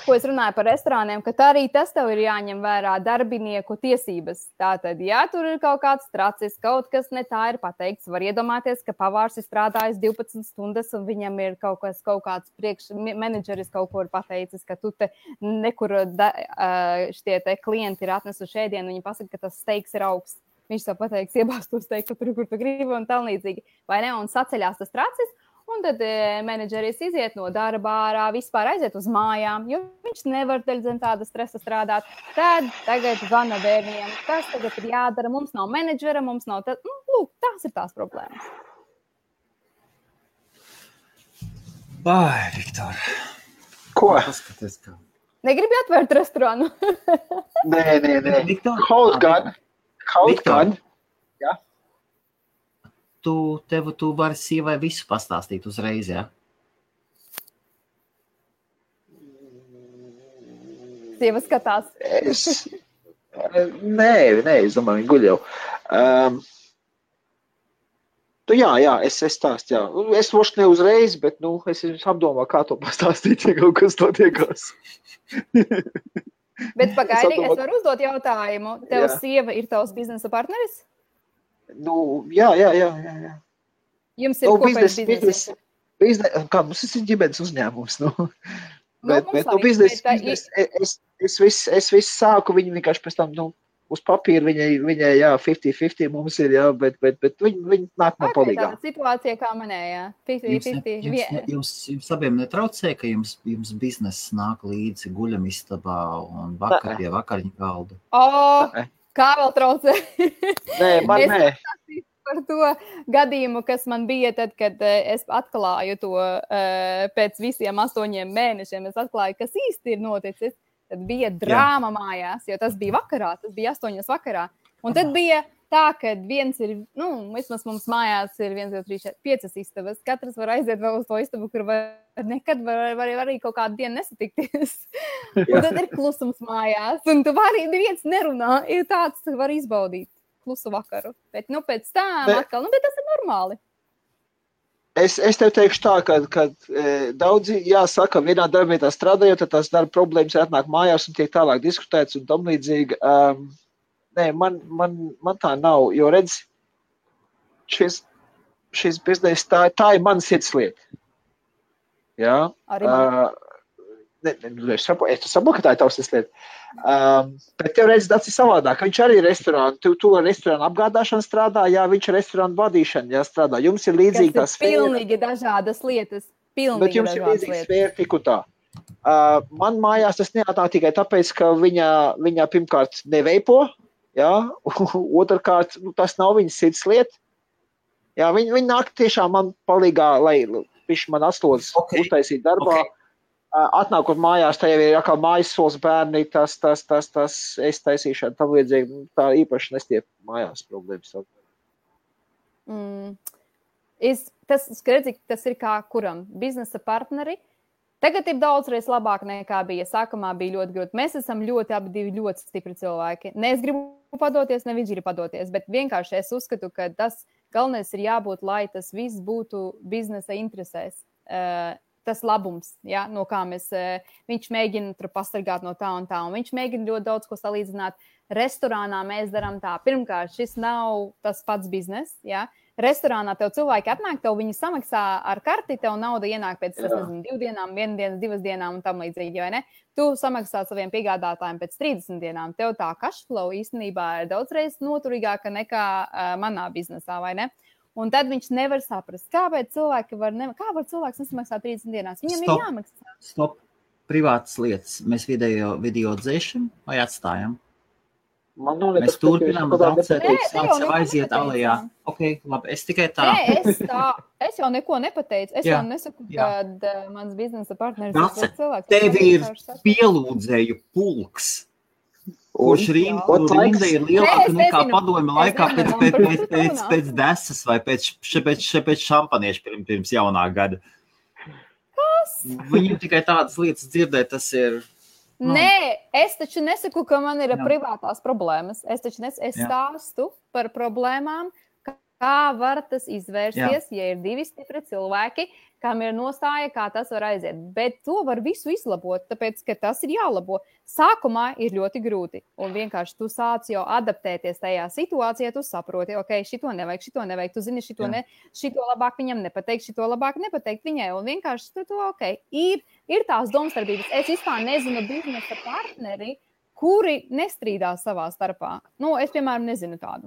ko es runāju par restorāniem, ka arī tas tev ir jāņem vērā darbinieku tiesības. Tātad, ja tur ir kaut kāds tracis, kaut kas ne tā ir pateikts, var iedomāties, ka pavārs ir strādājis 12 stundas un viņam ir kaut kāds menedžeris kaut ko ir pateicis, ka tu te nekur šie te klienti ir atnesuši ēdienu, viņi pasaka, ka tas steiks ir augsts. Viņš tev pateiks, iebāzt to steiku tur, kur tu gribi un tā līdzīgi. Vai ne? Un saceļās tas tracis. Un tad menedžeris iziet no darba ārā, vispār aiziet uz mājām, jo viņš nevar zem tāda stresa strādāt. Tad tagad zvana bērniem, kas tagad ir jādara, mums nav menedžera, mums nav tad, lūk, tās ir tās problēmas. Vai, Viktor. Ko? Paskaties, kā. Negribi atvērt restorānu? Nē. Viktor. Kaut gan. Jā. Tu vari sievai visu pastāstīt uzreiz, ja? Sieva skatās. Nē, es domāju, viņi guļ jau. Jā, es stāstu, jā. Es voši ne uzreiz, bet, es apdomāju, kā to pastāstīt, ja kaut kas to tiekās. Bet pagaidi, es varu uzdot jautājumu. Tev sieva ir tavs biznesa partneris? Jā. Jums ir kopējs biznesa? Kā mums ir ģimenes uzņēmums, Bet biznesa, es visu sāku, viņi vienkārši pēc tam, uz papīra viņai jā, 50-50 mums ir, jā, bet viņi nāk man palīgā. Tāda situācija kā manē, jā. 50-50. Jums abiem netraucē, ka jums bizness nāk līdzi guļamistabā un vakar pie vakariņu galda? Kā vēl traucē? Nē, man nē. Par to gadījumu, kas man bija tad, kad es atklāju to pēc visiem 8 mēnešiem, es atklāju, kas īsti ir noticis. Tad bija drāma mājās, jo tas bija vakarā, tas bija 8 vakarā. Un tad bija tā, ka viens ir, vismaz mums mājās ir 1, 2, 3, 4, 5 istabas. Katrs var aiziet vēl uz to istabu, kur nekad var arī kaut kādu dienu nesatikties. Un tad ir klusums mājās, un tu vari viens nerunā, ir tāds, ka var izbaudīt klusu vakaru. Bet, pēc tam atkal, bet tas ir normāli. Es tev teikšu tā, ka daudzi, jāsaka, vienā darbvietā strādājot, tad tās darba problēmas atnāk mājās un tiek tālāk diskutēts un tam līdzīgi. Nē, man tā nav, jo redz, šis bizness, tā ir mana sirdslieta. Jā? Arī man. Es saprotu, ka tā ir tavs sirdslieta. Bet tev redz, tas ir savādāk. Viņš arī ir restorāns. Tu ar restorānu apgādāšanu strādā, viņš ir restorānu vadīšana, strādā. Jums ir līdzīgi tā sfēra. Pilnīgi dažādas lietas. Bet jums ir līdzīgi sfēra tik un tā. Man mājās tas neatnāk tikai tāpēc, ka viņa pirmkārt neveipo, otrkārt, tas nav viņas sirdslieta. Viņa nāk tiešām man palīgā, lai viņš man atslodzes uztaisīt darbā. Atnākot mājās, tā jau ir atkal mājas sols bērni, tas es taisīšanu, tam līdzīgi, tā īpaši nestiep mājās problēmas. Tas ir kā kuram? Biznesa partneri. Tagad ir daudzreiz labāk nekā bija. Sākumā bija ļoti grūti. Mēs esam abi ļoti stipri cilvēki. Ne es gribu padoties, ne viņš grib padoties, bet vienkārši es uzskatu, ka tas galvenais ir jābūt, lai tas viss būtu biznesa interesēs. Tas labums, no kā viņš mēģina tur pasargāt no tā un tā, un viņš mēģina ļoti daudz ko salīdzināt. Restorānā mēs darām tā. Pirmkārt, šis nav tas pats biznes, Restorānā tev cilvēki atnāk, tev viņi samaksā ar karti, tev nauda ienāk pēc 2 dienām, 1 dienas, 2 dienām un tam līdzīgi, vai ne? Tu samaksā saviem piegādātājiem pēc 30 dienām. Tev tā cashflow īstenībā ir daudzreiz noturīgāka nekā manā biznesā, vai ne? Un tad viņš nevar saprast, kāpēc cilvēki kā var cilvēks nesamaksāt 30 dienās. Viņam ir jāmaksā. Stop. Privātas lietas. Mēs video dzēšam vai atstājam? Mēs turpinām daudzēt, sāksim aiziet alejā. Ok, labi, es tikai tā. Es jau neko nepateicu. Es jau nesaku, kad mans biznesa partneris ir cilvēks. Tev ir pielūdzēju pulks. Kurš rinda ir lielāka nekā padomju laikā pēc desas vai pēc šampanieša pirms jaunā gada. Kas? Viņam tikai tādas lietas dzirdēt, tas ir... Nē, es taču nesaku, ka man ir privātās problēmas. Es stāstu par problēmām, kā var tas izvērsties, ja ir 2 stipri cilvēki, kam ir nostāja, kā tas var aiziet. Bet to var visu izlabot, tāpēc, ka tas ir jālabo. Sākumā ir ļoti grūti, un vienkārši tu sāc jau adaptēties tajā situācijā, tu saproti, ok, šito nevajag, tu zini, šito labāk viņam nepateikt, šito labāk nepateikt viņai, un vienkārši tu ok, ir tās domstarpības. Es vispār nezinu biznesa partneri, kuri nestrīdās savā starpā. Es, piemēram, nezinu tādu.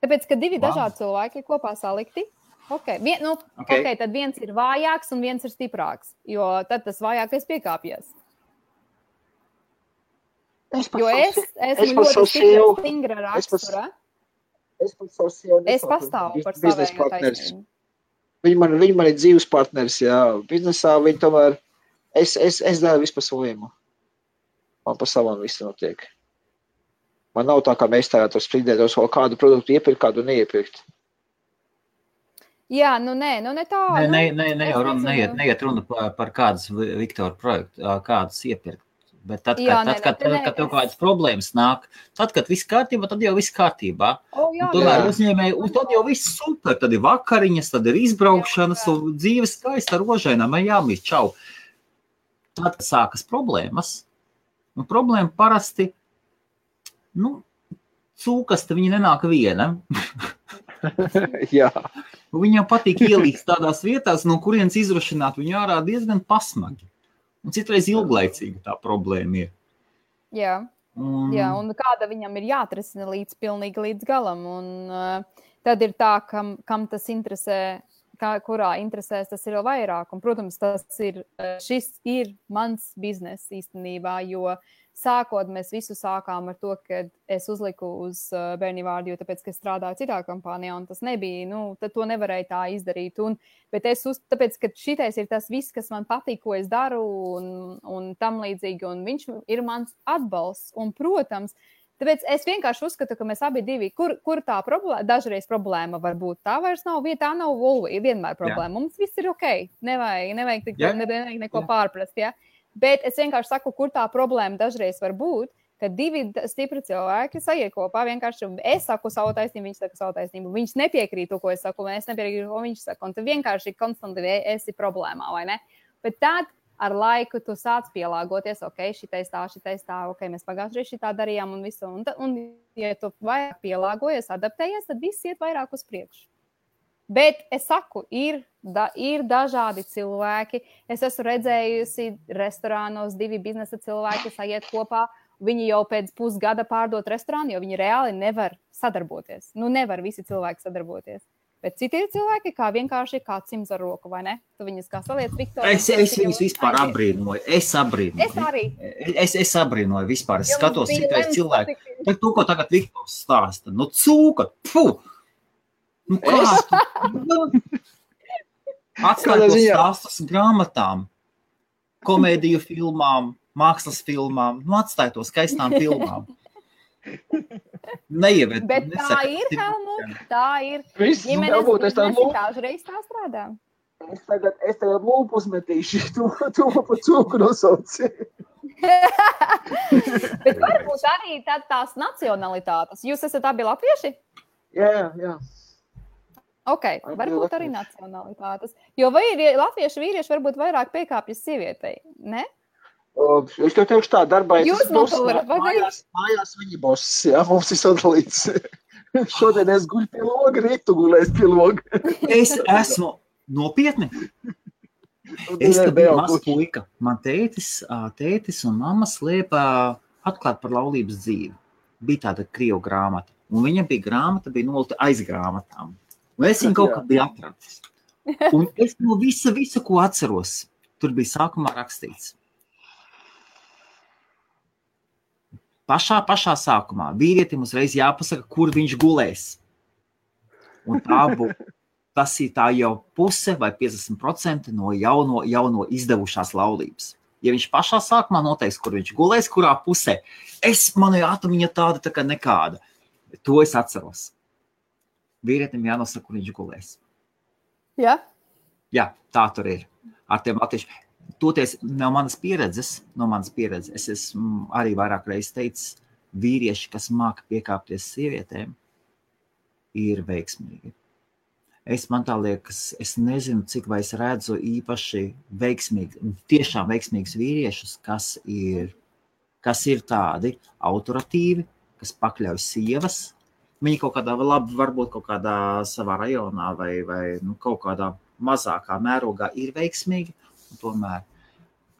Tāpēc, ka 2 dažādi cilvēki kopā salikti, tad viens ir vājāks un viens ir stiprāks, jo tad tas vājākais piekāpjas. Jo es esmu ļoti stingra rakstura. Es pastāvu par savējo taisnību. Viņi man ir dzīves partneris, biznesā viņi tomēr, es daru visu pa saviem. Man pa savam viss notiek. Man nav tā, kā mēs tagad strīdētos vēl kādu produktu iepirkt, kādu neiepirkt. Jā, nē tā. Neiet runa par kādas Viktora projektu, kādas iepirkt. Bet tad, kad tev kādas problēmas nāk, tad, kad viss kārtībā, tad jau viss kārtībā. Tomēr uzņēmēji, un tad jau viss super, tad ir vakariņas, tad ir izbraukšanas, un dzīves skaista rožainām, jāmīt, čau. Tad, kad sākas problēmas, un problēma parasti, cūkasta viņa nenāk viena. Jā. Viņam patīk ielīst tādās vietās, no kurienes izrušināt viņu ārā diezgan pasmagi. Un citreiz ilglaicīga tā problēma ir. Jā. Jā, un kāda viņam ir jāatrisina pilnīgi līdz galam. Un tad ir tā, kam tas interesē, kurā interesēs, tas ir vēl vairāk. Un, protams, šis ir mans biznes īstenībā, jo sākot mēs visu sākām ar to, ka es uzliku uz bērni vārdu, jo tāpēc, ka es strādāju citā kompānijā, un tas nebija, tad to nevarēja tā izdarīt. Bet tāpēc, ka šitais ir tas viss, kas man patīk, ko es daru, un tam līdzīgi, un viņš ir mans atbalsts. Un, protams, tāpēc es vienkārši uzskatu, ka mēs abi divi, kur tā problēma, dažreiz problēma var būt, tā vairs nav, tā nav vienmēr problēma. Jā. Mums viss ir ok, nevajag neko pārprast, ja? Bet es vienkārši saku, kur tā problēma dažreiz var būt, ka divi stipri cilvēki sajiet kopā, vienkārši es saku savu taisnību, viņš saka savu taisnību, viņš nepiekrīt to, ko es saku, un es nepiekrītu, ko viņš saka, un tu vienkārši konstanti esi problēmā, vai ne? Bet tad ar laiku tu sāc pielāgoties, ok, šitais tā, ok, mēs pagājušajā šitā darījām un visu, un ja tu vairāk pielāgojies, adaptējies, tad viss iet vairāk uz priekšu. Bet es saku, ir dažādi cilvēki. Es esmu redzējusi restorānos divi biznesa cilvēki sajiet kopā. Viņi jau pēc pusgada pārdot restorānu, jo viņi reāli nevar sadarboties. Nevar visi cilvēki sadarboties. Bet citi ir cilvēki, kā vienkārši kā cims ar roku, vai ne? Tu viņus kā saliec, Viktor. Es viņus vispār abrīnoju. Es arī. Es abrīnoju vispār. Es skatos citais cilvēki. Bet to, ko tagad Viktors stāsta. Cūka, pfu! Kā tu? Atstāj tos stāstus grāmatām, komēdiju filmām, mākslas filmām, atstāj to skaistām filmām. Neieved. Bet tā ir, Helmut, tā ir. Ģimenes biznesi dažreiz tā strādā. Es tagad lūpu uzmetīšu, to pa cūku nosauci. Bet varbūt arī tās nacionalitātes. Jūs esat abi latvieši? Jā. Ok, varbūt arī nacionalitātes. Jo latviešu vīrieši varbūt vairāk piekāpjas sievietei, ne? Es tev teikšu tā, darbā jūs mājās viņi boss, jā, mums ir sadalīts. Šodien es guļu pie loga, rīt tu gulēs pie loga. Es esmu nopietni. Es tad biju maz puika. Man tētis un mamma slēpa atklāt par laulības dzīvi. Bija tāda krievu grāmata. Un viņa grāmata bija nolta aiz grāmatām. Un es viņu kaut kā biju atradis. Un es no visu, ko atceros, tur bija sākumā rakstīts. Pašā sākumā vīrietim uzreiz jāpasaka, kur viņš gulēs. Un tas ir tā jau puse vai 50% no jauno izdevušās laulības. Ja viņš pašā sākumā noteiks, kur viņš gulēs, kurā pusē, manai atomiņa tāda tā kā nekāda. To es atceros. Vīrietim jānosaka, kur viņš gulēs. Jā? Jā, tā tur ir. Ar tiem latvieši. Toties no manas pieredzes, es esmu arī vairāk reizes teicis, vīrieši, kas māka piekāpties sievietēm, ir veiksmīgi. Man tā liekas, es nezinu, cik vai es redzu īpaši tiešām veiksmīgus vīriešus, kas ir tādi autoritīvi, kas pakļauj sievas. Viņi kaut kādā varbūt kaut kādā savā rajonā vai kaut kādā mazākā mērogā ir veiksmīgi. Un tomēr,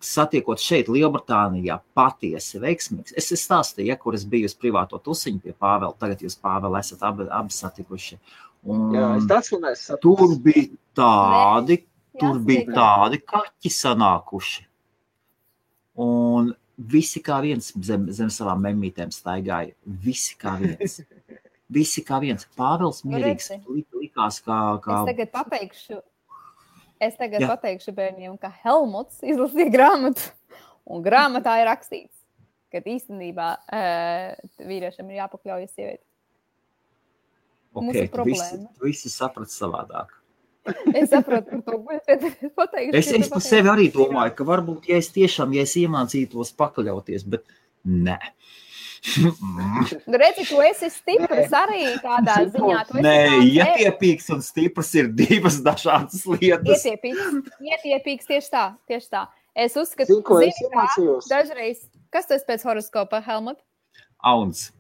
satiekot šeit Lielbritānijā, patiesi veiksmīgs. Es stāstīju, kur es biju uz privāto tusiņu pie Pāvela. Tagad jūs, Pāvela, esat abi satikuši. Un jā, es tur bija tādi kaķi sanākuši. Un visi kā viens zem savām memmītēm staigāja. Visi kā viens. Pāvels mierīgs likās kā... Es tagad pateikšu bērniem, ka Helmuts izlasīja grāmatu, un grāmatā ir rakstīts, ka īstenībā vīriešam ir jāpakļaujas sievieti. Ok, tu visi saprat savādāk. Es saprotu par to, bet pateikšu. Es par sevi arī domāju, ka varbūt, ja es iemācītos pakļauties, bet nē. Redzi, tu esi stiprs arī tādā ziņā. Nē, ietiepīgs un stiprs ir divas dažādas lietas. Ietiepīgs tieši tā. Es uzskatu, dažreiz, kas tu esi pēc horoskopa, Helmut? Auns.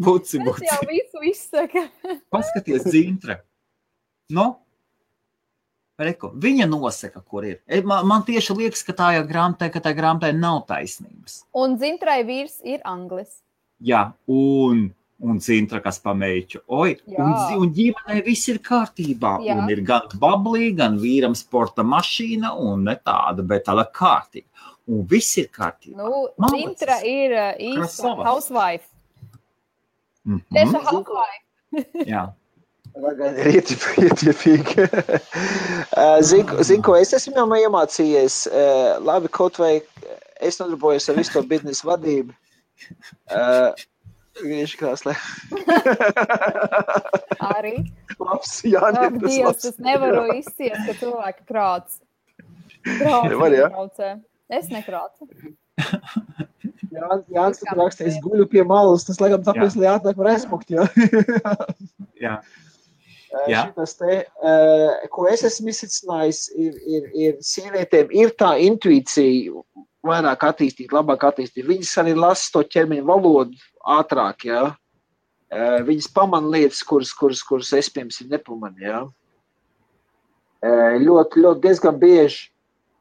Buci. Tas jau visu izsaka. Paskaties, Zintra. Reku, viņa nosaka, kur ir. Man tieši liekas, ka tā grāmatai nav taisnības. Un Dzintrai vīrs ir anglis. Jā, un Dzintra, kas pameiķu. Un ģimenei viss ir kārtībā. Jā. Un ir gan bablī, gan vīram sporta mašīna, un ne tāda, bet tāda kārtība. Un viss ir kārtībā. Dzintra ir īsta housewife. Tieši housewife. Jā. Ietiepīgi. Zinu, ko es esmu jau iemācījies. Labi, kaut vai es nodarbojos ar visu to biznesa vadību. Viņš krāslē. Arī? Labs, Jāni. Dievs, es nevaru izciest, ka cilvēki krāc. Es nekrācu. Jānis tur raksta, es guļu pie malas, tas laikam tāpēc, lai atnāk var aizmukt, jā. Jā. Šitas te, ko es esmu izsacinājis, ir sievietēm, ir tā intuīcija vairāk attīstīt, labāk attīstīt. Viņas arī lasa to ķermeņa valodu ātrāk, jā. Viņas pamana lietas, kuras es, piemēram, nepamanu, jā. Ļoti diezgan bieži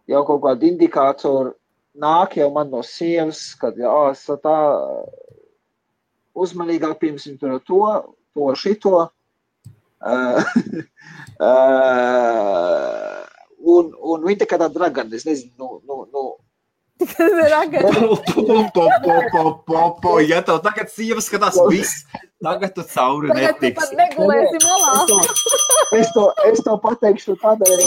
jau kaut kādi indikātori nāk jau man no sievas, kad tā uzmanīgāk, piemēram, to šito. Un viņa tā kā tā dragana, es nezinu, Ja tev tagad sieva skatās viss, tagad tu cauri netiksi. Tagad tu pat negulēsi malā. Es to pateikšu tādēļ.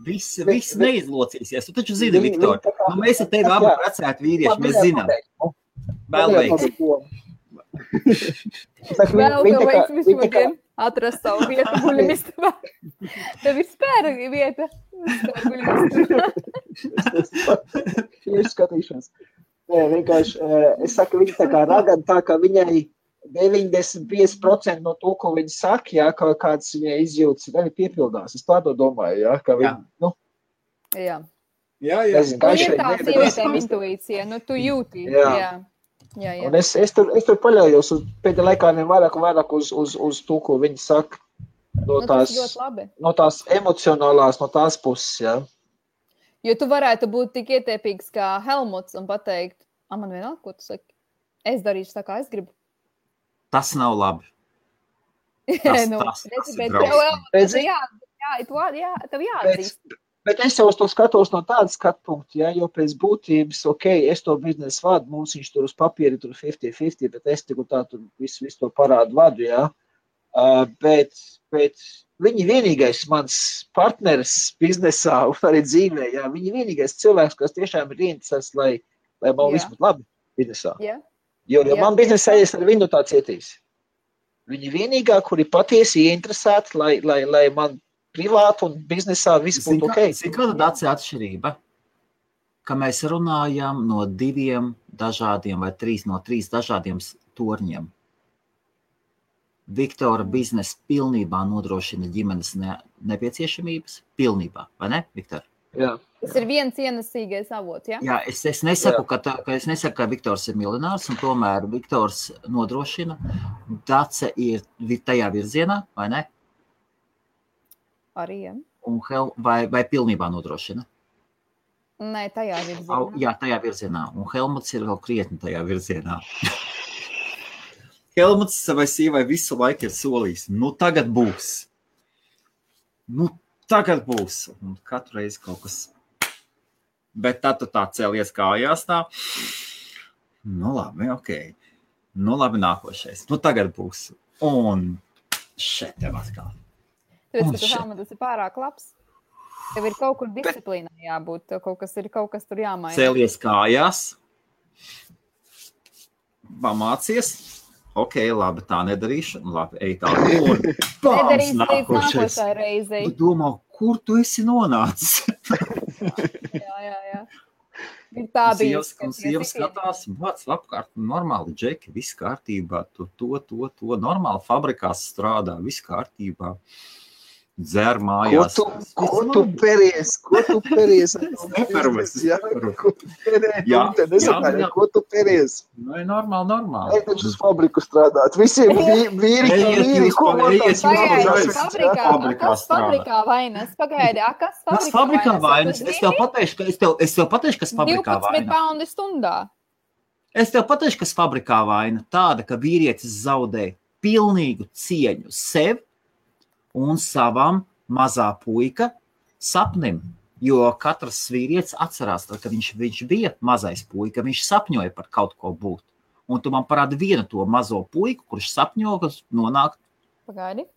Viss neizlocīsies. Tu taču zini, Viktor, mēs ar tevi abi precēti vīrieši, mēs zinām. Vēl veiks. Vēl tev veiks vispār atrast savu vietu guļamistabā. Tev ir spēra vieta. Tieši skatīšanas. Nē, vienkārši, es saku, viņa tā kā ragana, tā kā viņai 95% no to, ko viņa saka, jā, kāds viņai izjūtas, arī piepildās. Es tādu domāju, jā, ka viņa, Jā. Jā. Nezinu, Un ir tā sievietēm intuīcija, tu jūti. Jā. Un es tur paļaujos pēdējā laikā vairāk uz to, ko viņi saka, no tās emocionālās, no tās puses, jā. Jo tu varētu būt tik ietiepīgs kā Helmuts un pateikt, man vienalga, ko tu saki, es darīšu tā, kā es gribu. Tas nav labi. Tas ir drausmīgi. Tev jāatzīst. Bet es jau uz to skatos no tāda skatpunkta, ja, jo pēc būtības, es to biznesu vadu, mums viņš tur uz papīri tur 50-50, bet es tik un tā tur visu to parādu vadu, ja. Bet viņi vienīgais mans partneris biznesā un arī dzīvē, ja, viņi vienīgais cilvēks, kas tiešām ir interesēts, lai man viss būtu labi biznesā. Jo man biznesā es ar viņu tā cietīs. Viņi vienīgā, kuri patiesi ieinteresēti, lai man privāti un biznesā viss būtu ok. Cik kāda dāca atšķirība, ka mēs runājam no 2 dažādiem vai 3 no 3 dažādiem torņiem. Viktora biznesa pilnībā nodrošina ģimenes nepieciešamības. Pilnībā, vai ne, Viktor? Jā. Tas ir viens ienesīgais avots, ja? Jā, es nesaku, ka Viktors ir miljonārs, un tomēr Viktors nodrošina. Dace ir tajā virzienā, vai ne? Arī, jā. Vai pilnībā nodrošina? Nē, tajā virzienā. Jā, tajā virzienā. Un Helmuts ir vēl krietni tajā virzienā. Helmuts savai sievai visu laiku ir solījis. Tagad būs. Tagad būs. Un katru reizi kaut kas. Bet tad tu tā cēlies kājās tā. Labi, ok. Labi, nākošais. Tagad būs. Un šeit tev atkal. Tāpēc, ka tu Helmuts ir pārāk labs. Tev ir kaut kur disciplīnā jābūt. Tev kaut kas tur jāmaina. Cēlies kājās. Pamācies. Ok, labi, tā nedarīšu. Labi, ej tā. Nedarīs līdz nākošai reizei. Tu domā, kur tu esi nonācis? Jā. Ir tā bijis. Sievas skatās, vāc apkārt, normāli džeki, viss kārtībā. To. Normāli fabrikās strādā, viss kārtībā. dzer mājās. Ko tu peries? Ko tu peries? Ko tu peries? Nu, normāli. Ej taču uz fabriku strādāt. Visiem vīri, ko Kas fabrikā vainas? Pagaidi, kas fabrikā vainas? Es tev pateikšu, kas fabrikā 12 vaina. paundi stundā. Es tev pateikšu, kas fabrikā vaina. Tāda, ka vīrietis zaudē pilnīgu cieņu sev un savam mazā puika sapnim. Jo katrs vīrietis atcerās, ka viņš bija mazais puika, viņš sapņoja par kaut ko būt. Un tu man parādi vienu to mazo puiku, kurš sapņo, kas nonāk. Pagaidi.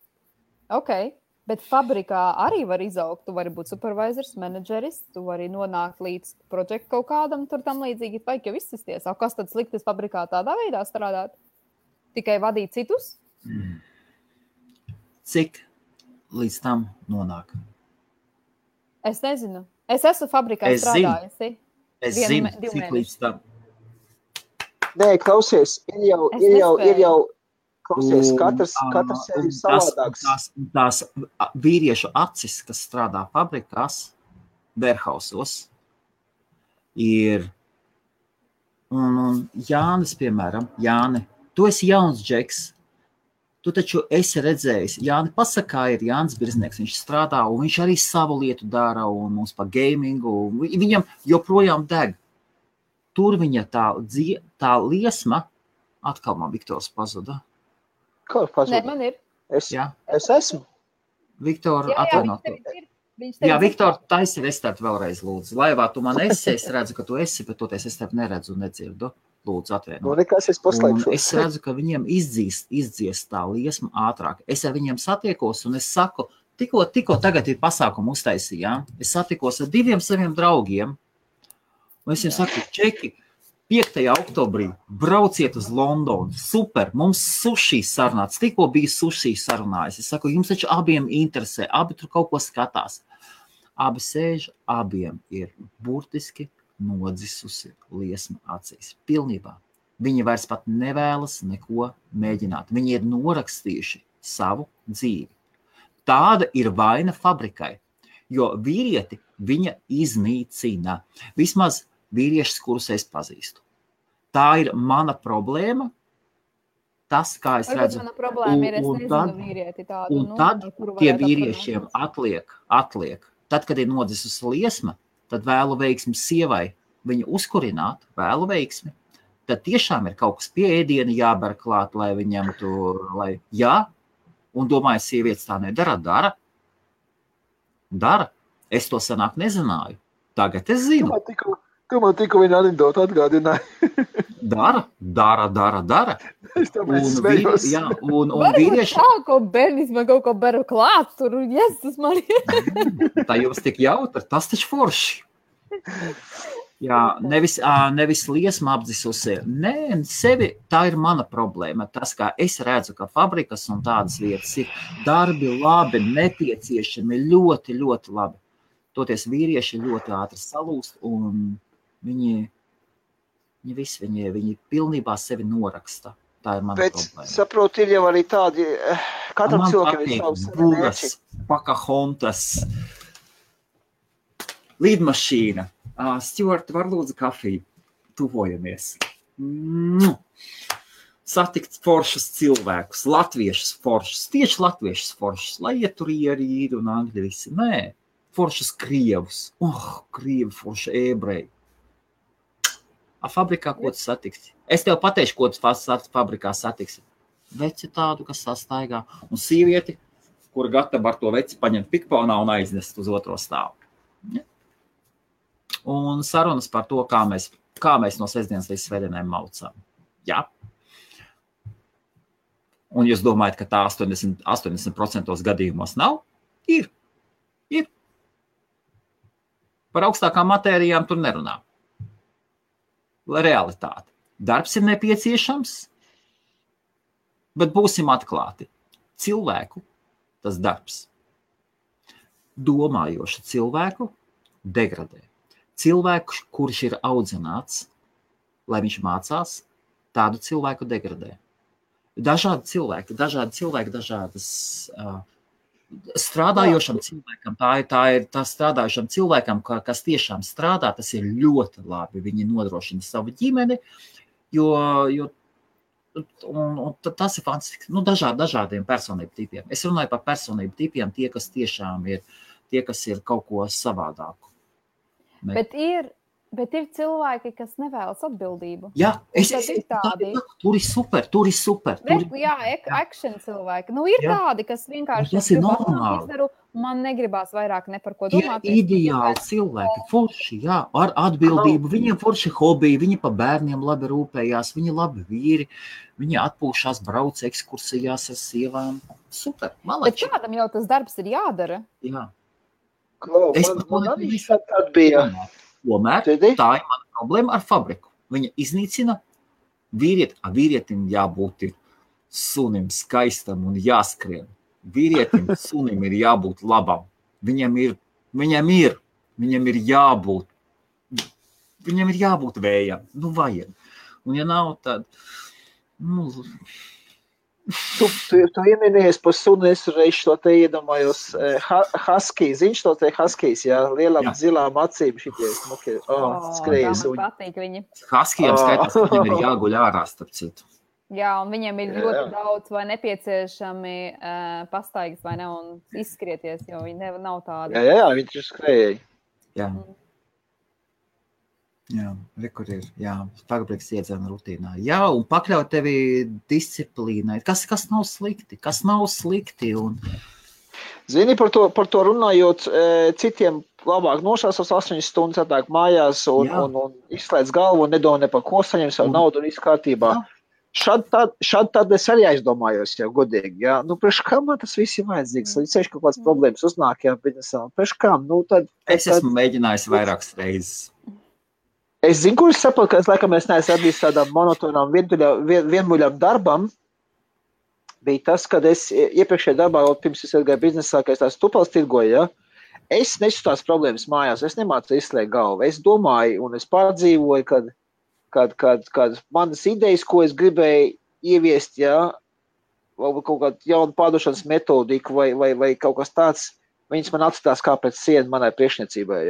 Ok. Bet fabrikā arī var izaugt. Tu vari būt supervisors, menedžeris, tu vari nonākt līdz projektu kaut kādam tur tam līdzīgi. Vajag jau izsisties. Kas tad sliktas fabrikā tādā veidā strādāt? Tikai vadīt citus? Cik līdz tam nonāk? Es nezinu. Es esmu fabrikā strādājusi. Es zinu, cik līdz tam. Nē, klausies, ir jau klausies, katrs ir savādāks. Tās vīriešu acis, kas strādā fabrikās, warehousos, ir, un Jānis, piemēram, Jāni, tu esi jauns džeks, tu taču esi redzējis, Jāni pasakā ir Jānis Birznieks, viņš strādā, un viņš arī savu lietu dara, un mums pa gamingu, viņam joprojām deg. Tur viņa tā liesma, atkal man Viktors pazuda. Kā pazuda? Nē, man ir. Es esmu. Viktor, atvainot. Jā, Viktor, taisi restart vēlreiz, lūdzu. Laivā tu man esi, es redzu, ka tu esi, bet toties es tev neredzu un nedzirdu. Lūdzu, atvainot. Nu, nekas, es paslēgšos. Es redzu, ka viņiem izdzies tā liesma ātrāk. Es ar viņiem satiekos un es saku, tikko tagad ir pasākumu uztaisījām, es satikos ar 2 saviem draugiem, un es viņiem saku, čeki, 5. oktobrī brauciet uz Londonu, super, mums sushi sarunāts, tikko bija sushi sarunājis. Es saku, jums taču abiem interesē, abi tur kaut ko skatās. Abi sēž, abiem ir burtiski nodzisusi liesma acīs. Pilnībā. Viņi vairs pat nevēlas neko mēģināt. Viņi ir norakstījuši savu dzīvi. Tāda ir vaina fabrikai, jo vīrieti viņa iznīcina. Vismaz vīriešus, kurus es pazīstu. Tā ir mana problēma. Tas, kā es redzu. Mana problēma ir, es nezinu vīrieti tādu. Un tad tie vīriešiem atliek. Tad, kad ir nodzisusi liesma, tad vēlu veiksmi sievai viņu uzkurināt, vēlu veiksmi. Tad tiešām ir kaut kas pie ēdiena jāber klāt, lai viņam tur, un domāju, sievietes tā nedara, dara. Es to senāk nezināju. Tagad es zinu. Tu man tikko viņa anekdotu atgādināja. Dara. Es tāpēc smējos. Un vīrieši... Tā, ko bērnis man kaut ko beru klāt, tur, tas man ir. Tā jums tik jautri, tas taču forši. Jā, nevis liesma apdzisusi. Nē, sevi, tā ir mana problēma. Tas, kā es redzu, ka fabrikas un tādas vietas ir darbi labi, nepieciešami, ļoti, ļoti labi. Toties vīrieši ļoti ātri salūst un viņi pilnībā sevi noraksta. Tā ir mana problēma. Bet, saprotu, ir jau arī tādi, katram cilvēkam ir savs Bugas, Pakahontas, lidmašīna. Stuart, var lūdzu kafiju? Tuvojamies. Satikt foršus cilvēkus, latviešus foršus, tieši latviešus foršus, lai ieturieri ir un angļi visi. Nē, foršus krievus. Krievi forši ebreji. Fabrikā, ko tu satiksi? Es tev pateikšu, ko tu fabrikā satiksi. Veci tādu, kas sastaigā. Un sievieti, kura gatava ar to veci paņemt pikponā un aiznest uz otro stāvu. Ja? Un sarunas par to, kā mēs no sestdienas līdz svētdienai maucām. Jā. Un jūs domājat, ka tā 80% gadījumos nav? Ir. Par augstākām matērijām tur nerunā. Realitāte. Darbs ir nepieciešams, bet būsim atklāti. Cilvēku tas darbs. Domājošu cilvēku degradē. Cilvēku, kurš ir audzināts, lai viņš mācās, tādu cilvēku degradē. Dažādi cilvēki, dažādas strādājošam cilvēkam, tā ir strādājošam cilvēkam, kas tiešām strādā, tas ir ļoti labi. Viņi nodrošina savu ģimeni, jo tas ir fantastiski. Dažādiem personību tipiem. Es runāju par personību tipiem, tie, kas tiešām ir, tie, kas ir kaut ko savādāku. Bet ir cilvēki, kas nevēlas atbildību. Jā, tur ir super. Action cilvēki. Ir tādi, kas vienkārši tas ir normāli. Izdaru, man negribās vairāk ne par ko domāt. Ir ideāli cilvēki, forši, ar atbildību. Viņiem forši hobiji, viņi pa bērniem labi rūpējās, viņi labi vīri, viņi atpūšās, brauc ekskursijās ar sievām. Super, malači. Bet kādam jau tas darbs ir jādara? Jā. Man arī šādi bija. Tomēr tā ir mana problēma ar fabriku. Viņa iznīcina vīrietim jābūt sunim skaistam un jāskrien. Vīrietim sunim ir jābūt labam. Viņam ir jābūt vējam. Vajag. Un ja nav, tad... Tu ieminies par sunu, es reiz to te iedomājos. Husky, ziņš to te Huskys, lielām zilām acīm šities. Skrējas. Man patīk viņi. Huskijam skaitās, ka viņam ir jāguļ ārā, starp citu. Jā, un viņiem ir ļoti daudz vai nepieciešami pastaigas vai ne, un izskrieties, jo viņi nav tādi. Jā, viņi taču skrēja. Jā. Jā, rekur ir, fabriks iedzēna rutīnā. Jā, un pakļaut tevi disciplīnai. Kas nav slikti? Un... Zini, par to runājot, citiem labāk nošās 8 stundas atāk mājās un izslēdz galvu un nedomā ne par ko, saņem savu naudu un viss kārtībā. Šad tad es arī aizdomājos, godīgi. Priekš kā man tas viss ir vajadzīgs? Ceļš kaut kāds problēmas uznāk, biznesā. Priekš kā? Es esmu mēģinājis vairākas reizes. Es zinu, kur es saprotu, ka es laikam neesmu atbildis tādām monotonām vienmuļām darbam. Bija tas, kad es iepriekšējā darbā, pirms es gāju biznesā, ka es tās tupals tirgoju, es nesu tās problēmas mājās, es nemācu izslēgt galvu. Es domāju un es pārdzīvoju, kad manas idejas, ko es gribēju ieviest, vai kaut kādu jaunu pārdošanas metodiku vai kaut kas tāds, viņas man atstās kā pēc sienu manai priekšniecībai.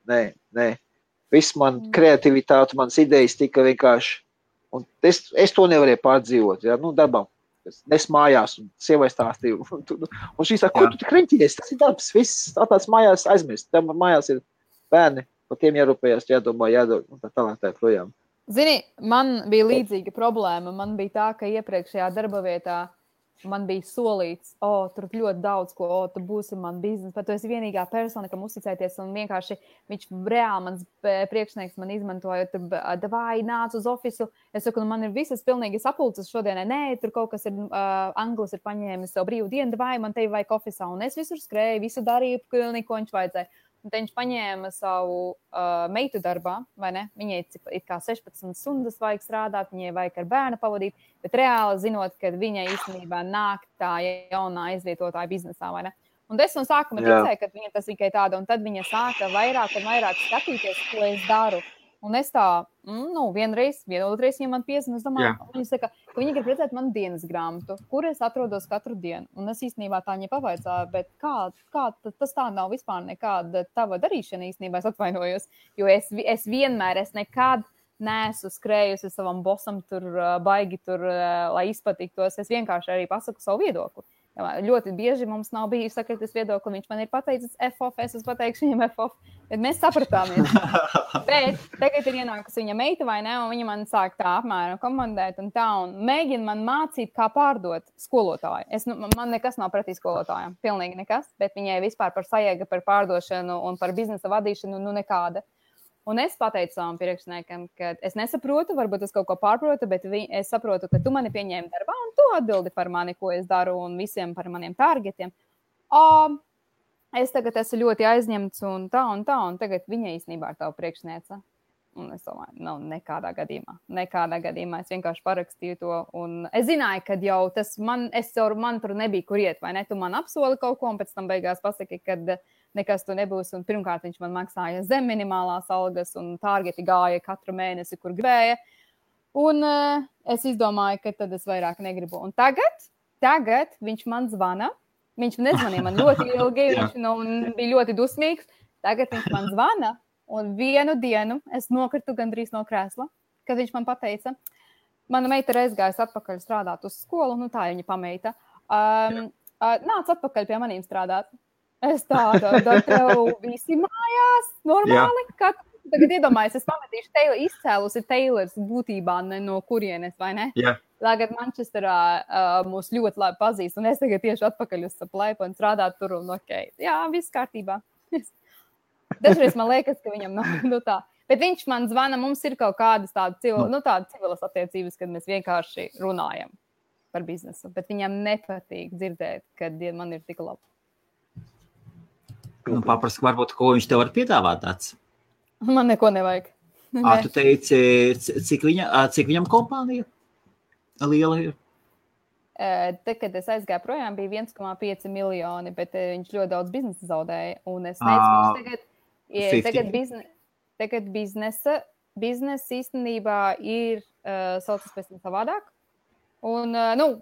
Nē. Viss man kreativitāte, manas idejas tika vienkārši, un es to nevarēju pārdzīvot, darbam. Es mājās un sievai stāstīju, un šī saka, ko tu tik reņķies, tas ir darbs, viss tāds mājās aizmirst, tam mājās ir bērni, par tiem jārūpējās, jādomā, jādod, un tā tālāk tā projām. Zini, man bija līdzīga problēma, man bija tā, ka iepriekšējā darba vietā man bija solīts, tur ļoti daudz ko, tu būsi man biznes, bet tu esi vienīgā persona, kam uzticēties, un vienkārši viņš reāli mans priekšnieks man izmantoja, vai nāc uz ofisu, es saku, man ir visas pilnīgi sapulces šodienai, nē, tur kaut kas ir, Anglis ir paņēmis savu brīvu dienu, vai man tevi vajag ofisā, un es visur skrēju, visu darīju, pilnīgi, ko viņš vajadzēja. Un te viņš paņēma savu meitu darbā, vai ne? Viņai it kā 16 stundas vajag strādāt, viņai vajag ar bērnu pavadīt, bet reāli zinot, ka viņai īstenībā nāk tā jaunā aizvietotāja biznesā, vai ne? Un es no sākuma ticēju, ka viņa tas tikai tāda, un tad viņa sāka vairāk un vairāk skatīties, ko es daru. Un es tā, vienotrais viņam man piezina, es domāju, viņa saka, ka viņa grib redzēt manu dienas grāmatu, kur es atrodos katru dienu. Un es īstenībā tā viņa pavaicāju, bet kā tas tā nav vispār nekāda tava darīšana īstenībā, es atvainojos, jo es vienmēr, es nekad neesmu skrējusi savam bosam tur baigi tur, lai izpatiktos, es vienkārši arī pasaku savu viedokli. Ļoti bieži mums nav bijis sakritis viedokli, viņš man ir pateicis F-off, es pateikšu viņam F-off, bet mēs sapratāmies. Bet tagad ir ienākusi viņa meita vai ne, un viņa man sāk tā apmēram komandēt un tā, un mēģina man mācīt, kā pārdot skolotāju. Man nekas nav pretī skolotājiem, pilnīgi nekas, bet viņai vispār par sajēga, par pārdošanu un par biznesa vadīšanu, nekāda. Un es pateicu savam priekšniekam, ka es nesaprotu, varbūt es kaut ko pārprotu, bet es saprotu, ka tu mani pieņēmi darbā un tu atbildi par mani, ko es daru un visiem par maniem targetiem. Es tagad esmu ļoti aizņemts un tā, un tagad viņa īstenībā ir tava priekšniece. Un es domāju, nekādā gadījumā es vienkārši parakstīju to. Un es zināju, ka jau tas man tur nebija kur iet, vai ne? Tu man apsoli kaut ko un pēc tam beigās pasaki, kad nekas tu nebūs. Un pirmkārt viņš man maksāja zem minimālās algas un targeti gāja katru mēnesi, kur gribēja. Un es izdomāju, ka tad es vairāk negribu. Un tagad viņš man zvana Viņš nezvanīja man ļoti ilgi, viņš bija ļoti dusmīgs. Tagad viņš man zvana, un vienu dienu es nokritu gandrīz no krēsla, kad viņš man pateica, mana meita ir aizgājusi atpakaļ strādāt uz skolu, tā viņa pameita. Nāc atpakaļ pie manīm strādāt. Es tādu, tev visi mājās, normāli, kā tagad iedomājies, es pametīšu izcēlusi Taylors būtībā no kurienes, vai ne? Jā. Tagad Manchesterā mūs ļoti labi pazīst, un es tagad tieši atpakaļ uz Saplaipu un strādāt tur, un jā, viss kārtībā. Dažreiz man liekas, ka viņam nav tā. Bet viņš man zvana, mums ir kaut kādas tādas civilas attiecības, kad mēs vienkārši runājam par biznesu, bet viņam nepatīk dzirdēt, kad man ir tik labi. Paprask, varbūt, ko viņš tev var piedāvāt tāds? Man neko nevajag. Tu teici, cik viņam kompānija liela ir? Te, kad es aizgāju projām, bija 1,5 miljoni, bet viņš ļoti daudz biznesa zaudēja. Un es teicu, tagad biznesa īstenībā ir saucas pēc tam savādāk. Un,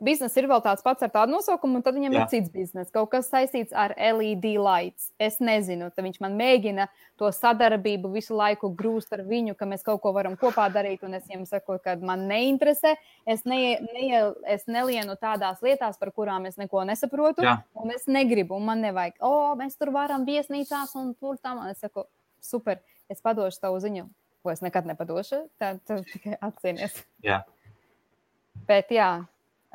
biznesa ir vēl tāds pats ar tādu nosaukumu, un tad viņam ir cits biznesa, kaut kas saistīts ar LED lights. Es nezinu, tad viņš man mēģina to sadarbību visu laiku grūst ar viņu, ka mēs kaut ko varam kopā darīt, un es viņam saku, ka man neinteresē, es nelienu tādās lietās, par kurām es neko nesaprotu, un es negribu, un man nevajag, mēs tur varam viesnīcās, un tur tam, un es saku, super, es padošu tavu ziņu, ko es nekad nepadošu, tad tikai atcīnies. Jā. Bet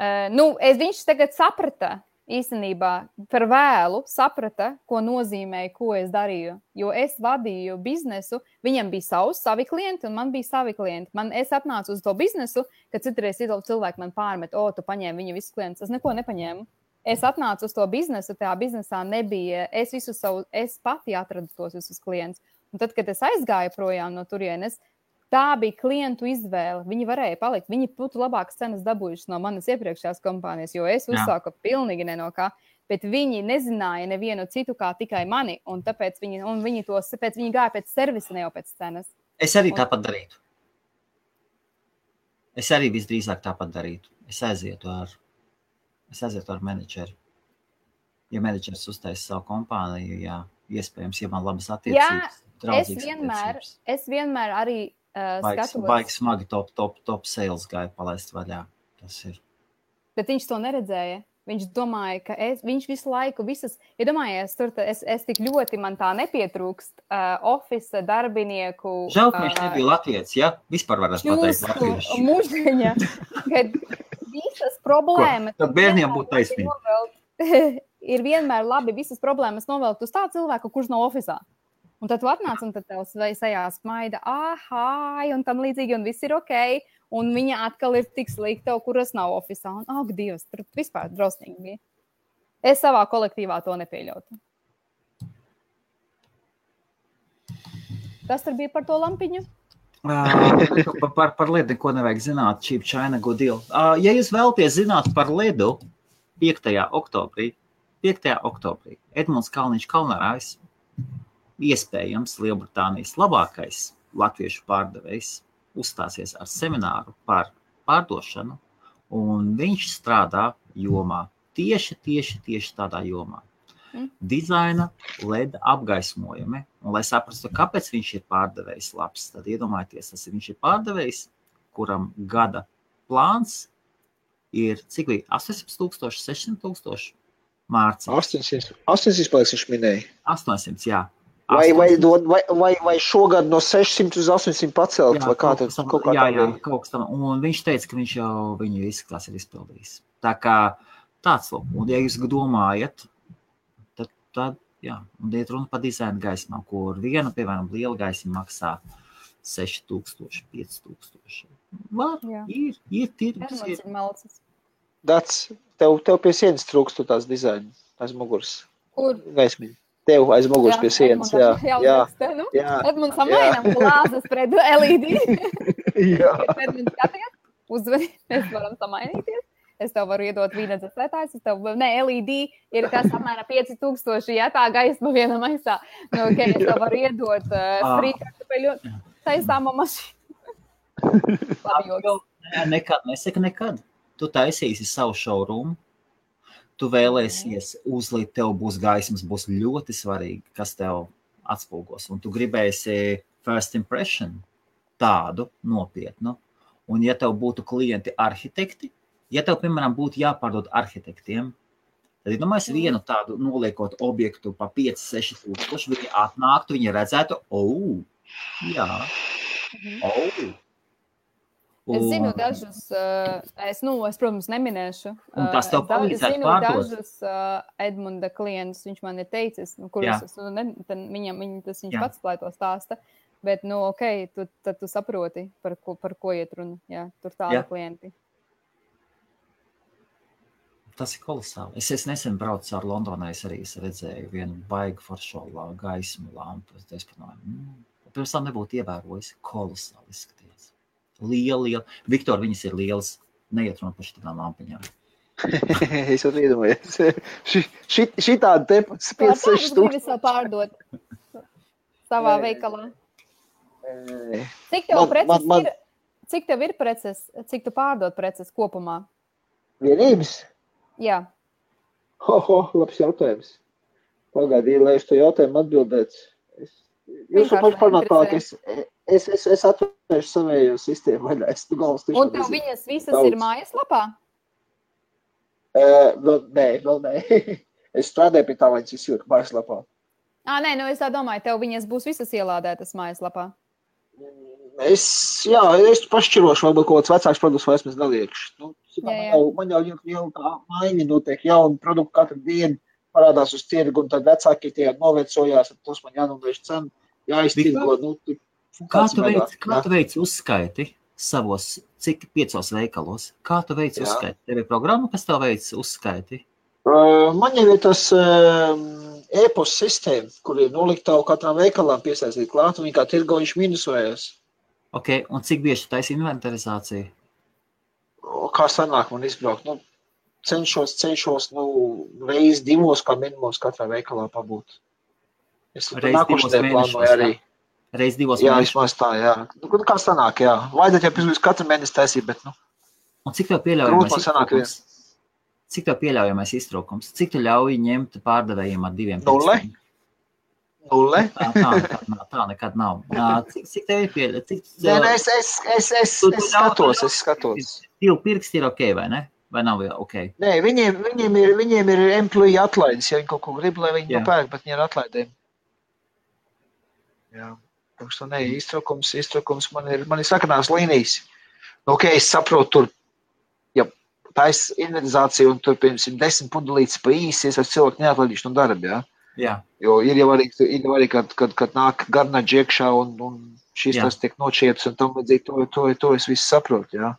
viņš tagad saprata, īstenībā par vēlu saprata, ko nozīmē, ko es darīju. Jo es vadīju biznesu, viņam bija savi klienti un man bija savi klienti. Es atnācu uz to biznesu, kad citreiz cilvēki man pārmet, tu paņēmi viņa visus klientus. Es neko nepaņēmu. Es atnācu uz to biznesu, tajā biznesā nebija, es pati atradu tos visus klientus. Un tad, kad es aizgāju projām no turienes, tā bija klientu izvēle. Viņi varēja palikt. Viņi būtu labākas cenas dabūjušas no manas iepriekšējās kompānijas, jo es uzsāku pilnīgi ne no kā. Bet viņi nezināja nevienu citu kā tikai mani, un tāpēc viņi gāja pēc servisa, ne jau pēc cenas. Es arī tāpat darītu. Es arī visdrīzāk tāpat darītu. Es aizietu ar menedžeri. Ja menedžeris uztais savu kompāniju, iespējams, ja man labas attiecības, draudzīgas attiecības. Es vienmēr arī Baigi smagi top sales gāja palaist vaļā. Tas ir. Bet viņš to neredzēja. Viņš domāja, ka viņš visu laiku iedomājies, es tik ļoti man tā nepietrūkst office darbinieku. Žēl, ka viņš nebija latvietis, ja? Vispār varētu pateikt latviešu. Muždeņa, kad visas problēmas. Tad bērniem būtu taisnība. Ir vienmēr labi visas problēmas novelkt uz tā cilvēku, kurš nav ofisā. Un tad tu atnāc, un tad tevs sejā smaida, un tam līdzīgi, un viss ir ok, un viņa atkal ir tik slikta, kuras nav ofisā, un Dievs, tur vispār drausmīgi bija. Es savā kolektīvā to nepieļautu. Kas tur bija par to lampiņu? Par ledu neko nevajag zināt, cheap China good deal. Ja jūs vēlaties zināt par ledu 5. oktobrī, Edmunds Kalniņš Kalnarājs, iespējams Lielbritānijas labākais latviešu pārdevējs uzstāsies ar semināru par pārdošanu, un viņš strādā jomā, tieši tādā jomā. Dizaina, LED apgaismojumi, un lai saprastu, kāpēc viņš ir pārdevējs labs, tad iedomājieties, viņš ir pārdevējs, kuram gada plāns ir, cik bija, 800,000, 600,000 mārciņu. 800 paliks viņš minēja. 800, jā. Vai šogad no 600 uz 800 pacelt, vai kā tad? Kaut kas tam. Un viņš teica, ka viņš jau viņu izskatās ir izpildījis. Tā kā tāds lūk. Un ja jūs domājat, tad un iet runa par dizaina gaismām, kur viena, piemēram, liela gaisma maksā 6,000, 5,000. Ir tirgus. Dats, tev pie sienas trūkstu tās dizaina, aiz muguras. Kur? Gaismiņa. Tev aiz muguras pie sienas, jā. Edmunds samainam glāzes pret LED. Jā. Edmunds skaties, uzvedi, mēs varam samainīties. Es tev varu iedot vīna dzēslētājs, LED ir kas apmēram 5,000, ja tā gaisma viena maisā. Es tev varu iedot frīkartupeļu taisāmo mašīnu. Nekad, nesaka nekad. Tu taisīsi savu showroom, tu vēlēsies uzlikt, tev būs gaismas, būs ļoti svarīgi, kas tev atspulgos. Un tu gribēsi first impression tādu nopietnu. Un ja tev būtu klienti arhitekti, ja tev, piemēram, būtu jāpārdod arhitektiem, tad, domāju, vienu tādu noliekot objektu pa 5-6 tūkstoši, viņi atnāktu, viņi redzētu, jā, Es zinu dažus, es, protams, neminēšu. Un tas tev palīdzētu pārdot. Zinu dažus Edmunda klientus, viņš man ir teicis, kurus viņš pats plāj to stāsta, bet, tad tu saproti, par ko iet runa. Jā, tur tādi klienti. Tas ir kolosāli. Es nesen braucu ar Londonai, es arī redzēju vienu baigu foršo gaismu lampu. Es pirms tam nebūtu ievērojis, kolosāli izskaties. Liela. Viktor, viņas ir lielas. Neiet runa par šitām lampiņām. Es jau iedomājos. Šitādi te 5-6 stūkstoši. Gribi savu pārdot savā veikalā? Cik tev ir preces? Cik tu pārdot preces kopumā? Vienības? Jā. Labs jautājums. Pagaidīju, lai es to jautājumu atbildētu. Jūs paši parunāt, es atvēršu savējo sistēmu vaļā. Un tev viņas visas ir mājaslapā? Vēl nē. Es strādāju pie tā, lai viņas izjūtu mājaslapā. Nē, es tā domāju, tev viņas būs visas ielādētas mājaslapā. Es pašķirošu, varbūt kaut kāds vecāks produkts vairs mēs neliekšu. Man jau tā maiņa notiek, jauni produkti katru dienu parādās uz tirgu, un tad vecāki tie novecojās, un tos man jānovērš cenu, jāiztirgo. Kā tu veici uzskaiti savos, cik 5 veikalos? Kā tu veici uzskaiti? Tev ir programma, kas tev veici uzskaiti? Man jau ir tas e-post sistēma, kur ir noliktavu katram veikalam piesaistīt klāt, un viņi kā tirgojuši minusojās. Ok, un cik bieži tu taisi inventarizāciju? Kā sanāk man izbraukt? Cenšos reiz 2 kā minimums katrā veikalā pabūt. Es nākošanai plānoju arī. Reiz 2 Jā, vismaz tā, jā. Kā sanāk, jā. Vajadzētu jau pirms katru mēnesi taisīt, bet, Un cik tev pieļaujamais iztrūkums? Cik tu ļauj ņemt pārdevējiem ar 2 pirkstiem? 0? Tā nekad nav. Cik tev ir pieļaujamais? Es skatos. 2 pirksti ir ok, vai ne? Vai nav ok? Nē, viņiem ir employee atlaides, ja viņi kaut ko grib, lai viņi nopērk, bet viņi ir atlaidēm. Jā. Iztrukums man ir sakanās līnijas. Ok, es saprotu, tur, ja taisa inventarizācija un tur, piemēram, 10 pundulītes pa īsi, es ar cilvēku neatlaidīšu no darba, jā? Jā. Jo ir jau arī, kad nāk garnaģi iekšā un šīs tas tiek nočieps un tam vajadzīgi, to es visu saprotu, jā?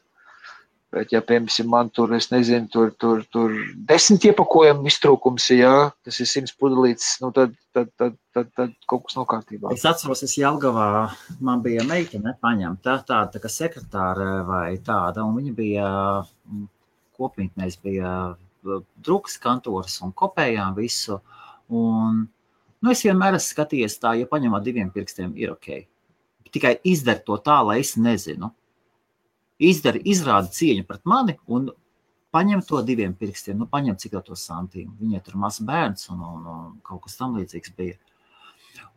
Bet, ja, piemēram, man tur, es nezinu, tur 10 iepakojumu iztrūkums, jā, tas ir 100 pudelītes, tad kaut kas nokārtībā. Es atceros, Jelgavā, man bija meitene paņemta, tāda kā sekretāra vai tāda, un viņa bija kopmītnēs, bija drukas kantoras un kopējām visu, un, es vienmēr esmu skatījies tā, ja paņem ar 2 pirkstiem, ir ok. Tikai izdara to tā, lai es nezinu. Izrāda cieņu pret mani un paņem to 2 pirkstiem, paņem cik to santīmu. Viņai tur mazs bērns un kaut kas tam līdzīgs bija.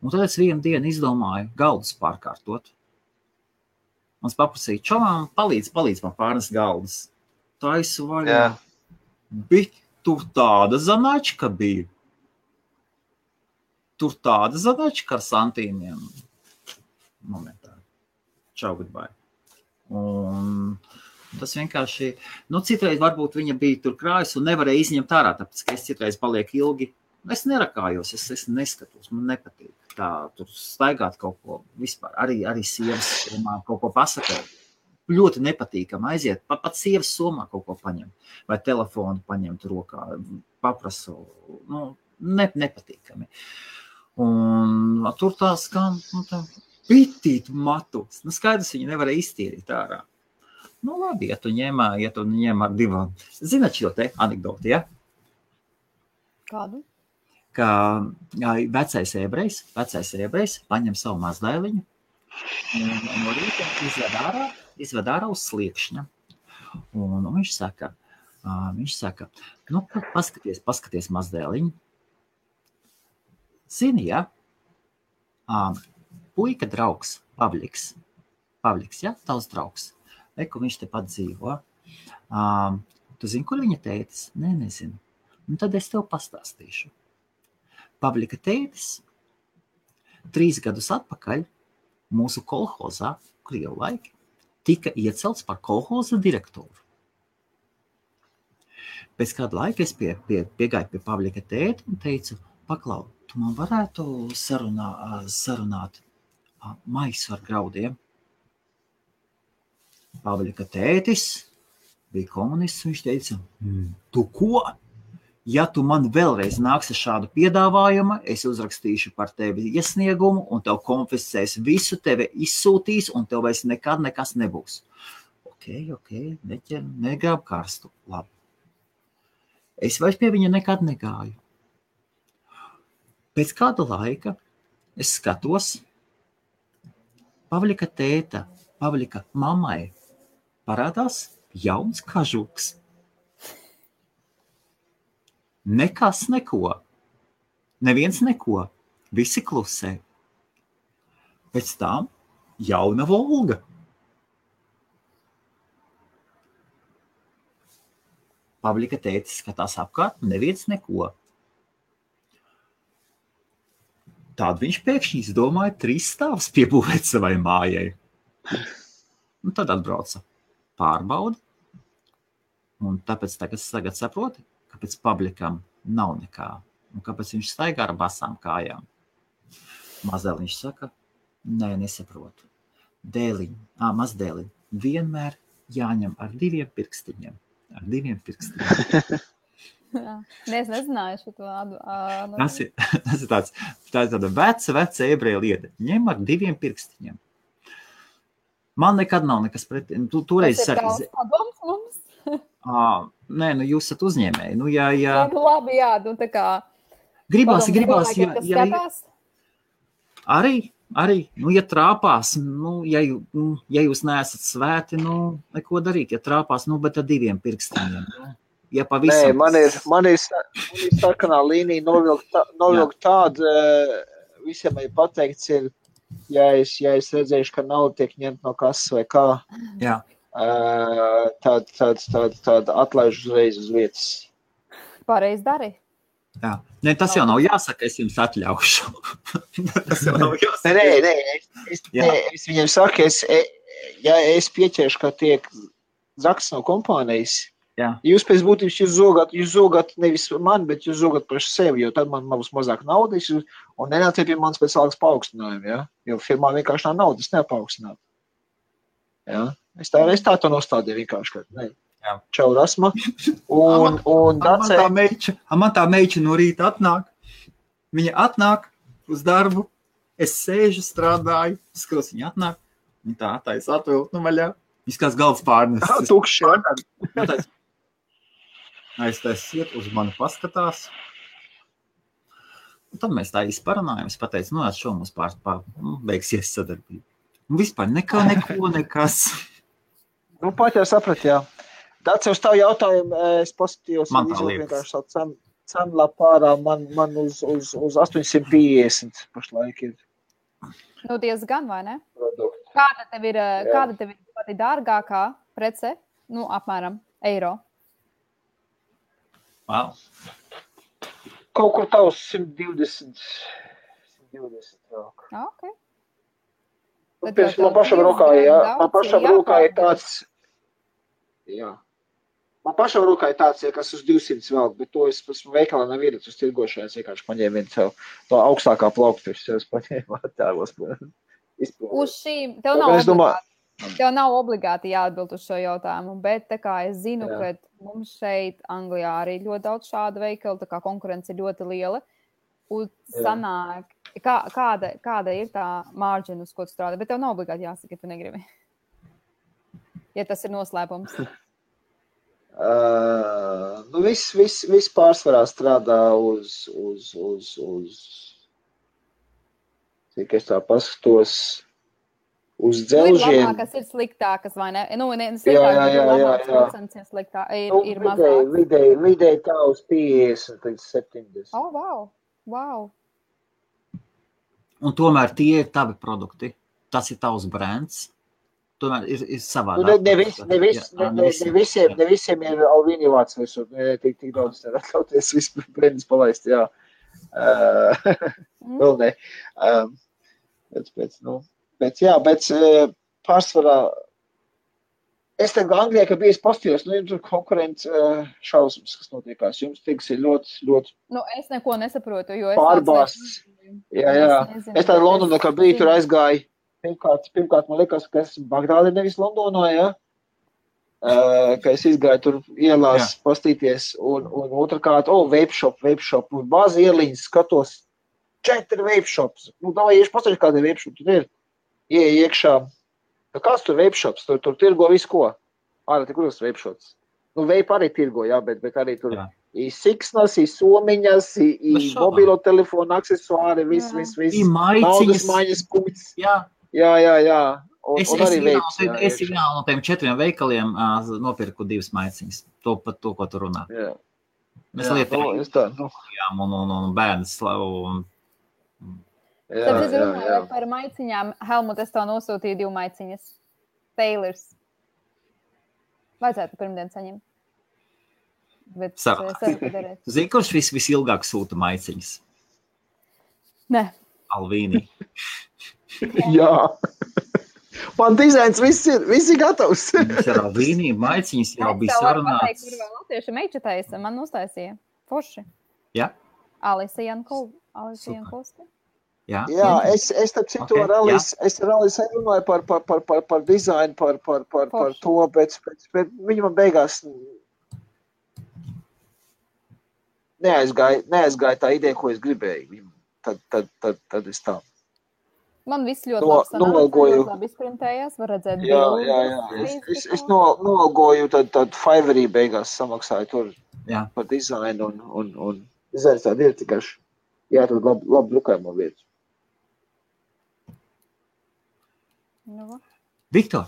Un tad es vienu dienu izdomāju galdus pārkārtot. Un es paprasīju, čomām, palīdz man pārnes galdus. Taisu vaļā. Bet tur tāda zanačka bija. Tur tāda zanačka ar santīmiem. Momentā. Čau, goodbye. Un tas vienkārši, citreiz varbūt viņa bija tur krājas un nevarēja izņemt ārā, tāpēc, ka es citreiz palieku ilgi. Es nerakājos, es neskatos, man nepatīk tā, tur staigāt kaut ko vispār, arī sievas somā kaut ko pasakāt. Ļoti nepatīkam aiziet, pat sievas somā kaut ko paņem, vai telefonu paņemt rokā, paprasu, nepatīkami. Un tur tā skan, pitīt matus. Skaidrs, viņi nevarēja iztīrīt ārā. Labi, ja tu ņem ar 2. Zināt šo te anekdoti, ja? Kādu? Ka vecais ebrejs paņem savu mazdēliņu un no rīta izved ārā uz sliekšņa. Un viņš saka, Viņš saka, nu, paskaties mazdēliņu. Zini, ja? Puika draugs, Pavliks, ja? Tavs draugs. Eku viņš tepat dzīvo. Tu zini, kur viņa tētis? Nē, nezinu. Un tad es tev pastāstīšu. Pavlika tētis 3 gadus atpakaļ mūsu kolhozā, Krievu laiki, tika iecelts par kolhoza direktoru. Pēc kāda laika es piegāju pie Pavlika tēti un teicu, paklau, tu man varētu sarunāt maisu ar graudiem. Pavlika tētis bija komunists, viņš teica, tu ko? Ja tu man vēlreiz nāksi šādu piedāvājumu, es uzrakstīšu par tevi iesniegumu un tev konfiscēs visu, tevi izsūtīs un tev vairs nekad nekas nebūs. Ok, negrāb karstu, labi. Es vairs pie viņa nekad negāju. Pēc kāda laika es skatos, Pavlika tēta, Pavlika mammai parādās jauns kažuks. Nekas neko. Neviens neko. Visi klusē. Pēc tam jauna Volga. Pavlika tētis skatās apkārt, neviens neko. Tād viņš pēkšņi izdomāja 3 stāvus piebūvēt savai mājai. Un tad atbrauca pārbauda. Un tāpēc tagad saproti, kāpēc Pavlikam nav nekā. Un kāpēc viņš staigā ar basām kājām. Mazdēliņš saka, nē, nesaprotu. Mazdēliņ vienmēr jāņem ar 2 pirkstiņiem. Ar 2 pirkstiņiem. Nē, es nezināju šo vārdu. Tas ir tāda veca ebreja lieta. Ņem ar 2 pirkstiņiem. Man nekad nav nekas pret... Toreiz tas ir tavs padoms mums? Nē, jūs esat uzņēmēji. Labi, jā, tā kā... Gribās. Arī, ja trāpās, ja jūs neesat svēti, neko darīt. Ja trāpās, bet ar 2 pirkstiņiem. Ja pavisam... Nē, man ir sarkanā līnija novilkt tādu, visiem ir pateikts, ja es redzēšu, ka nauda tiek ņemt no kases vai kā, tad atlaižu uzreiz uz vietas. Pareizi dari. Jā. Nē, tas jau nav jāsaka, es jums atļaušu. Tas jau nav jāsaka. Nē, es viņiem saku, ja es pieķeršu, ka tiek zaks no kompānijas, jūs pēc būtības jūs zogat nevis man, bet jūs zogat paši sevi, jo tad man būs mazāk naudas un nenāciet pie manas pēc algas paaugstinājuma, ja? Jo firmā vienkārši nav naudas neapaugstināt. Ja? Es tā to nostādīju vienkārši, ka ne. Čau, Rasma. Man tā meiča no rīta atnāk. Viņa atnāk uz darbu. Es sēžu, strādāju. Skatos, viņa atnāk. Viņa tā atais atvilkt vaļā. Viņš kāds galds pārnes. Tukši. Aiztaisiet, uz mani paskatās. Un tad mēs tā izparunājam. Es pateicu, šo mums beigsies sadarbība. Un vispār nekas. Pat jau saprat, jā. Tāds uz tavu jautājumu, es pozitīvos vienkārši savu cenu lapārā, man uz 850 pašlaik ir. Diezgan, vai ne? Kāda tev ir pati dārgākā prece? Apmēram eiro. Wow. Kaut kur tavs 120 rāk. Ok. Man pašam rokā ir tāds... Jā. Man pašam rokā ir tāds, kas uz 200 vēl, bet to es veikalā nav iedat uz tirgošanai, es vienkārši paņēmu vienu to augstākā plauktu, es paņēmu attēlos. Uz šīm, tev nav obligāti jāatbild uz šo jautājumu, bet tā kā es zinu, ka mums šeit Anglijā arī ļoti daudz šādu veikalu, tā kā konkurence ir ļoti liela, un sanāk, kāda ir tā margina, uz ko tu strādā, bet tev nav obligāti jāsaka, ja tu negribi. Ja tas ir noslēpums? Viss pārsvarā strādā uz cik es tā paskatos, uz dzelžiem. Ir labākas, ir sliktākas, vai ne? Sliktākas, procents ir sliktāk, ir mazāks. Vidēji tā uz 50 līdz 70. Wow. Un tomēr tie ir tavi produkti. Tas ir tavs brands. Tomēr ir savādāk. Ne visiem ir Alvīni vārds visur. Tik daudz nevar atļauties visu brandus palaist, jā. Vēl ne. Pēc pārsvarā es tagad Anglijā, ka bijis pastījos, jums tur konkurents šausmas, kas notiekās. Jums tiks ir ļoti es neko nesaprotu, jo es pārbāsts. Jā. Es tā Londonā, kā biju, tur aizgāju. Pirmkārt, man liekas, ka esmu Bagdādē, nevis Londonā, ja? Ka es izgāju tur ielās pastīties, un otrkārt, vape shop, un bāzi ieliņas skatos 4 vape shops. Davai, ieši pasaļi, kāda vape shop tur ir. Ieej iekšā. Kāds tur vape shops? Tur tirgo visu ko. Ārā, tik kuras vape shops. Vape arī tirgo, jā, bet arī tur ir siksnas, ir somiņas, ir mobilo telefonu aksesuāri, viss. Naudas maiņas punkts. Jā. Es vienā no tiem 4 veikaliem nopirku 2 maiciņas. Par to, ko tu runā. Mēs lietām un bērns. Tāpēc es runāju par maiciņām. Helmut, es tev nosūtīju 2 maiciņas. Taylors. Vajadzētu pirmdien saņemt. Zini, kurš visilgāk sūta maiciņas? Ne. Alvīni. Jā. Man dizains viss ir gatavs. Mums ir Alvīni, maiciņas jau bija sarunāts. Kur vēl latvieši meičatais man uztaisīja. Forši. Jā. Alisa Jankovska. Jā, es tad citu rallis runāju par dizainu, par to, bet viņi man beigās neaizgāja tā ideja, ko es gribēju. Tad es tā. Man viss ļoti labi izprintējās, var redzēt bildi. Jā. Es noalgoju, tad Fiverrī beigās samaksāju tur par dizainu un dizains tādi ir tikai tad labi drukājumu vietu. Viktor,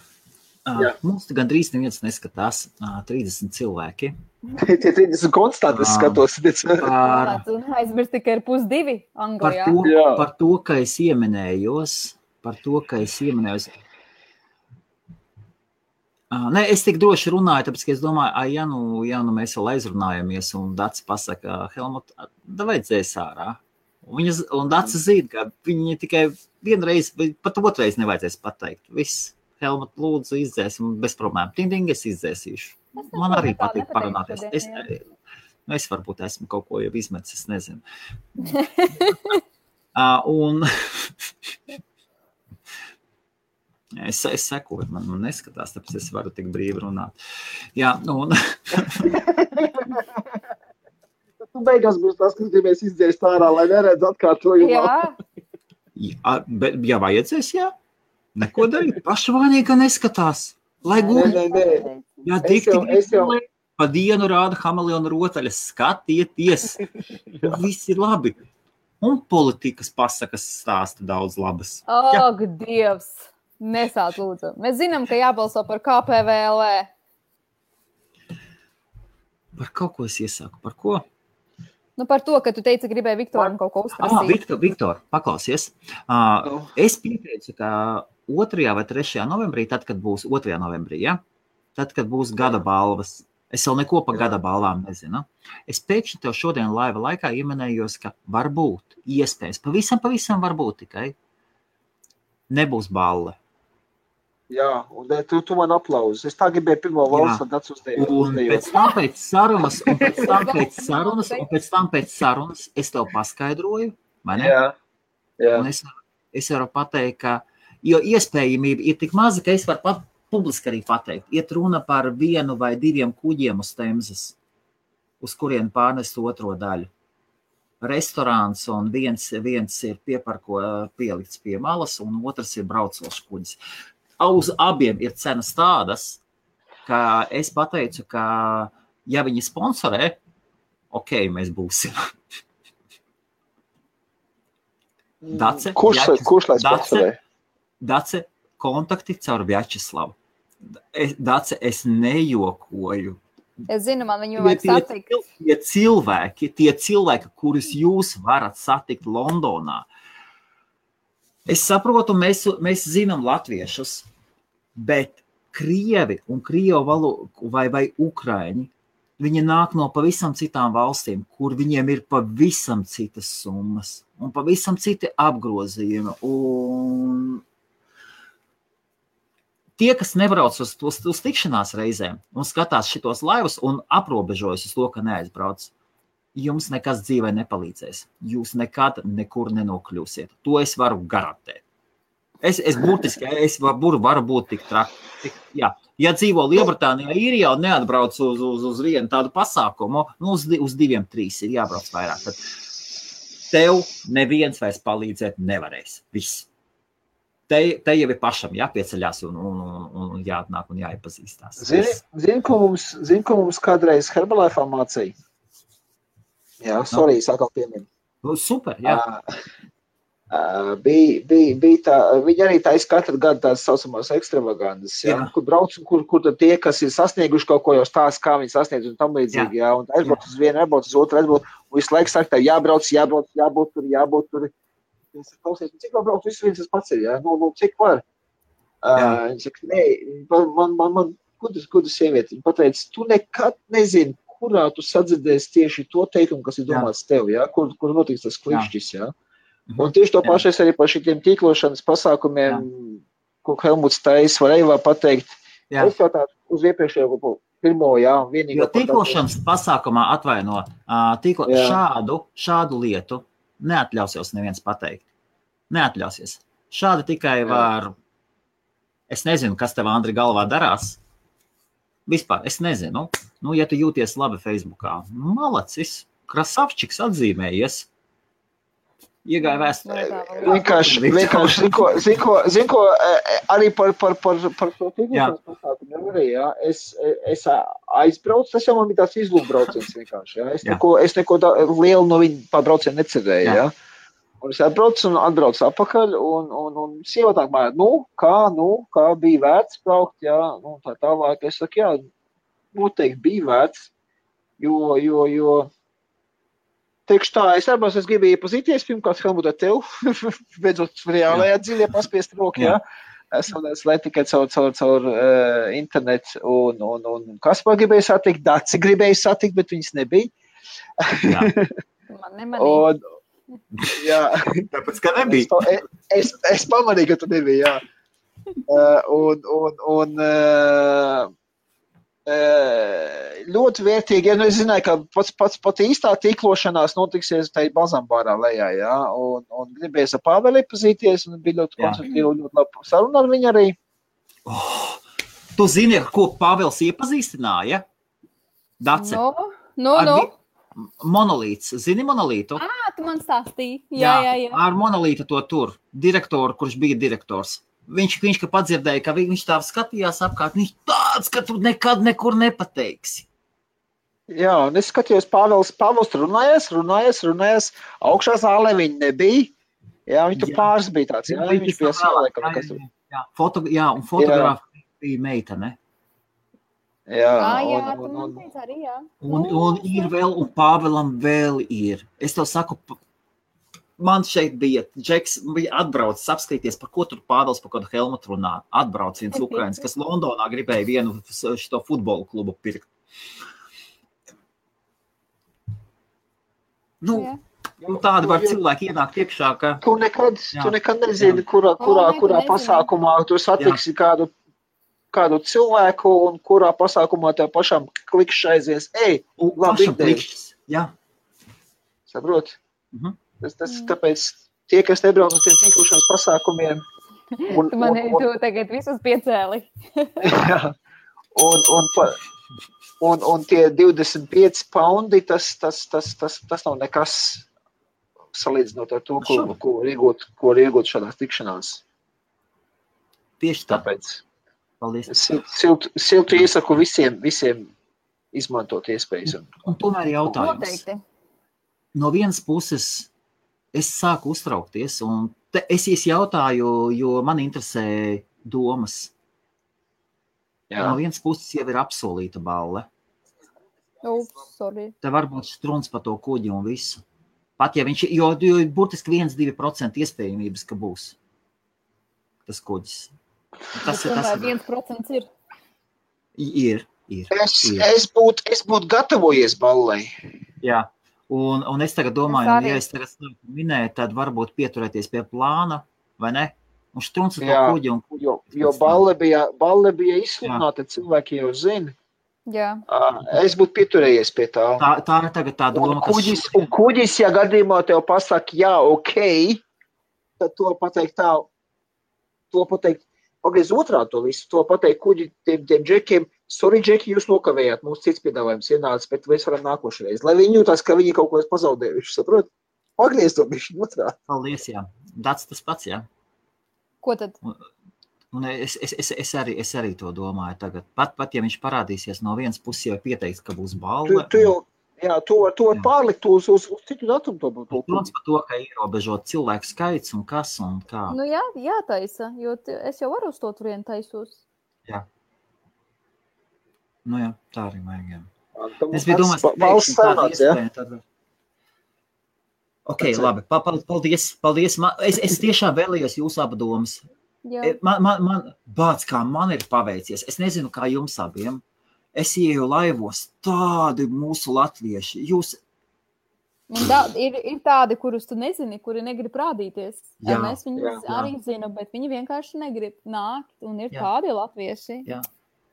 mums gandrīz neviens neskatās 30 cilvēki. Tie 30 konstanti skatos. Aizmirst tikai ir 1:02 Anglijā. Par to, ka es ieminējos. Es tik droši runāju, tāpēc, ka es domāju, ja nu mēs vēl aizrunājamies un Dats pasaka, Helmut, vajadzēs ārā. Un Dats zina, ka viņi tikai vienreiz, pat otrais nevajadzēs pateikt. Viss, Helmut, lūdzu, izdzēsim bez problēmu. Ding, es izdzēsīšu. Man arī patīk parunāties. Es varbūt esmu kaut ko jau izmetis, es nezinu. Un es sekoju, man neskatās, tāpēc es varu tik brīvi runāt. Jā, un... Tu beigās būs tas, ka mēs izdzēst ārā, lai neredz atkārtojumā. Ja vajadzēs, jā. Neko darīt. Pašvainīgi, ka neskatās. Lai gūti. Jā, tik pa dienu rāda Hameleona rotaļas. Skatieties. Viss ir labi. Un politikas pasakas stāsta daudz labas. Ak, Dievs. Nesāt lūdzu. Mēs zinām, ka jābalso par KPVLV. Par kaut ko es iesaku. Par ko? Par to, ka tu teici, gribēji Viktoram kaut ko uzprasīt. Viktor, paklausies. Es pieteicu, ka 2. vai 3. novembrī, tad, kad būs 2. novembrī, ja? Tad, kad būs gada balvas, es vēl neko par gada balvām nezinu. Es pēkšņi tev šodien laiva laikā ieminējos, ka varbūt, iespējas, pavisam varbūt tikai nebūs balva. Jā, un tu man aplauzi. Es tā gribēju pirmo valsts, un Dats uzdējot. Un pēc tam pēc sarunas es tev paskaidroju, vai ne? Jā. Un es varu pateikt, ka, jo iespējamība ir tik maza, ka es varu publiski arī pateikt. Iet runa par 1 vai 2 kuģiem uz Temzes, uz kurien pārnest otro daļu. Restorāns, un viens ir pielikts pie malas, un otrs ir braucošs kuģis. Uz abiem ir cenas tādas, ka es pateicu, ka ja viņi sponsorē, mēs būsim. Dace, kurš lai sponsorē? Dace, kontakti caur Vjačeslavu. Dace, es nejokoju. Es zinu, man viņu vajag satikt. Tie cilvēki, kurus jūs varat satikt Londonā. Es saprotu, mēs zinām latviešus, bet Krievi un Krievu valodu vai Ukraiņi, viņi nāk no pavisam citām valstīm, kur viņiem ir pavisam citas summas un pavisam citi apgrozījumi. Un tie, kas nebrauc uz tikšanās reizēm un skatās šitos laivus un aprobežojas uz to, ka neaizbrauc, jums nekas dzīvē nepalīdzēs. Jūs nekad nekur nenokļūsiet. To es varu garantēt. Es varu būt tik traki. Jā. Ja dzīvo Lielbritānijā, Īrijā un neatbrauc uz vienu tādu pasākumu, uz 2-3 ir jābrauc vairāk. Tad tev neviens vairs palīdzēt nevarēs. Viss. Te jau ir pašam jāpieceļās un jāatnāk un jāiepazīstās. Zini, ko mums kādreiz Herbalife'ā mācīja? Jā, sorry, sākal pieminu. Super, jā. Bija tā, viņi arī taisa katru gadu tās saucamās ekstravagandas, kur brauc, kur tad tie, kas ir sasnieguši kaut ko jau stāst, kā viņi sasniedz un tam līdzīgi, jā, un aizbrauc uz vienu, aizbrauc uz otru, aizbrauc, un visu laiku saka, tev jābūt tur. Es klausies, cik vēl brauc, viens tas pats ir, jā, cik var? Viņi saka, nē, man kudu sievieti, viņi pateica, tu nekad nezini, kurā tu sadzirdēsi tieši to teikumu, kas ir domāts tev, jā, kur notiks tas klikšķis, jā. Un tieši to pašu es arī par šitiem tīklošanas pasākumiem, ko Helmuts Tais var pateikt. Jā. Es jau tā uz iepriekšējo pirmo, jā, vienīgo. Jo tīklošanas pasākumā atvaino, šādu lietu neatļausies neviens pateikt. Neatļausies. Šādi tikai var, es nezinu, kas tev, Andri, galvā darās. Vispār, es nezinu. Ja tu jūties labi Facebookā, malacis, krasavčiks atzīmējies. Iegāja vēsturē. Vienkārši, zin ko, arī par to tīklošanas pasākumu arī, jā. Es aizbraucu, tas jau man bija tāds izlūkbrauciens vienkārši, jā. Es neko lielu no viņa pārbraucienu necerēju, jā. Un es atbraucu un atbraucu atpakaļ, un sieva tā mājā, kā bija vērts braukt, jā, tā tālāk. Es saku, jā, noteikti bija vērts, jo teikšu tā, es gribēju iepazīties, pirmkārt, Helmut, ar tev, beidzot reālajā dziļie paspiest roku, jā. Es lai tikai caur internetu, un Kaspar gribēju satikt, Daci gribēju satikt, bet viņas nebija. Jā. Man nemanīja. Jā. Tāpēc, ka nebija. Es pamanīju, ka tu nebija, jā. Ļoti vērtīgi, ja es zināju, ka pat īstā tīklošanās notiksies tai Bazambārā lejā, jā, un gribēju ar Pāveli iepazīties, un bija ļoti konstruktīvi, ļoti labi saruna ar viņu arī. Tu zini, ar ko Pāvels iepazīstināja? Dace? No. Monolīts. Zini monolītu? Tu man stāstīji. Jā. Ar monolītu to tur. Direktoru, kurš bija direktors. Viņš ka padzirdēja, ka viņš tā skatījās apkārt, viņš tāds, ka tu nekad nekur nepateiksi. Jā, un es skatījos, Pāvels runājies, augšā zālē viņi nebija, jā, viņi tur pāris bija tāds, jā, viņš bija sālēkam, kas tur. Jā, un fotogrāfa bija meitene. Jā, tu man teici arī, jā. Un ir vēl, un Pāvelam vēl ir. Es tev saku, man šeit bija, Džeks bija atbraucis apskatīties, par ko tur Pāvels par kādu Helmutu runā. Atbrauc viens Ukrainis, kas Londonā gribēja vienu šito futbolu klubu pirkt. Tādi var cilvēki ienākt iekšā, ka... Tu nekad nezini, kurā pasākumā tu satiksi kādu cilvēku un kurā pasākumā tev pašam klikšs aizies. Labi klikšs, jā. Saprot? Tas tāpēc tie, kas nebrauc uz tiem tīklošanas pasākumiem... Tu tagad visus piecēli. Jā. Un tie 25 paundi, tas nav nekas salīdzinot ar to, ko var iegūt šādās tikšanās. Tieši tāpēc. Paldies. Siltu iesaku visiem izmantot iespējas. Un tomēr jautājums. Noteikti. No vienas puses es sāku uztraukties, un es jautāju, jo man interesē domas. Jā. No vienas puses jau ir apsolīta balle. Te var būt struns par to kuģi un visu. Pat ja viņš, jo burtiski 1-2% iespējamības, ka būs tas kuģis. Tas 1% ir? Ir. Es būtu gatavojies ballai. Jā, un es tagad domāju, ja es tagad minēju, tad varbūt pieturēties pie plāna, vai ne? Un struns ar to kuģi un kuģi. Jo balle bija izsludināta, cilvēki jau zina. Jā. Es būtu pieturējies pie tā. Tā ir tagad tā doma, un kuģis, ja gadījumā tev pasaka, jā, ok, tad to pateikt tā, pagriez otrādi to visu, to pateikt kuģi tiem džekiem, sorry, džeki, jūs nokavējāt, mums cits piedāvājums ienācis, bet mēs varam nākošreiz. Lai viņi jūtās, ka viņi kaut ko pazaudējuši, saprot? Pagriez to bišķi otrādi. Paldies, jā. Tas pats, jā. Ko tad? Un es arī to domāju tagad. Pat ja viņš parādīsies no vienas puses jau pieteikts, ka būs balva. Tu var pārlikt uz citu datumu to būtu. Protams par to, ka ierobežot cilvēku skaits un kas un kā. Nu jātaisa, jo es jau varu uz to turienu taisos. Jā. Nu jā, tā arī vajag, jā. Es biju domājis, ka tāda iespēja tad... Ok, labi, paldies. Es tiešām vēlējos jūsu abu domas. Man bāc, kā man ir paveicies. Es nezinu, kā jums abiem. Es ieju laivos tādi mūsu latvieši. Ir tādi, kurus tu nezini, kuri negrib rādīties. Mēs viņus arī zinām, bet viņi vienkārši negrib nākt. Un ir tādi latvieši. Jā.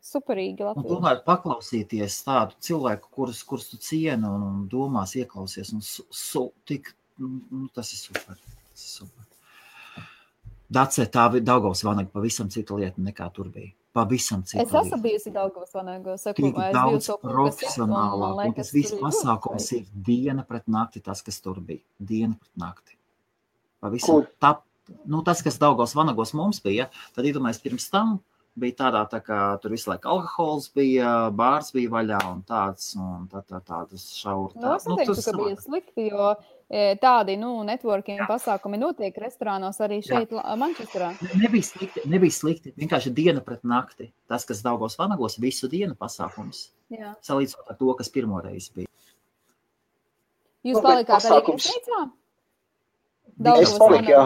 Superīgi latvieši. Un tomēr paklausīties tādu cilvēku, kurus tu cieni un domās ieklausies. Tas ir super. Dacē, tā Daugavas vanaga pavisam cita lieta nekā tur bija. Pavisam cita lieta. Es esmu bijusi Daugavas vanagā. Tik daudz profesionālāk, un tas viss pasākums ir diena pret nakti, tas, kas tur bija. Diena pret nakti. Pavisam tas, kas Daugavas vanagos mums bija, tad iedomājies pirms tam bija tādā, tā kā tur visu laiku alkohols bija, bārs bija vaļā un tāds šauri. Es neteiktu, ka bija slikti, jo tādi, networking pasākumi notiek restorānos arī šeit, Mančesterā. Nebija slikti. Vienkārši diena pret nakti. Tas, kas Daugavas vanagos, visu dienu pasākums. Jā. Salīdzinot ar to, kas pirmoreiz bija. Jūs palikāt arī viesnīcā? Es paliku, jā.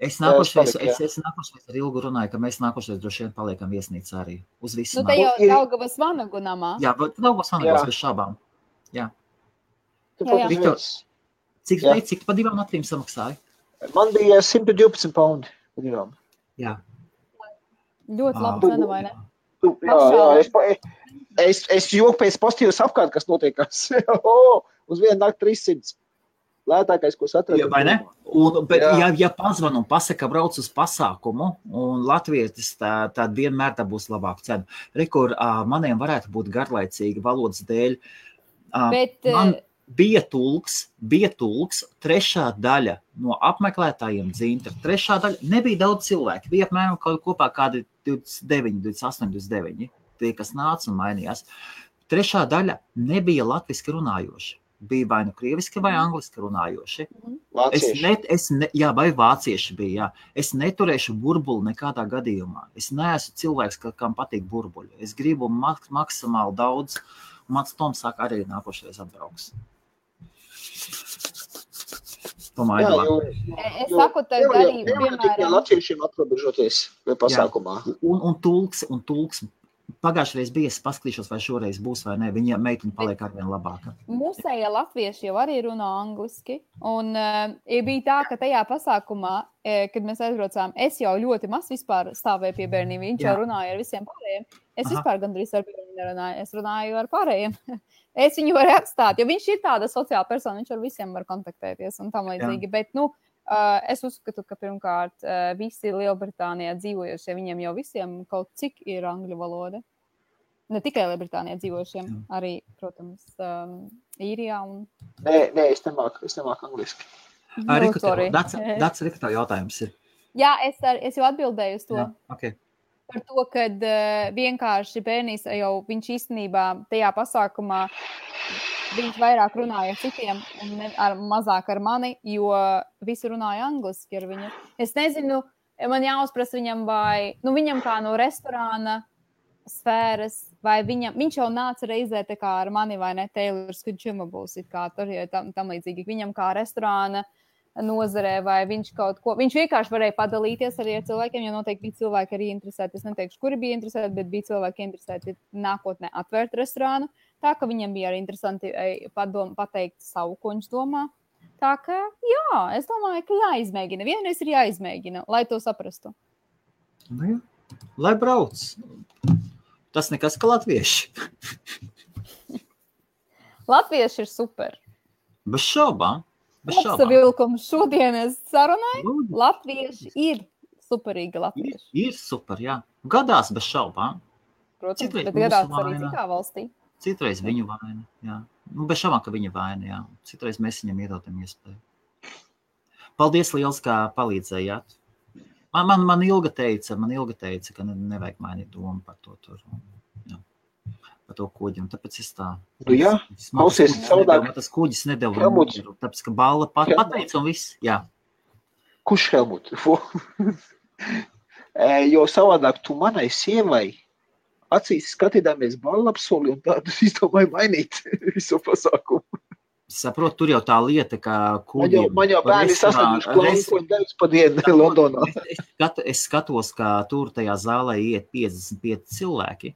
Es nākošais ar Ilgu runāju, ka mēs nākošais droši vien paliekam viesnīcā arī uz visu. Te jau Daugavas vanagu namā. Jā, Daugavas vanagos bez šābām. Jā. Viktor, cik pa 2 naktīm samaksāja? Man bija 112 paundi pa 2. Jā. Ļoti labi cena, vai ne? Jā, es joku pēc pozitīvas apkārt, kas notiekās. Uz vienu nakti 300. Lētākais, ko atradu. Vai ne? Bet, ja pazvan un pasaka, brauc uz pasākumu, un latvietis tad vienmēr tā būs labāka cena. Rekur, maniem varētu būt garlaicīgi valodas dēļ. Man bija tulks, 3. daļa no apmeklētājiem Dzintra. 3. daļa nebija daudz cilvēku. Bija apmēram kopā kādi 29, 28, 29. Tie, kas nāca un mainījās. 3. daļa nebija latviski runājoši. Bija vai nu krieviski vai angliski runājoši. Vai vācieši bija, jā. Es neturēšu burbuli nekādā gadījumā. Es neesmu cilvēks, kam patīk burbuļi. Es gribu maksimāli daudz, un mans Toms saka, arī nākošais atbrauks. Es saku, tev arī, piemēram... Latviešiem atrobežoties pasākumā. Un tulks. Pagājušreiz bija, es paskatīšos, vai šoreiz būs vai ne. Viņa meitene paliek arvien labāka. Mūsējie latvieši jau arī runā angliski. Un bija tā, ka tajā pasākumā, kad mēs aizbraucām, es jau ļoti maz vispār stāvēju pie bērniem. Viņš jau runāja ar visiem pārējiem. Es vispār gandrīz ar bērniem nerunāju. Es runāju ar pārējiem. Es viņu varu atstāt, jo viņš ir tāda sociāla persona, viņš ar visiem var kontaktēties un tam līdzīgi. Bet, es uzskatu, ka pirmkārt visi Lielbritānijā dzīvojošie, viņiem jau visiem kaut cik ir angļu valoda. Ne tikai Lielbritānijā dzīvojošiem, arī, protams, Īrijā. Nē, es nemāku angliski. Dats Rikta jautājums ir. Jā, es jau atbildēju uz to. Jā, okay. Par to, kad vienkārši bērnīs jau viņš īstenībā tajā pasākumā viņš vairāk runāja ar citiem un mazāk ar mani, jo visi runāja angliski ar viņu. Es nezinu, man jāuzprasa viņam vai, viņam kā no restorāna sfēras, vai viņš jau nāca reizē tā kā ar mani, vai ne, Taylor Swift kā tur, ja tam līdzīgi, viņam kā restorāna nozarē, vai viņš kaut ko, viņš vienkārši varēja padalīties arī ar cilvēkiem, jo noteikti bija cilvēki arī interesēti, es neteikšu, kuri bija interesēti, bet bija cilvēki interesēti nākotnē atvērt restorānu, tā ka viņam bija arī interesanti pateikt savu, ko viņš domā. Tā ka, jā, es domāju, ka jāizmēģina. Vienreiz ir jāizmēģina, lai to saprastu. Nu, jā. Lai brauc. Tas nekas, ka latvieši. Latvieši ir super. Bez šaubām. Kopsavilkums šodienas sarunai. Latvieši ir superīgi latvieši. Ir super, jā. Gadās bez šaubām. Protams, citreiz bet gadās arī citā valstī. Citreiz viņu vaina, jā. Bez šaubām, ka viņa vaina, jā. Citreiz mēs viņam iedodam iespēju. Paldies liels, kā palīdzējāt. Man ilga teica, ka nevajag mainīt domu par to tur. Jā. Par to kuģi, un tāpēc es tā... Nu jā, klausies savādāk. Tas kuģis nedeva mieru, tāpēc, ka Balla pateica un viss, jā. Kurš Helmut? Jo savādāk tu manai sievai acīs skatīdāmies Ballapsoli un tādu izdomāju mainīt visu pasākumu. Saprot, tur jau tā lieta, ka kuģiem... Man jau bērni sastāduši klānkoņu devis pa dienu Londonā. Es skatos, ka tur tajā zālē iet 55 cilvēki.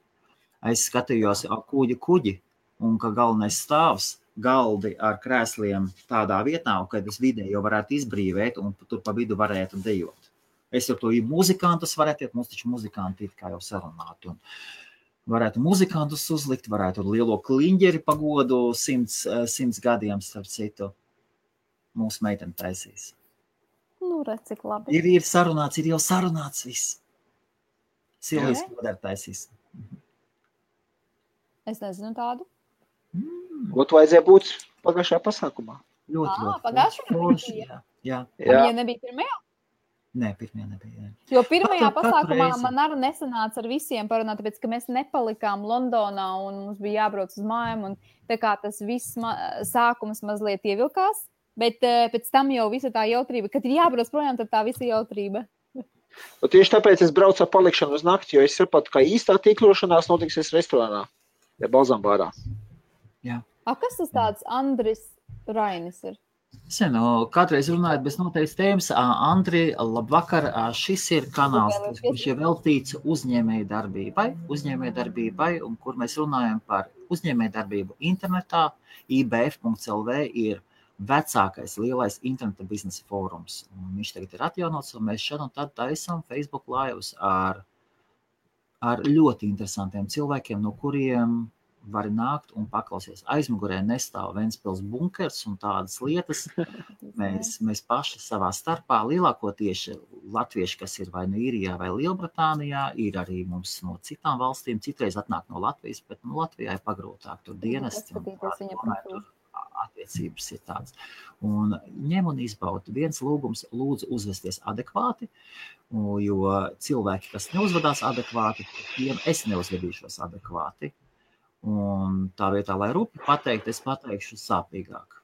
Es skatījos kuģi, un ka galvenais stāvs galdi ar krēsliem tādā vietā, un kad es vidē jau varētu izbrīvēt, un tur pa vidu varētu dejot. Es jau to muzikantus varētu iet, mums taču muzikanti it kā jau sarunāt, un varētu muzikantus uzlikt, varētu lielo kliņģeri pagodu 100 gadiem, starp citu, mūsu meiteni taisīs. Nu, redz, cik labi. Ir sarunāts, ir jau sarunāts viss. Silvijas kodēr taisīs. Es nezinu tādu. Ko tu vajadzēja būt pagājušajā pasākumā? Ļoti. Pagājušajā? Jā. Ja nebija pirmajā? Nē, pirmajā nebija. Jo pirmajā pasākumā man arī nesanāca ar visiem parunāt, tāpēc, ka mēs nepalikām Londonā un mums bija jābrauc uz mājām, un tā kā tas viss sākums mazliet ievilkās, bet pēc tam jau visa tā jautrība, kad ir jābrauc projām, tad tā visa jautrība. Un tieši tāpēc es braucu ar palikšanu uz nakti, jo es sapratu, ka īstā tīklošanās notiksies restorānā, ja Balzambārā. Jā. Kas tas tāds Andris Rainis ir? Kādreiz runājot bez noteikts tēmas, Andri, labvakar, šis ir kanāls, kurš ir veltīts uzņēmējdarbībai, un kur mēs runājam par uzņēmējdarbību internetā. IBF.lv ir vecākais lielais interneta biznesa fórums. Un viņš tagad ir atjaunots, un mēs šad un tad taisam Facebook lives ar ļoti interesantiem cilvēkiem, no kuriem var nākt un paklausies. Aizmugurē nestāv Ventspils bunkers un tādas lietas. Mēs paši savā starpā, lielākoties latvieši, kas ir vai nu Īrijā vai Lielbritānijā, ir arī mums no citām valstīm, citreiz atnāk no Latvijas, bet Latvijā ir pagrūtāk, tur dienesti un tur attiecības ir tāds. Un ņem un izbaud. Viens lūgums, lūdzu uzvesties adekvāti, jo cilvēki, kas neuzvedās adekvāti, tiem es neuzvedīšos adekvāti. Un tā vietā, lai rupi pateikt, es pateikšu sāpīgāk.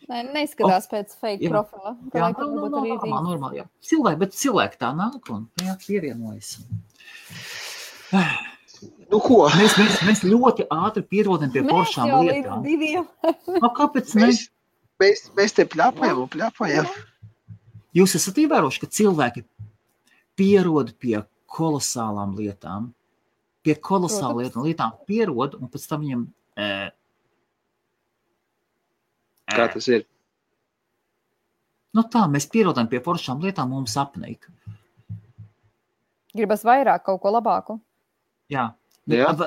Neizskatās pēc fake profila. Jā, normāli, jā. Cilvēki tā nāk un pievienojas. Nu, ko? Mēs ļoti ātri pierodam pie foršām lietām. Mēs jau līdz 2. Kāpēc ne? Mēs te pļāpājam. Jūs esat ievēroši, ka cilvēki pierod pie kolosālām lietām. Pie kolosālām lietām pierod, un pēc tam viņam... Kā tas ir? Nu tā, mēs pierodam pie foršām lietām, mums apnika. Gribas vairāk, kaut ko labāku. Jā. Jā, un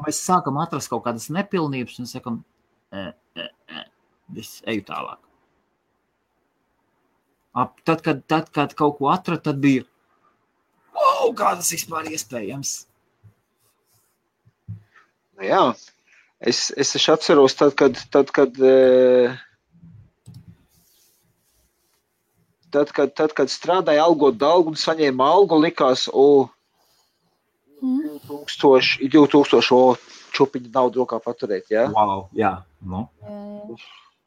mēs sākam atrast kaut kādas nepilnības un sakam, es eju tālāk. Tad, kad kaut ko atrad, tad bija, kā tas vispār iespējams? Nu jā, es atceros tad, kad strādāja algot dalgu un saņēma algu, likās, 2000, čupiņu naudu rokā paturēt, jā? Wow, jā. No.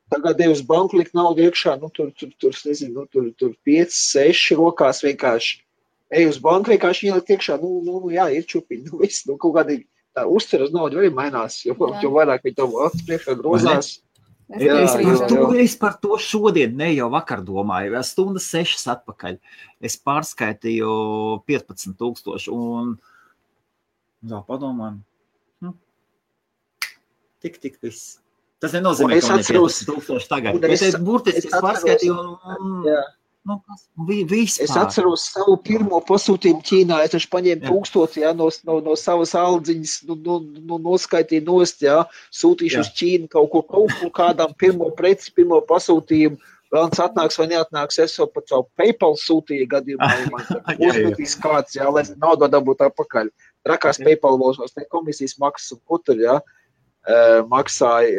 Tagad uz banku likt naudu iekšā, nezinu, tur 5, 6 rokās vienkārši. Ej uz banku vienkārši ielikt iekšā, jā, ir čupiņi, viss, kaut kādīgi tā uzcer uz naudu arī mainās, jo vairāk viņi to priekšā grozās. Es par to šodien, ne jau vakar domāju, stundas 6 atpakaļ. Es pārskaitīju 15,000 un padomāju, tik viss. Tas nenozīmē, ka man ir 15,000 tagad. Bet es burtiski pārskaitīju vispār. Es atceros savu pirmo pasūtījumu Ķīnā. Es taču paņēmu 1000 no savas aldziņas, noskaitīju nost, sūtīšu uz Ķīnu kaut kur kādām pirmo preci, pirmo pasūtījumu. Vēlams atnāks vai neatnāks, es jau pat savu PayPal sūtīju gadījumā. Uzmetīs kāds, lai naudu dabūtu atpakaļ. Trakās PayPal valšos, ne komisijas maksas un kutur, maksāja,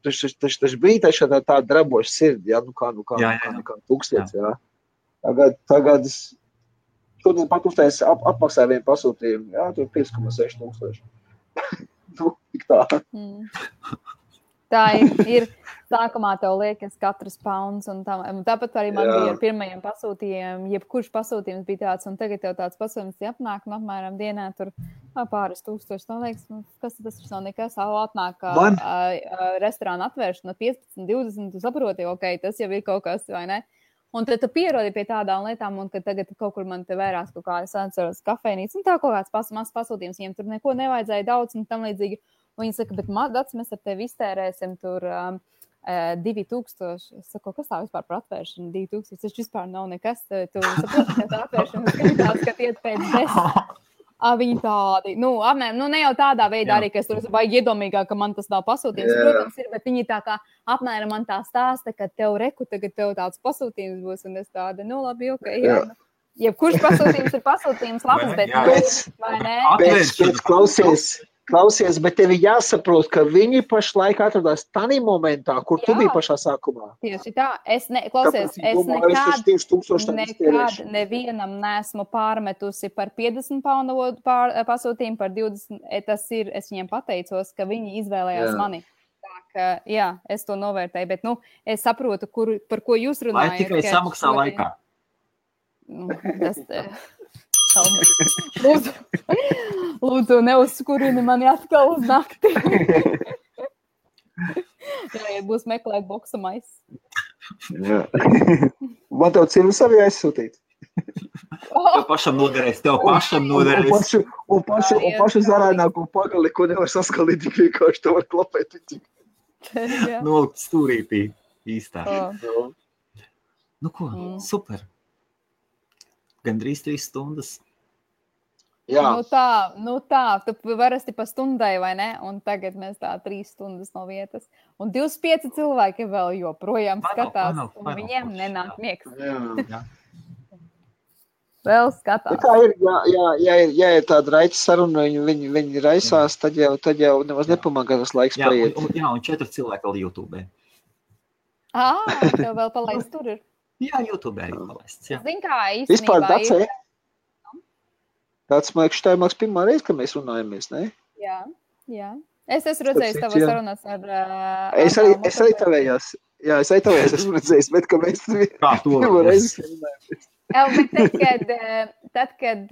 taču bija tā draboša sirdi, kā 1000, Tagad šodien pat uztais apmaksāja vienu pasūtījumu, tur 5,6 tik tā. Tā ir. Sākumā tev liekas katrs pounds, un tāpat arī man bija ar pirmajiem pasūtījumiem, jebkurš pasūtījums bija tāds, un tagad tev tāds pasūtījums apnāk, apmēram dienā tur pāris tūkstoši, man liekas, kas tas nav nekas, atnāk restorāna atvēršana 15, 20, tu saproti, tas jau ir kaut kas, vai ne? Un tad tu pierodi pie tādām lietām, un kad tagad kaut kur man te vērās kaut kā, es atceros kafejnīcu, un tā kaut kāds mazs pasūtījums, viņiem tur neko nevajadzēja daudz, un tam līdzīgi, un viņi saka, bet Dats, mēs ar tevi iztērēsim tur 2000. Es saku, kas tā vispār par atvēršanu? 2000. Tas vispār nav nekas. Tu saproti, ka tā atvēršana skatās, ka iet pēc 10. Viņi tādi, apmēram, ne jau tādā veidā arī, ka es tur baigi iedomīgāk, ka man tas nav pasūtījums. Protams, ir, bet viņi tā kā apmēram man tā stāsta, ka tagad tev tāds pasūtījums būs, un es tāda, labi, jā. Jebkurš pasūtījums ir pasūtījums labs, bet vai ne? Pēc Klausies, bet tev jāsaprot, ka viņi pašlaik atradās tādā momentā, kur tu biji pašā sākumā. Tieši tā. Es nekad nevienam neesmu pārmetusi par 50 poundu pasūtījumu, par 20. Es viņiem pateicos, ka viņi izvēlējās mani. Tā ka, es to novērtēju, bet, es saprotu, par ko jūs runājat. Vai tikai samaksā laikā? Lūdzu, neuzskurini mani atkal uz nakti. Ja būs meklēt boksa maisis. Man tev cīnu savi aizsūtīt. Tev pašam noderēs. Un pašu zarānāko pagali, ko nevar saskalīt, tik vienkārši to var klapēt. Nolikt stūrītī īstā. Super. Gandrīz 3 stundas. Jā. Tā, tu varasti pa stundai, vai ne? Un tagad mēs tā 3 stundas no vietas. Un 25 cilvēki vēl joprojām skatās, un viņiem nenāk miegs. Jā. Vēl skatās. Tā ir, ja ir tāda raita saruna, viņi raisās, tad jau nemaz nepamagā tas laiks paiet. Un 4 cilvēki vēl YouTube. Tev vēl palaist tur ir. Jā, YouTube arī palaists. Zin kā, īstenībā vispār Dacē. Tāds, man liekas, tā ir pirmā reize, kad mēs runājamies, ne? Jā. Es esmu redzējis tavas sarunas ar... Es arī tavējās. Jā, es arī tavējās esmu redzējis, bet ka mēs pirmā reize runājamies. Tad, kad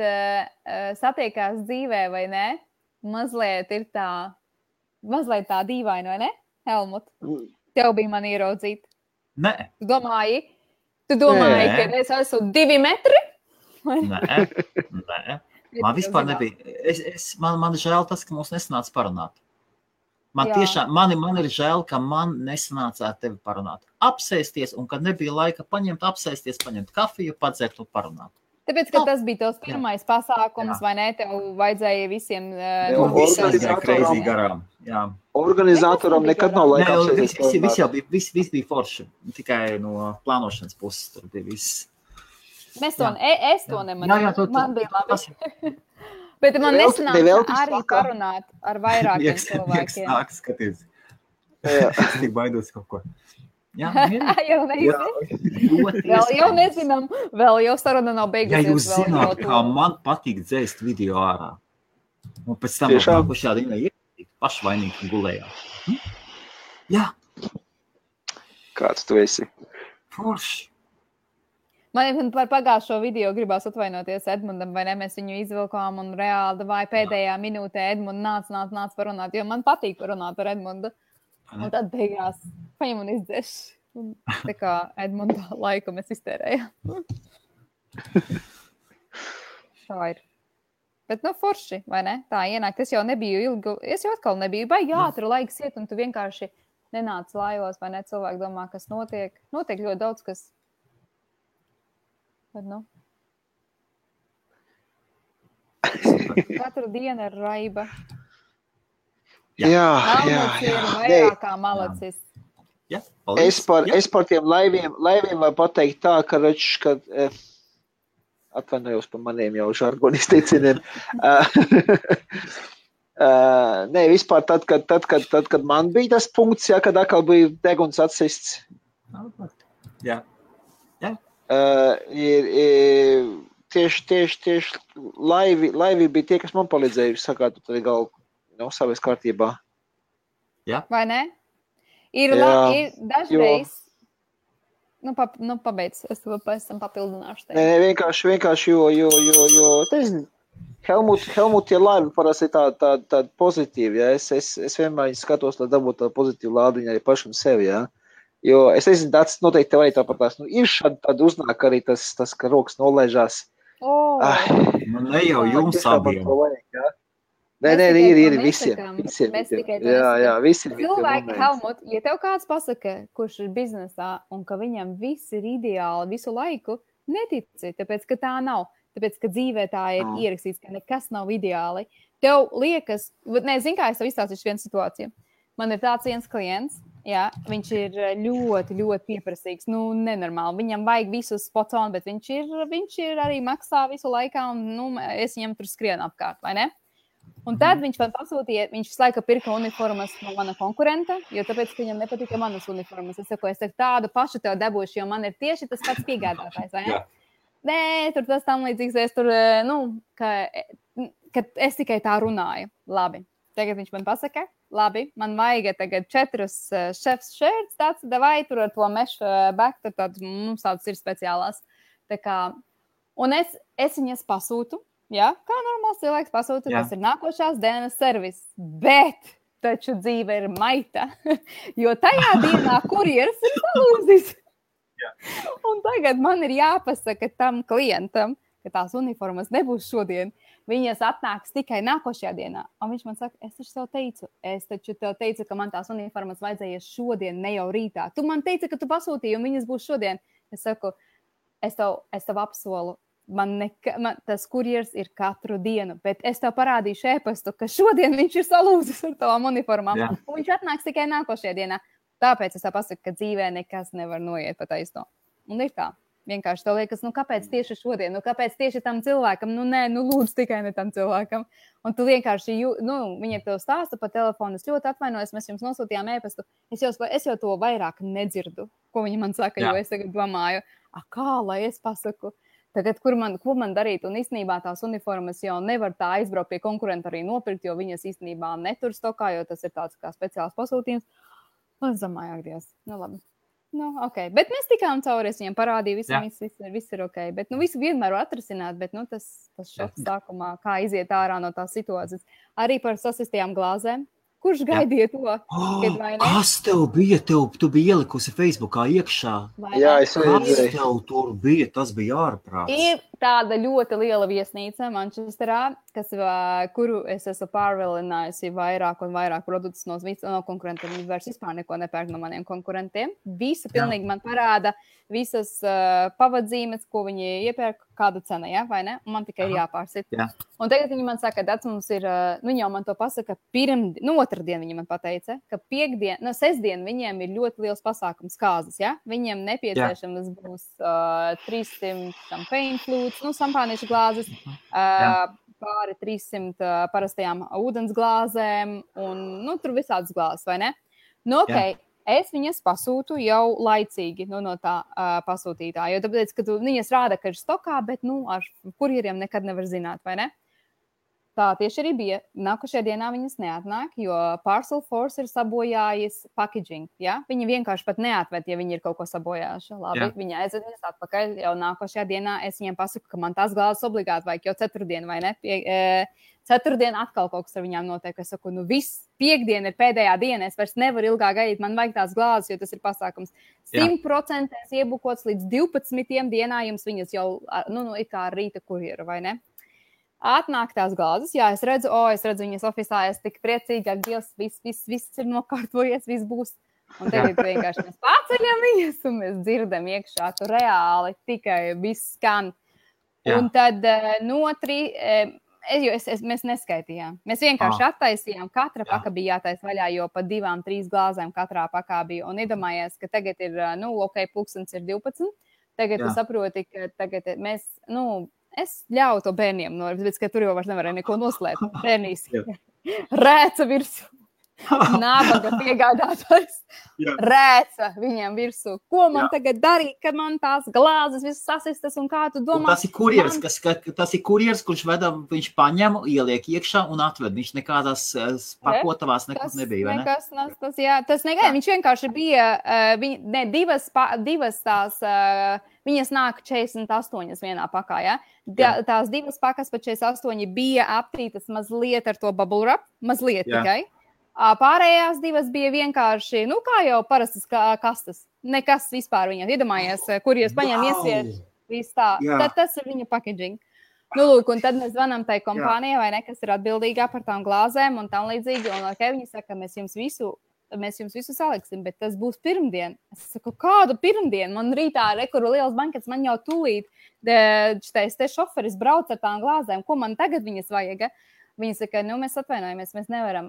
satiekās dzīvē, vai ne? Mazliet tā dīvaini, vai ne? Helmut, tev bija man ieraudzīt. Nē. Tu domāji, ka es esmu 2 metri? Nē. Man vispār nebija. Man žēl tas, ka mums nesanāca parunāt. Man ir žēl, ka man nesanāca ar tevi parunāt. Apsēsties, un kad nebija laika paņemt kafiju, padzert un parunāt. Tāpēc, ka tas bija tavs pirmais pasākums, vai ne? Tev vajadzēja visiem... Organizātoram nekad nav laika apsēsties. Viss bija forši. Tikai no plānošanas puses tur bija viss. Es to nemanīju. Man bija labi. Bet man nesanāca arī parunāt ar vairākiem cilvēkiem. Nāk, skaties. Es tik baidos kaut ko. Jā, jau nezinām. Vēl jau saruna nav beigusies. Ja jūs zināt, kā man patīk dzēst video ārā. Un pēc tam nākuši šādi pašvainīgi gulējā. Jā. Kāds tu esi? Forši. Man par pagājušo video gribās atvainoties Edmundam, vai ne? Mēs viņu izvilkām un reāli vai pēdējā minūtē Edmunds nāc parunāt, jo man patīk parunāt ar Edmundu. Un tad beigās paņem un izdzēš. Tā kā Edmunda laiku mēs iztērējām. Tā ir. Bet, forši, vai ne? Tā ienākt. Es jau nebiju ilgi, es jau atkal nebiju baigi ātri laiks iet, un tu vienkārši nenāc laivos, vai ne? Cilvēki domā, kas notiek. Notiek ļoti daudz, kas... Bet, Katru dienu ir raiba. Jā. Ir vairāk kā malacis. Jā, es par tiem laiviem varu pateikt tā, ka atvainojos par maniem jau žargonu izteicieniem. Nē, vispār tad, kad man bija tas punkts, kad atkal bija deguns atsists. Jā. Tieši laivi bija tie, kas man palīdzēja sakāt, tu tad galvu savies kārtībā. Jā. Vai ne? Ir dažreiz... pabeidz, es to pēc tam papildināšu. Nē, vienkārši, jo Helmut tie laivi parasti tādi pozitīvi, ja? Es vienmēr skatos, lai dabūtu tādu pozitīvu lādiņu arī pašam sevi, ja? Jo es nezinu, tāds noteikti tev arī tāpatās. Ir šādi tad uznāk arī tas ka rokas nolaižās. Ne jau jums abiem. Nē, ir visiem. Jā, visiem. Cilvēki, Helmut, ja tev kāds pasaka, kurš ir biznesā un ka viņam viss ir ideāli visu laiku, netici, tāpēc, ka tā nav. Tāpēc, ka dzīvē tā ir ierakstīts, ka nekas nav ideāli. Tev liekas, nezinu, kā es tev izstāstīšu vienu situāciju. Man ir tāds viens klients, jā, viņš ir ļoti, ļoti pieprasīgs, nenormāli. Viņam vajag visu spot on, bet viņš ir arī maksā visu laikā un, es viņam tur skrienu apkārt, vai ne? Un tad viņš man pasūtīja, viņš visu laiku pirka uniformas no mana konkurenta, jo tāpēc, ka viņam nepatika manas uniformas. Es saku, tādu pašu tev dabūšu, jo man ir tieši tas pats piegādātājs, vai ne? Jā. Nē, tur tas tam līdzīgs, es tur, ka es tikai tā runāju. Labi, tagad viņš man pasaka, labi, man vajag tagad 4 chefs shirts, tāds, vai tur ar to mesh back, tur mums tādas ir speciālās. Tā kā, un es viņas pasūtu, jā, kā normāls cilvēks pasūtu, tas ir nākošās dienas servis, bet taču dzīve ir maita, jo tajā dienā kurjeris ir salūzis. Un tagad man ir jāpasaka tam klientam, ka tās uniformas nebūs šodien. Viņas atnāks tikai nākošajā dienā. Un viņš man saka, es taču tev teicu, ka man tās uniformas vajadzēja šodien, ne jau rītā. Tu man teici, ka tu pasūtīji un viņas būs šodien. Es saku, es tev apsolu, man tas kurjers ir katru dienu, bet es tev parādīšu e-pastu, ka šodien viņš ir salūzis ar tavām uniformām. Jā. Un viņš atnāks tikai nākošajā dienā. Tāpēc es tev pasaku, ka dzīvē nekas nevar noiet pa taisno. Un ir tā. Vienkārši tev liekas, kāpēc tieši šodien? Kāpēc tieši tam cilvēkam? Lūdzu, tikai ne tam cilvēkam. Un tu vienkārši, viņa tev stāsta pa telefonu, es ļoti atvainojos, mēs jums nosūtījām e-pastu. Es jau to vairāk nedzirdu, ko viņa man saka, jo es tagad domāju, kā lai es pasaku? Tagad, ko man darīt? Un īstenībā tās uniformas jau nevar tā aizbraukt pie konkurenta arī nopirkt, jo viņas īstenībā netur stokā, jo tas ir tāds kā speciāls pasūtījums. Un es domāju, ak, Dievs, labi. Ok, bet mēs tikām cauri, es viņam parādīju, viss ir ok. Bet, visu vienmēr var atrasināt, bet, tas šoks sākumā, kā iziet ārā no tās situācijas. Arī par sasistajām glāzēm. Kurš gaidīja to? Kas tev bija? Tu biji ielikusi Facebookā iekšā. Jā, es redzēju. Kas tev tur bija? Tas bija ārprāts. Ir tāda ļoti liela viesnīca Manchesterā, kuru es esmu pārvilinājusi vairāk un vairāk produktus no konkurentiem. Viņi vairs vispār neko nepērk no maniem konkurentiem. Visu pilnīgi man parāda visas pavadzīmes, ko viņi iepērk, kāda cena, ja, vai ne? Un man tikai ir jāpārsit. Jā. Un tagad viņi man saka, ka mums ir, viņi jau man to pasaka otrdien viņi man pateica, ka sestdien viņiem ir ļoti liels pasākums kāzas, ja? Viņiem nepieciešamas būs 300 champagne flutes, šampāniešu glāzes, pāri 300 parastajām ūdens glāzēm un, tur visādas glāzes, vai ne? Ok, es viņas pasūtu jau laicīgi no tā pasūtītā, jo tāpēc, ka viņas rāda, ka ir stokā, bet, ar kurjeriem nekad nevar zināt, vai ne? tā tieši arī bija. Nākošajā dienā viņas neatnāk, jo Parcel Force ir sabojājis packaging. Ja? Viņi vienkārši pat neatved, ja viņi ir kaut ko sabojājuši. Labi, viņi aizved viņas atpakaļ. Jau nākošajā dienā es viņiem pasaku, ka man tās glāzes obligāti vajag jau ceturtdien, vai ne? Ceturtdien atkal kaut kas ar viņām notiek. Es saku, viss, piekdiena ir pēdējā diena, es vairs nevaru ilgāk gaidīt, man vajag tās glāzes, jo tas ir pasākums. 100% iebukots līdz 12 dienā, jums viņas jau, ir kā rīta kurjera, vai ne? Atnāk tās glāzes, jā, es redzu viņas ofisā, es tik priecīgāk, Dievs, viss ir nokārtojies, viss būs. Un tagad vienkārši mēs paceļam viņas, un mēs dzirdam iekšā, tu reāli tikai viss skan. Un tad mēs neskaitījām. Mēs vienkārši attaisījām, katra paka bija jātais vaļā, jo pa 2-3 glāzēm katrā pakā bija. Un iedomājies, ka tagad ir, pulkstens ir 12. Tagad tu saproti, ka tagad mēs, es ļauju to bērniem, bet ka tur jau vairs nevarēja neko noslēpt. Bērnīs rēca virsū. Nabaga piegādātājs rēca viņiem virsū. Ko man tagad darīt, kad man tās glāzes visas sasistas un kā tu domā? Un tas ir kurjers, kurš viņš paņem, ieliek iekšā un atved. Viņš nekādās pakotavās nekur nebija, vai ne? Tas negaidīja. Viņš vienkārši bija, divas tās, viņas nāk 48 vienā pakā, ja? Tās divas pakas pa 48 bija aptītas mazliet ar to bubble wrap, mazliet tikai. Pārējās divas bija vienkārši, kā jau parastas kastas. Nekas vispār viņam. Iedomājies, kur jūs paņem iesiet, viss tā. Tad tas ir viņa packaging. Lūk, un tad mēs zvanām tai kompānijai, vai ne, kas ir atbildīgā par tām glāzēm un tam līdzīgi. Un viņi saka, mēs jums visu saliksim, bet tas būs pirmdien. Es saku, kādu pirmdienu? Man rītā rekuru liels bankets, man jau tūlīt te šoferis brauc ar tām glāzēm. Ko man tagad viņas vajag? Viņi saka, mēs atvainojamies, mēs nevaram.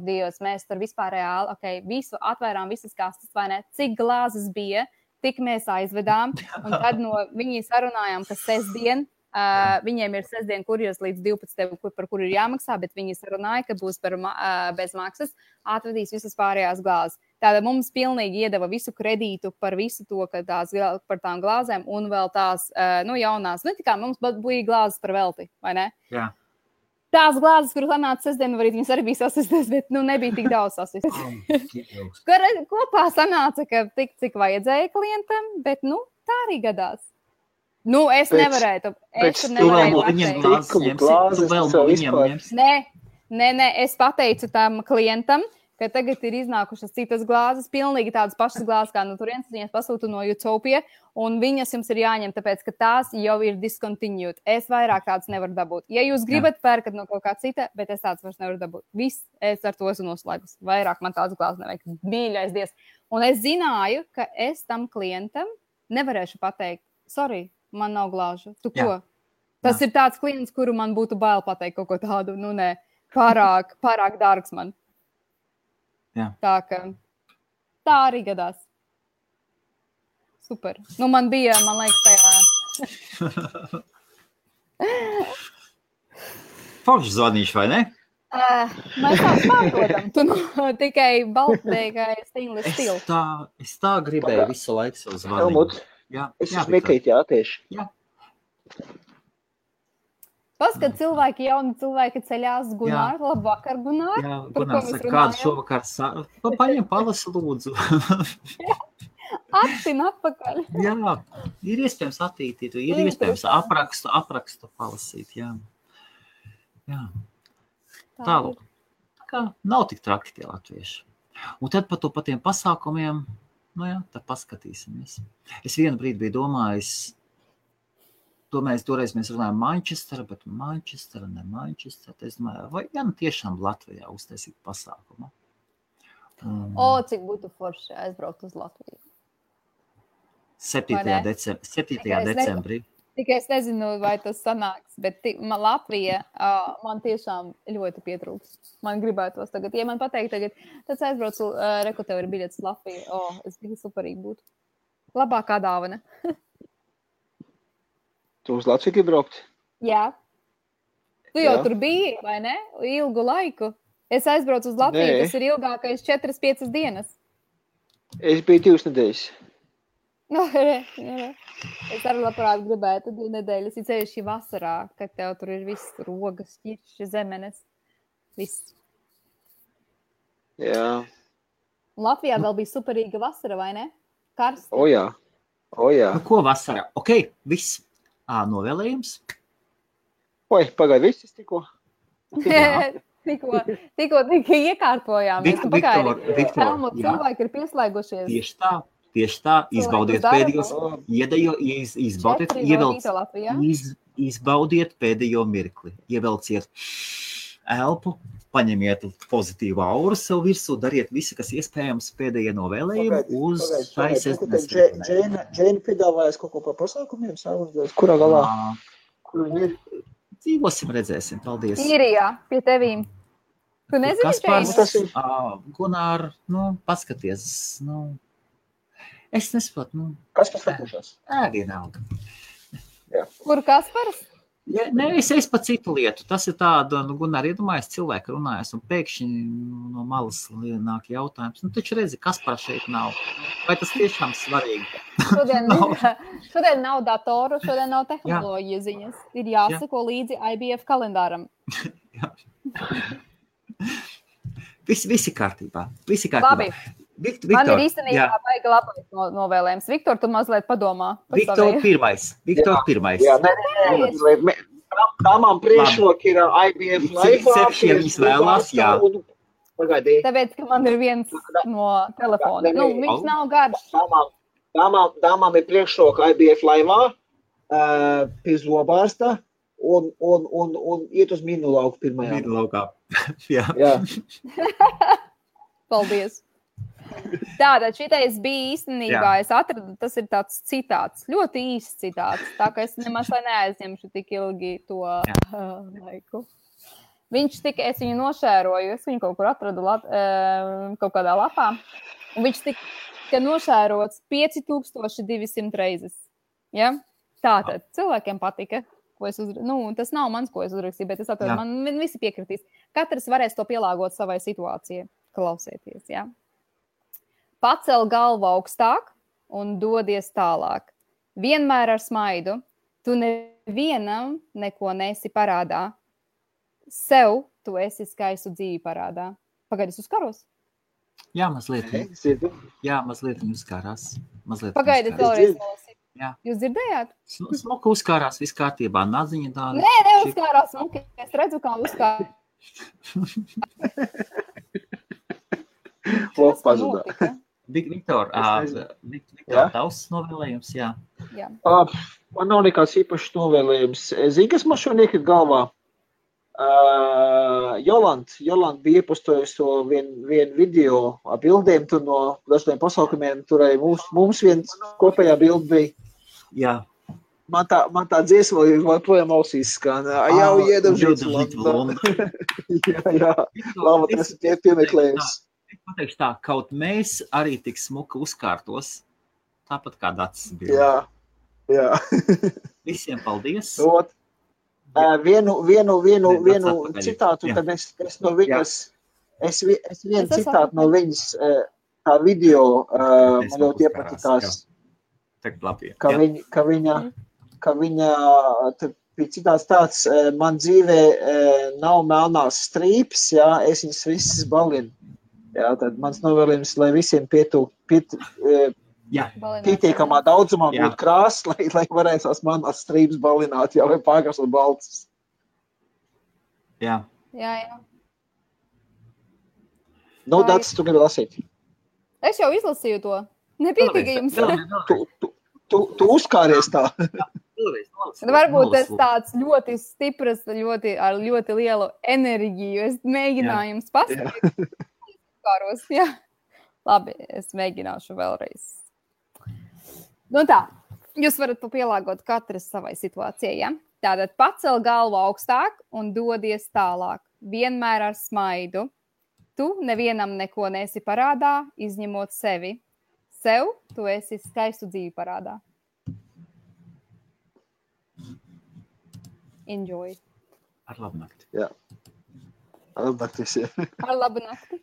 Dievs, mēs tur vispār reāli, visu atvērām, visas kastes, vai ne? Cik glāzes bija, tik mēs aizvedām. Un tad viņi sarunājām, ka sestdien, viņiem ir sestdien kurjers līdz 12, par kuru ir jāmaksā, bet viņi sarunāja, ka būs bez maksas, atvedīs visas pārējās glāzes. Tātad mums pilnīgi iedeva visu kredītu par visu to, par tām glāzēm un vēl tās, jaunās. Tikā mums bija glāzes par velti, vai ne? Jā. Tās glāzes, kuras atnāca sestdienu, viņas arī bija sasistas, bet nebija tik daudz sasistas. Kopā sanāca, ka tik, cik vajadzēja klientam, bet tā arī gadās. Es nevarēju. Nē, es pateicu tam klientam, ka tagad ir iznākušas citas glāzes, pilnīgi tādas pašas glāzes, kā no turienes, viņas pasūtu no Utopia, un viņas jums ir jāņem, tāpēc, ka tās jau ir discontinued. Es vairāk tādas nevaru dabūt. Ja jūs gribat, pērkat no kaut kā cita, bet es tādas vairs nevaru dabūt. Viss, es ar to esmu noslēgus. Vairāk man tādas glāzes nevajag. Mīļais Dievs. Un es zināju, ka es tam klientam nevarēšu pateikt, sorry, man nav glāžu. Tu ko? Tas ir tāds klients, kuru man būtu bail pateikt kaut ko tādu. Nē, pārāk dārgs man. Jā. Tā arī gadās. Super. Man liekas, tajā. Forši zvanīšu, vai ne? Mēs tā pārdodam. Tu tikai baltēkai stainless steel. Es tā gribēju visu laiku savu zvanīt. Es smekīt, tieši. Jā. Paskat, jauni cilvēki ceļās, Gunār, labvakar, Gunār. Jā, Gunār saka, kādu šovakar paņem palasi lūdzu. Attin atpakaļ. Jā, ir iespējams attītīt, ir iespējams aprakstu palasīt, jā. Tālāk. Tā nav tik traki tie latvieši. Un tad par tiem pasākumiem, tad paskatīsimies. Es vienu brīdi biju domājis, toreiz mēs runājam Manchester, bet Manchester, ne Manchester. Es domāju, vai tiešām Latvijā uztaisīt pasākumu? Cik būtu forši aizbraukt uz Latviju. 7. decembrī. Tikai es nezinu, vai tas sanāks, bet Latvija man tiešām ļoti pietrūks. Man gribētos tagad, ja man pateikt tagad, tad aizbraucu, tev ir biļets Latviju. Es biju superīgi būtu. Labākā dāvana. Tu uz Latviju gribi braukt? Jā. Tu jau tur biji, vai ne? Ilgu laiku. Es aizbraucu uz Latviju, tas ir ilgākais 4-5 dienas. Es biju 2 nedēļas. Es arī labprāt gribētu 2 nedēļas, ja ceļš vasarā, kad tev tur ir viss rogas, ķirši, zemenes, viss. Jā. Latvijā vēl bija superīga vasara, vai ne? Karsta. O jā. Nu, ko vasarā? Ok, viss. Novēlējums. Oi, pagaid, viss tikko. Tikko iekārtojām. Viktor, cilvēki ir pieslēgušies. Tieši tā. Izbaudiet pēdējos, izbaudiet pēdējo mirkli. Ievelciet elpu, paņemiet pozitīvu auru sev virsū, dariet visu, kas iespējams pēdējie novēlējumi uz šai sestdienas. Džēna piedāvājas kaut ko par pasākumiem, kurā galā? Dzīvosim, redzēsim. Paldies. Īrijā, pie tevīm. Tu nezini, Kaspars, Gunār, paskaties, es nesaprotu, Kaspars atpūšās? Vienalga. Kur Kaspars? Es pa citu lietu. Tas ir tāda, Gunār, iedomājies, cilvēki runājas, un pēkšņi no malas nāk jautājums. Taču redzi, Kaspara šeit nav. Vai tas tiešām svarīgi? Šodien nav datoru, šodien nav tehnoloģija ziņas. Ir jāsako līdzi IBF kalendāram. Visi kārtībā. Labi. Viktor, man ir īstenībā baigi labais novēlējums. Viktor, tu mazliet padomā. Viktor pirmais. Jā, nē. Tāmām priekšroki ir IBF Live. Viņas vēlās, jā. Tāpēc, ka man ir viens no telefona. Viņš nav garš. Tāmām ir priekšroka IBF Live, pie zobārsta un iet uz minu lauku pirmajā. Minu laukā. Jā. Paldies. Tātad šitais bija īstenībā, es atradu, tas ir tāds citāts, ļoti īsts citāts, tā ka es nemaz neaizņemšu tik ilgi to laiku. Es viņu nošēroju, es viņu kaut kur atradu kaut kādā lapā, un viņš tika nošērots 5200 reizes. Ja? Tātad cilvēkiem patika, ko es tas nav mans, ko es uzrakstīju, bet es atradu, man visi piekritīs. Katrs varēs to pielāgot savai situācijai, klausieties, ja? Pacel galvu augstāk un dodies tālāk. Vienmēr ar smaidu. Tu nevienam neko nesi parādā. Sev tu esi skaistu dzīvi parādā. Pagaidi, es uzkaros? Jā, mazliet. Jā, mazliet viņi uzkārās. Pagaidi, vēlreiz nolasīt. Jā. Jūs dzirdējāt? Smuka uzkārās, viss kārtībā. Naziņa tāda. Nē, neuzkārās smuki. Es redzu, kā uzkārās. Lūk, pazudā. Viktor, tavs novēlējums, jā. Man nav nekāds īpašs novēlējums. Zini, kas man šodien iekrit galvā? Jolanta bija iepostojusi to vienu video ar bildēm tur no dažādiem pasaukumiem. Tur arī mums viens kopējā bilde bija. Jā. Man tā dziesma joprojām ausīs skan. Jau iedam London. Jā. Labi, tas ir piemeklējums. Pateikšu tā, kaut mēs arī tik smuka uzkārtos, tāpat kā Dacis bija. Jā. Visiem paldies. Vienu citātu, tad es no viņas, es vienu citātu no viņas, tā video, man ļoti iepatikās, ka viņa, bija citāts tāds, man dzīvē nav melnās strīpes, jā, es viņas visas balinu. Jā, tad mans novēlējums, lai visiem pietiekamā daudzumā būtu krāsas, lai varētu tās manās strīpes balināt, jā, vai pārkrāsot baltas. Jā. Dats, tu gribi lasīt? Es jau izlasīju to. Nepietika jums. Tu uzkāries tā. Varbūt tas tāds ļoti stipras, ar ļoti lielu enerģiju. Es mēģināju jums pastāstīt. Jā. Labi, es mēģināšu vēlreiz. Tā, jūs varat pielāgot katrs savai situācijai, ja? Tātad pacel galvu augstāk un dodies tālāk. Vienmēr ar smaidu. Tu nevienam neko nesi parādā, izņemot sevi. Sev tu esi skaistu dzīvi parādā. Enjoy. Ar labu nakti. Jā. Ar labu nakti visiem. Ar labu nakti.